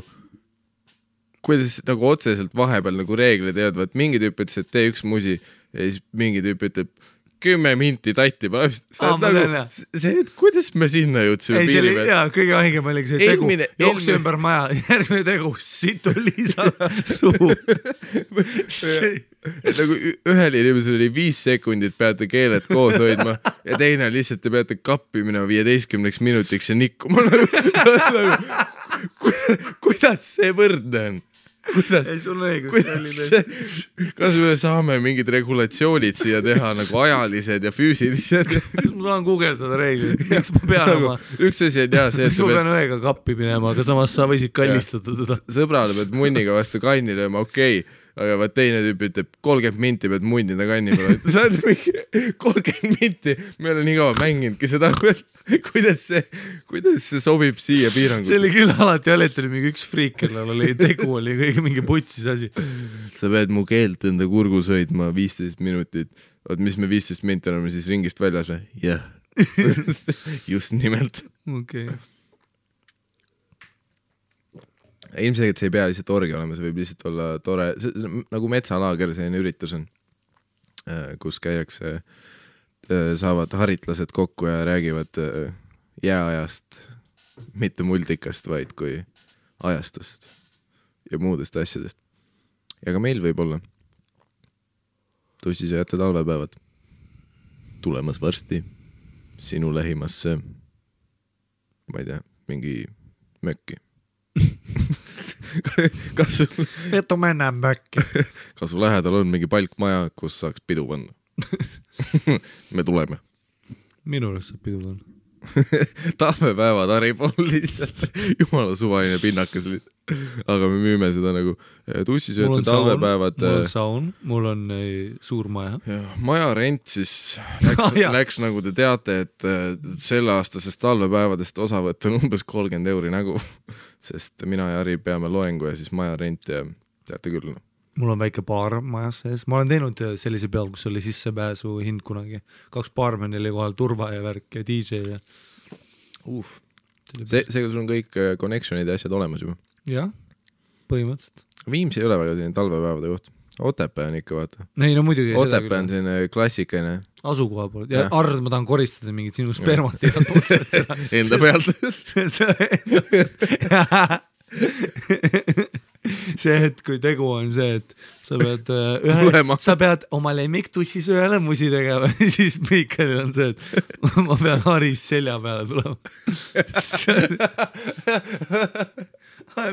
kuidas nagu otseselt vahepeal nagu reeglid ei olnud, mingi tüüp ütles, et tee üks musi ja siis mingi tüüp ütleb 10 minti tatti. See, et kuidas me sinna jõudsime piiri peal? Jaa, kõige aingem oli see tegu, jookse ümber maja, järgmine tegu, situ Liisa suu. Nagu ühel inimesel oli 5 sekundit, peate keeled koos hoidma ja teine lihtsalt te peate kappi minema 15 minutiks ja nikkuma. Kuidas see võrdne on? Ei, sul on õigus. Kas me saame mingid regulatsioonid siia teha nagu ajalised ja füüsilised? Kas ma saan guugeldada reeglid? Miks ma pean oma... Üks asi on jah see, miks ma pean õega kappi minema, aga samas sa võisid kallistada teda. Sõbrale pead munniga vastu kanni lööma, okei. Aga vaat teine tüüp ütleb 30 minti pead munnida kanni peale. Sa oled mingi 30 minti, me olen nii kaua mänginudki seda. Kuidas see sobib siia piirangut? See oli küll alati alati oli mingi üks friik, kellel oli tegu, oli kõige mingi putsis asi. Sa pead mu keelt enda kurgus hoidma 15 minutit. Oot, mis me 15 minti oleme siis ringist väljas või? Jah. Just nimelt. Okei. Ilmselgelt see ei pea lihtsalt orgi olema, see võib lihtsalt olla tore, nagu metsalaager selline üritus on, kus käiakse, saavad haritlased kokku ja räägivad jääajast, mitte multikast, vaid kui ajastust ja muudest asjadest. Ja ka meil võib olla tussisööjate talvepäevad tulemas varsti sinu lähimasse, ma ei tea, mingi mökki. Vetu mennään mökki. Kas su lähedal on mingi palkmaja, kus saaks pidu panna? Me tuleme. Minu arust saab pidu panna. Talvepäevad Harri pool lihtsalt jumala suvaline pinnakas. Aga me müüme seda nagu tussisööte talvepäevad. Mul on saun, mul on suur maja. Maja rent siis läks nagu te teate, et selle aastasest talvepäevadest osavõtt on umbes 30 € nägu, sest mina ja Harri peame loengu ja siis maja rent ja teate küll. Mul on väike baar majas sees. Ma olen teinud sellise peal, kus oli sissepääsu hind kunagi. 2 baarmeni oli kohal, turva ja värk ja DJ ja... Seega sul on kõik connectionid ja asjad olemas juba? Jah, põhimõtteliselt. Viimsi ei ole väga selline talvepäevade koht. Otepää on ikka, vaata. Ei, no muidugi. Otepää on selline klassikaline. Asukoha pool. Ja Arr, ma tahan koristada mingid sinu spermat. Enda pealt. See, et kui tegu on see, et sa pead oma lemmiktussisööjale musi tegema, siis Miikalil on see, et ma pean Haris selja peale tulema.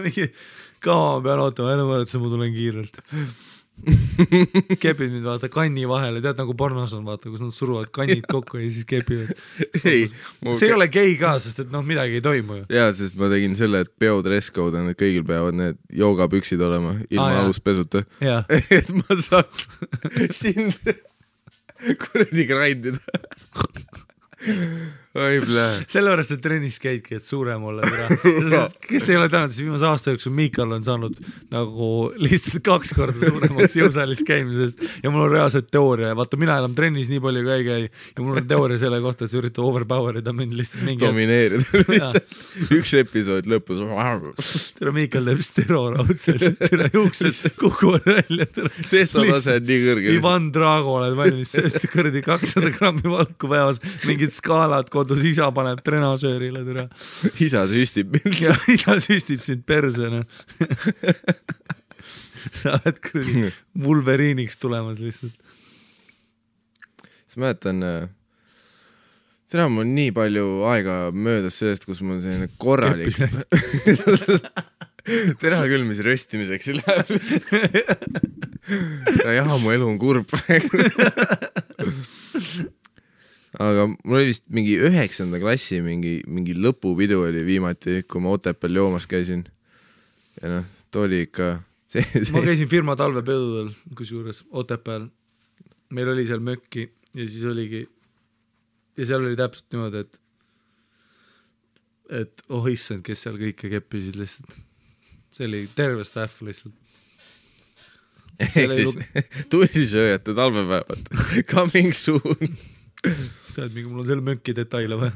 Mingi kaua ma pean ootama, enne võrrata, ma tulen kiirelt. Kepid nüüd vaata kanni vahele, tead nagu pornos on vaata, kus nad suruvad kannid kokku ja siis kepivad. See ei ole gei ka, sest et noh, midagi ei toimu ju. Jaa, sest ma tegin selle, et peo dress code on, et kõigil peavad need joogapüksid olema ilma aluspesuta. Et ma saaks sind kuradi grindida. oi plee. Sellepärast see trennis käidki, et suurem olla. Kes ei ole tänud, siis viimase aasta jooksul Miikal on saanud nagu lihtsalt 2 korda suuremaks jõusaalis käimisest ja mul on reaalselt teooria. Vaata, mina enam trennis nii palju ka ei käi ja mul on teooria selle kohta, et sa üritad overpowerida mind lihtsalt mingi domineerida. Üks episood lõpus. Tere Miikal teeb steroraudselt, tere juuksed kukuvad välja. Testotase on nii kõrge. Ivan Drago oled valmis, kõrdi 200 grammi valku päevas, mingid skaalad kodus, isa paneb trenažöörile, tere. Isa süstib mind. Ja isa süstib sind persena. Sa oled kõrdi Wolveriiniks tulemas lihtsalt. Siis mäletan, täna mul nii palju aega möödas sellest, kus mul selline korralik täna küll, mis röstimiseks ei läheb. Jah, mu elu on kurb praegu. Aga mul oli vist mingi 9. klassi mingi lõpupidu oli viimati, kui ma Otepääl joomas käisin. Ja noh, too oli ikka... Ma käisin firma talvepedudel, kusjuures Otepääl. Meil oli seal mökki ja siis oligi... Ja seal oli täpselt niimoodi, et oh issand, kes seal kõike keppisid lihtsalt. See oli terve staff lihtsalt. Ehk siis tussisööjate talvepäevad. Coming soon. Sa oled mingi, mul on selle mökki detaile või?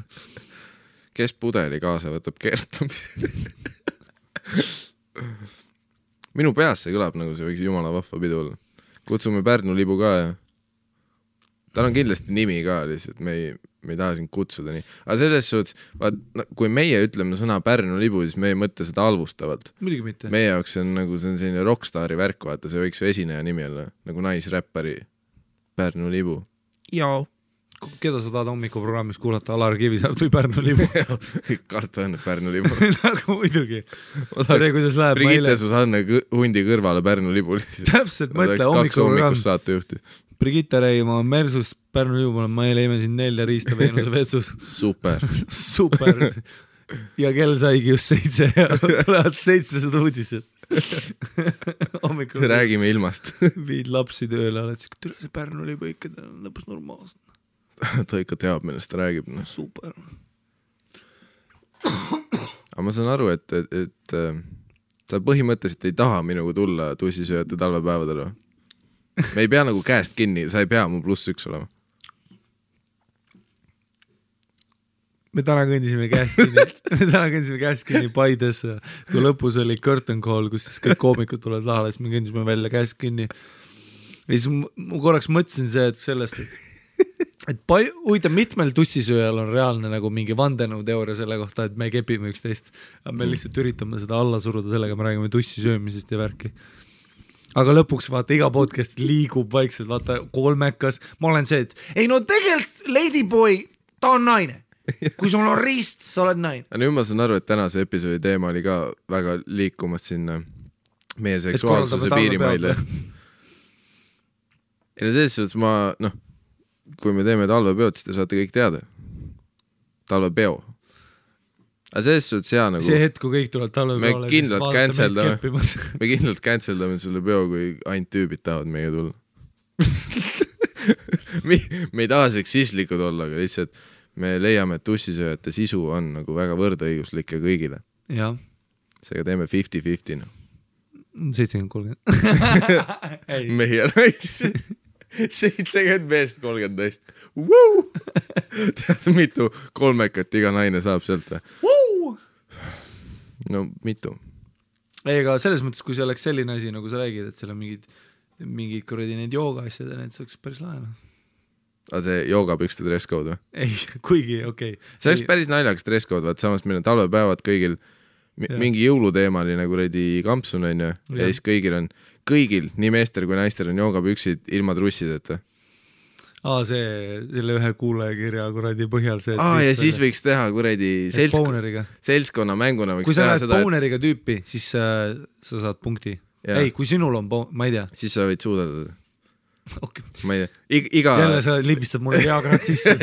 Kes pudeli kaasa võtab kertumise? Minu peas see kõlab nagu see võiks jumala vahva pidu olla. Kutsume Pärnu libu ka ja tal on kindlasti nimi ka lihtsalt, me ei taha sind kutsuda nii. Aga selles suhtes, kui meie ütleme sõna Pärnu libu, siis me ei mõtle seda halvustavalt. Muidugi mitte. Meie jaoks see on nagu selline rockstari värk, vaata, see võiks ju esineja nimi olla, nagu naisräppari Pärnu libu. Jaa. Keda sa tahad hommikuprogrammis kuulata, Alar Kivisaart või Pärnu libu? Karta on Pärnu libu. Nagu muidugi. Brigitte Susanne hundi kõrvale Pärnu libu. Täpselt, mõtle hommikuprogramm. Saatejuhti. Brigitte Reima Mersus Pärnu libu, ma leime siin 4 riista Veenuse vetsus. Super. Super. Ja kell saigi just 7 ja tulevad 700 uudised. Räägime ilmast. Viid lapsi tööle, oled siis, tule see Pärnu libu ikka lõpus normaalselt. Ta ikka teab, millest ta räägib. Super. Aga ma saan aru, et sa põhimõtteliselt ei taha minuga tulla tussisööjate talvepäevadele. Me ei pea nagu käest kinni, sa ei pea mu +1 olema. Me täna kõndisime käest kinni Paides, kui lõpus oli curtain call, kus siis kõik koomikud tulevad lahale, siis me kõndisime välja käest kinni. Ja siis ma korraks mõtlesin see, et sellest, et huvitav, mitmel tussisööjal on reaalne nagu mingi vandenõuteooria selle kohta, et me kepime üksteist. Me lihtsalt üritame seda alla suruda sellega, me räägime tussisöömisest ja värki. Aga lõpuks vaata, iga podcast liigub vaikselt, vaata kolmekas. Ma olen see, et ei no tegelikult Ladyboy, ta on naine. Kui sul on riist, sa oled naine. Nüüd ma saan aru, et tänase episoodi teema oli ka väga liikumas sinna meie seksuaalsuse piirimaile. Ja selles suhtes ma, kui me teeme talvepeod, siis te saate kõik teada. Talvepeo. Aga selles suhtes hea nagu... See hetk, kui kõik tulevad talvepeole... Me kindlalt canceldame sulle peo, kui ainult tüübid tahavad meiega tulla. Me ei taha seksistlikud olla, aga lihtsalt me leiame, et tussisööjate sisu on nagu väga võrdõiguslik ja kõigile. Ja. Seega teeme 50-50. 70-30. Mehi ja naisi. 70 meest 30 naist. Tead, mitu kolmekat iga naine saab sealt või? No mitu. Ei, aga selles mõttes, kui see oleks selline asi, nagu sa räägid, et seal on mingid kuradi need jooga asjad ja need saaks päris laena. Aga see joogapükste dresscode või? Ei, kuigi, okei. See oleks päris naljakas dresscode, vaat samas meil on talvepäevad kõigil mingi jõuluteemaline kuradi kampsun on ja siis kõigil, nii meester kui naister on joogapüksid ilma trussideta. Selle ühe kuulajakirja kuradi põhjal see... ja siis võiks teha kuradi seltskonna mänguna. Kui sa näed bowneriga tüüpi, siis sa saad punkti. Ei, kui sinul on ma ei tea. Siis sa võid suudada. Okay. Ma ei tea. Jälle sa libistad mulle Viagrat sisse.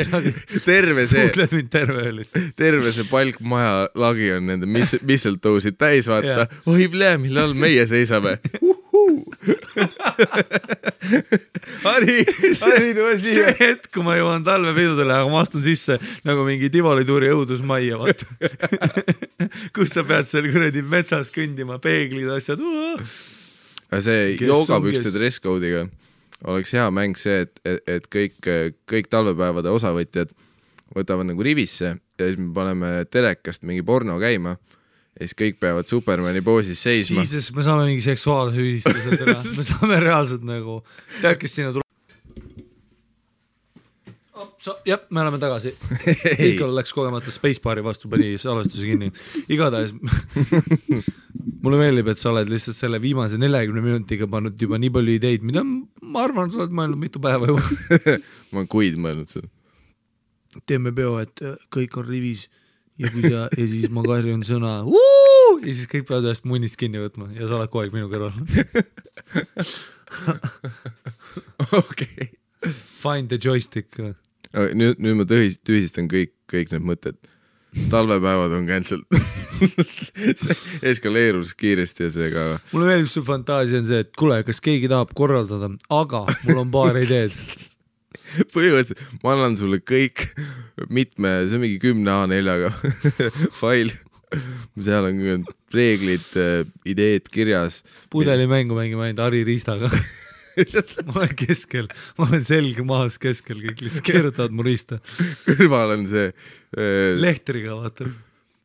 Suutled mind terve see palk maja lagi on nende mistletoe'sid täis vaata. Oi plee, millal meie seisame. Harri tule see siia. hetk, kui ma jõuan talvepidudele, aga ma astun sisse nagu mingi Tivolituuri õudusmajja, vaata. Kus sa pead seal kuradi metsas kõndima, peeglid, asjad. Aga see joogapükste dresscode'iga oleks hea mäng see, et kõik talvepäevade osavõtjad võtavad nagu rivisse ja siis me paneme telekast mingi porno käima ja siis kõik peavad Supermani poosis seisma. Siis me saame mingi seksuaalse ühistuse täna. Me saame reaalselt nagu tead, kes sinna tuleb. Jah, me oleme tagasi. Ikal läks kogemata Spacebaari vastu, pani salvestuse kinni. Igatahes mulle meeldib, et sa oled lihtsalt selle viimase 40 minutiga pannud juba nii palju ideid, mida ma arvan, sa oled mõelnud mitu päeva juba. Ma olen kuid mõelnud seda. Teeme peo, et kõik on rivis ja siis ma karjun sõna ja siis kõik peavad ühest munnist kinni võtma ja sa oled kogu aeg minu kõrval. Okei. Find the joystick. Nüüd ma tühistan kõik need mõtted. Talvepäevad on cancelled. See eskaleerus kiiresti ja see ka. Mulle meeldib su fantaasia on see, et kuule, kas keegi tahab korraldada, aga mul on paar ideed. Põhimõtteliselt ma annan sulle kõik see on mingi 10 A4-ga fail. Seal on reeglid, ideed kirjas. Pudelimängu mängime ainult Harri Riistaga. Ma olen keskel, ma olen selge maas keskel, kõik lihtsalt keerutavad mu riista. Kõrval on see lehtriga, vaata.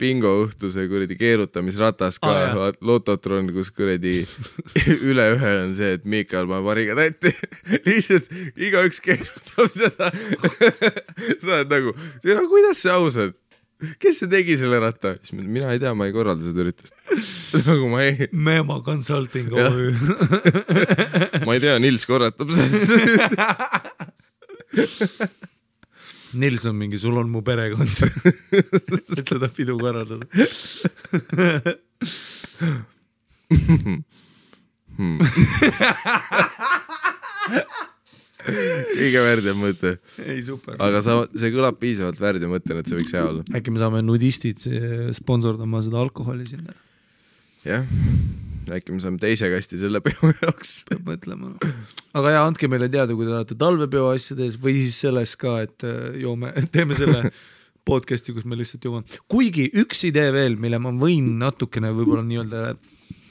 Bingo õhtuse kuradi keerutamisratas ka, lototron, kus kuradi üle ühe on see, et Miikal paneb variga tätti. Lihtsalt igaüks keerutab seda. Sa oled nagu, kuidas see aus on? Kes see tegi selle ratta? Mina ei tea, ma ei korralda seda üritust. Nagu ma ei... Mema Consulting OÜ. Ma ei tea, Nils korratab seda. Nils on mingi, sul on mu perekond. Et seda pidu korraldada. Kõige värdja mõte. Ei, super. Aga see kõlab piisavalt värdja mõtten, et see võiks hea olla. Äkki me saame nudistid sponsordama seda alkoholi sinna. Jah, äkki me saame teise kasti selle peo jaoks. Peab mõtlema. Aga ja, andke meile teada, kui te tahate talvepeo asjades või siis selles ka, et teeme selle podcasti, kus me lihtsalt joome. Kuigi üks idee veel, mille ma võin natukene võib-olla nii-öelda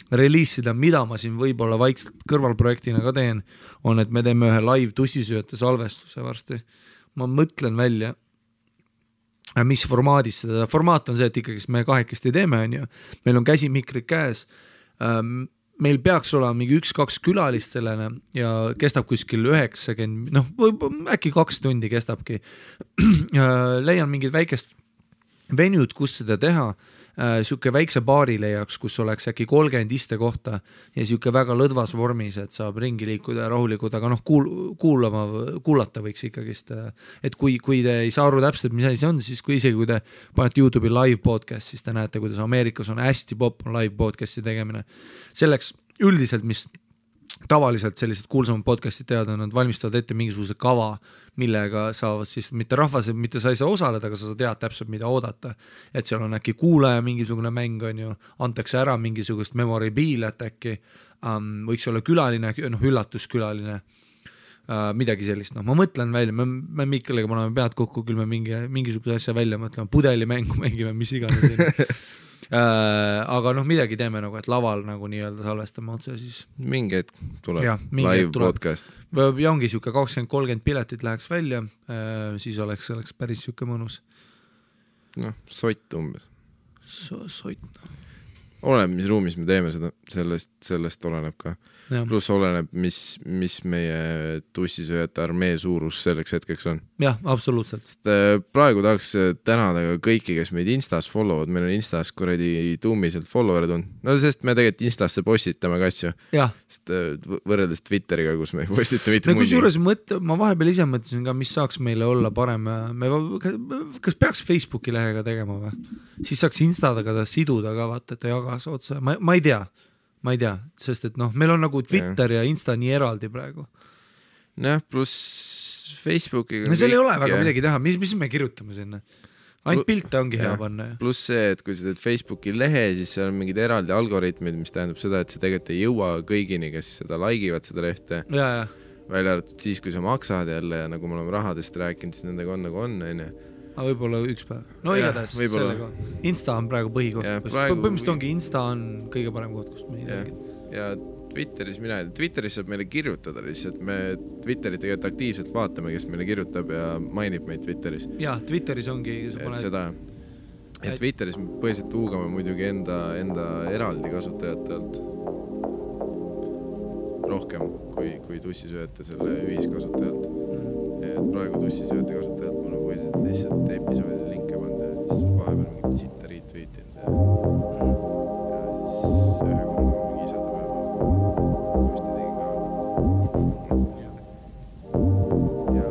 reliisida, mida ma siin võib-olla vaikselt kõrvalprojektina ka teen, on, et me teeme ühe live tussisööjate salvestuse varsti. Ma mõtlen välja, mis formaadis seda. Formaat on see, et ikkagi me kahekesti teeme, on ju. Meil on käsimikrid käes. Meil peaks olema mingi 1-2 külalist sellene ja kestab kuskil 90, äkki 2 tundi kestabki. Leian mingid väikest venjud, kus seda teha. Siuke väikse baari leiaks, kus oleks äkki 30 iste kohta ja siuke väga lõdvas vormis, et saab ringi liikuda ja rahulikud, aga kuulata võiks ikkagist. Et kui te ei saa aru täpselt, mis asi on, siis isegi kui te panete YouTube'i live podcast, siis te näete, kuidas Ameerikas on hästi popp on live podcasti tegemine. Selleks üldiselt, mis tavaliselt sellised kuulsamad podcastid teada, nad valmistavad ette mingisuguse kava, millega saavad siis mitte rahvas, mitte sa ei saa osaleda, aga sa tead täpselt, mida oodata. Et seal on äkki kuulaja mingisugune mäng, on ju, antakse ära mingisugust memoribiilet äkki, võiks olla külaline, üllatuskülaline, midagi sellist. Ma mõtlen välja, me Mikeliga paneme pead kokku, küll me mingisuguse asja välja mõtleme, pudelimängu mängime, mis iganes. Aga midagi teeme nagu, et laval nagu nii-öelda salvestame otse siis. Mingi hetk tuleb live podcast. Ja ongi siuke 20-30 piletit läheks välja, siis oleks päris siuke mõnus. Sott umbes. Sott. Oleneb, mis ruumis me teeme seda, sellest oleneb ka. Plus oleneb, mis meie tussisööjate armee suurus selleks hetkeks on. Jah, absoluutselt. Sest praegu tahaks tänada kõiki, kes meid Instas followvad, meil on Instas kuradi tuumiselt followerid on. Sest me tegelikult Instasse postitame ka asju. Jah. Sest võrreldes Twitteriga, kus me postite mitte mundi. Kusjuures ma vahepeal ise mõtlesin ka, mis saaks meile olla parem. Kas peaks Facebooki lehega tegema või? Siis saaks Instadaga ta siduda ka, vaata, et ta jagas otsa. Ma ei tea, sest et meil on nagu Twitter ja Insta nii eraldi praegu. Pluss Facebookiga. Seal ei ole väga midagi teha, mis me kirjutame sinna? ainult pilte ongi hea panna. Pluss see, et kui sa teed Facebooki lehe, siis seal on mingid eraldi algoritmid, mis tähendab seda, et see tegelikult ei jõua kõigini, kes seda laigivad seda lehte. Ja. Välja arvatud siis, kui sa maksad jälle ja nagu me oleme rahadest rääkinud, siis nendega on nagu on. Aga võib-olla üks päev. No igatahes sellega. Insta on praegu põhikoht. Põhimõtteliselt ongi Insta on kõige parem koht, kust me ja Twitteris saab meile kirjutada lihtsalt. Me Twitterit tegelikult aktiivselt vaatame, kes meile kirjutab ja mainib meid Twitteris. Ja, Twitteris ongi seda, et Twitteris me põhiliselt huugame muidugi enda eraldi kasutajatelt rohkem kui tussisööjate selle ühiskasutajalt. Et praegu tussisööjate kasutajalt mul on põhiliselt lihtsalt episoodide linke pannud ja siis vahepeal mingit sitta retweetinud ja siis ühe korra mingi isadepäeva just tegin ka. Ja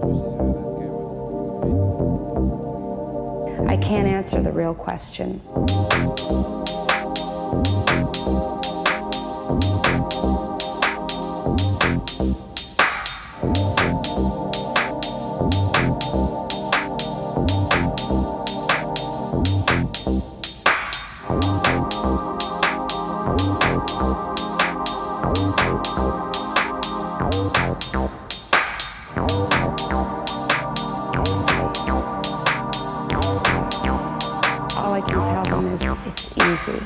tussisööjad käivad. I can't answer the real question. All I can tell them is it's easy.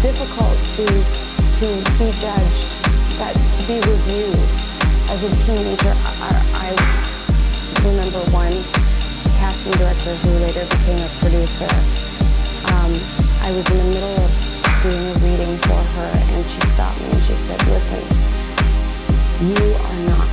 difficult to be judged, that to be reviewed. As a teenager, I remember one casting director who later became a producer. I was in the middle of doing a reading for her, and she stopped me and she said, "Listen, you are not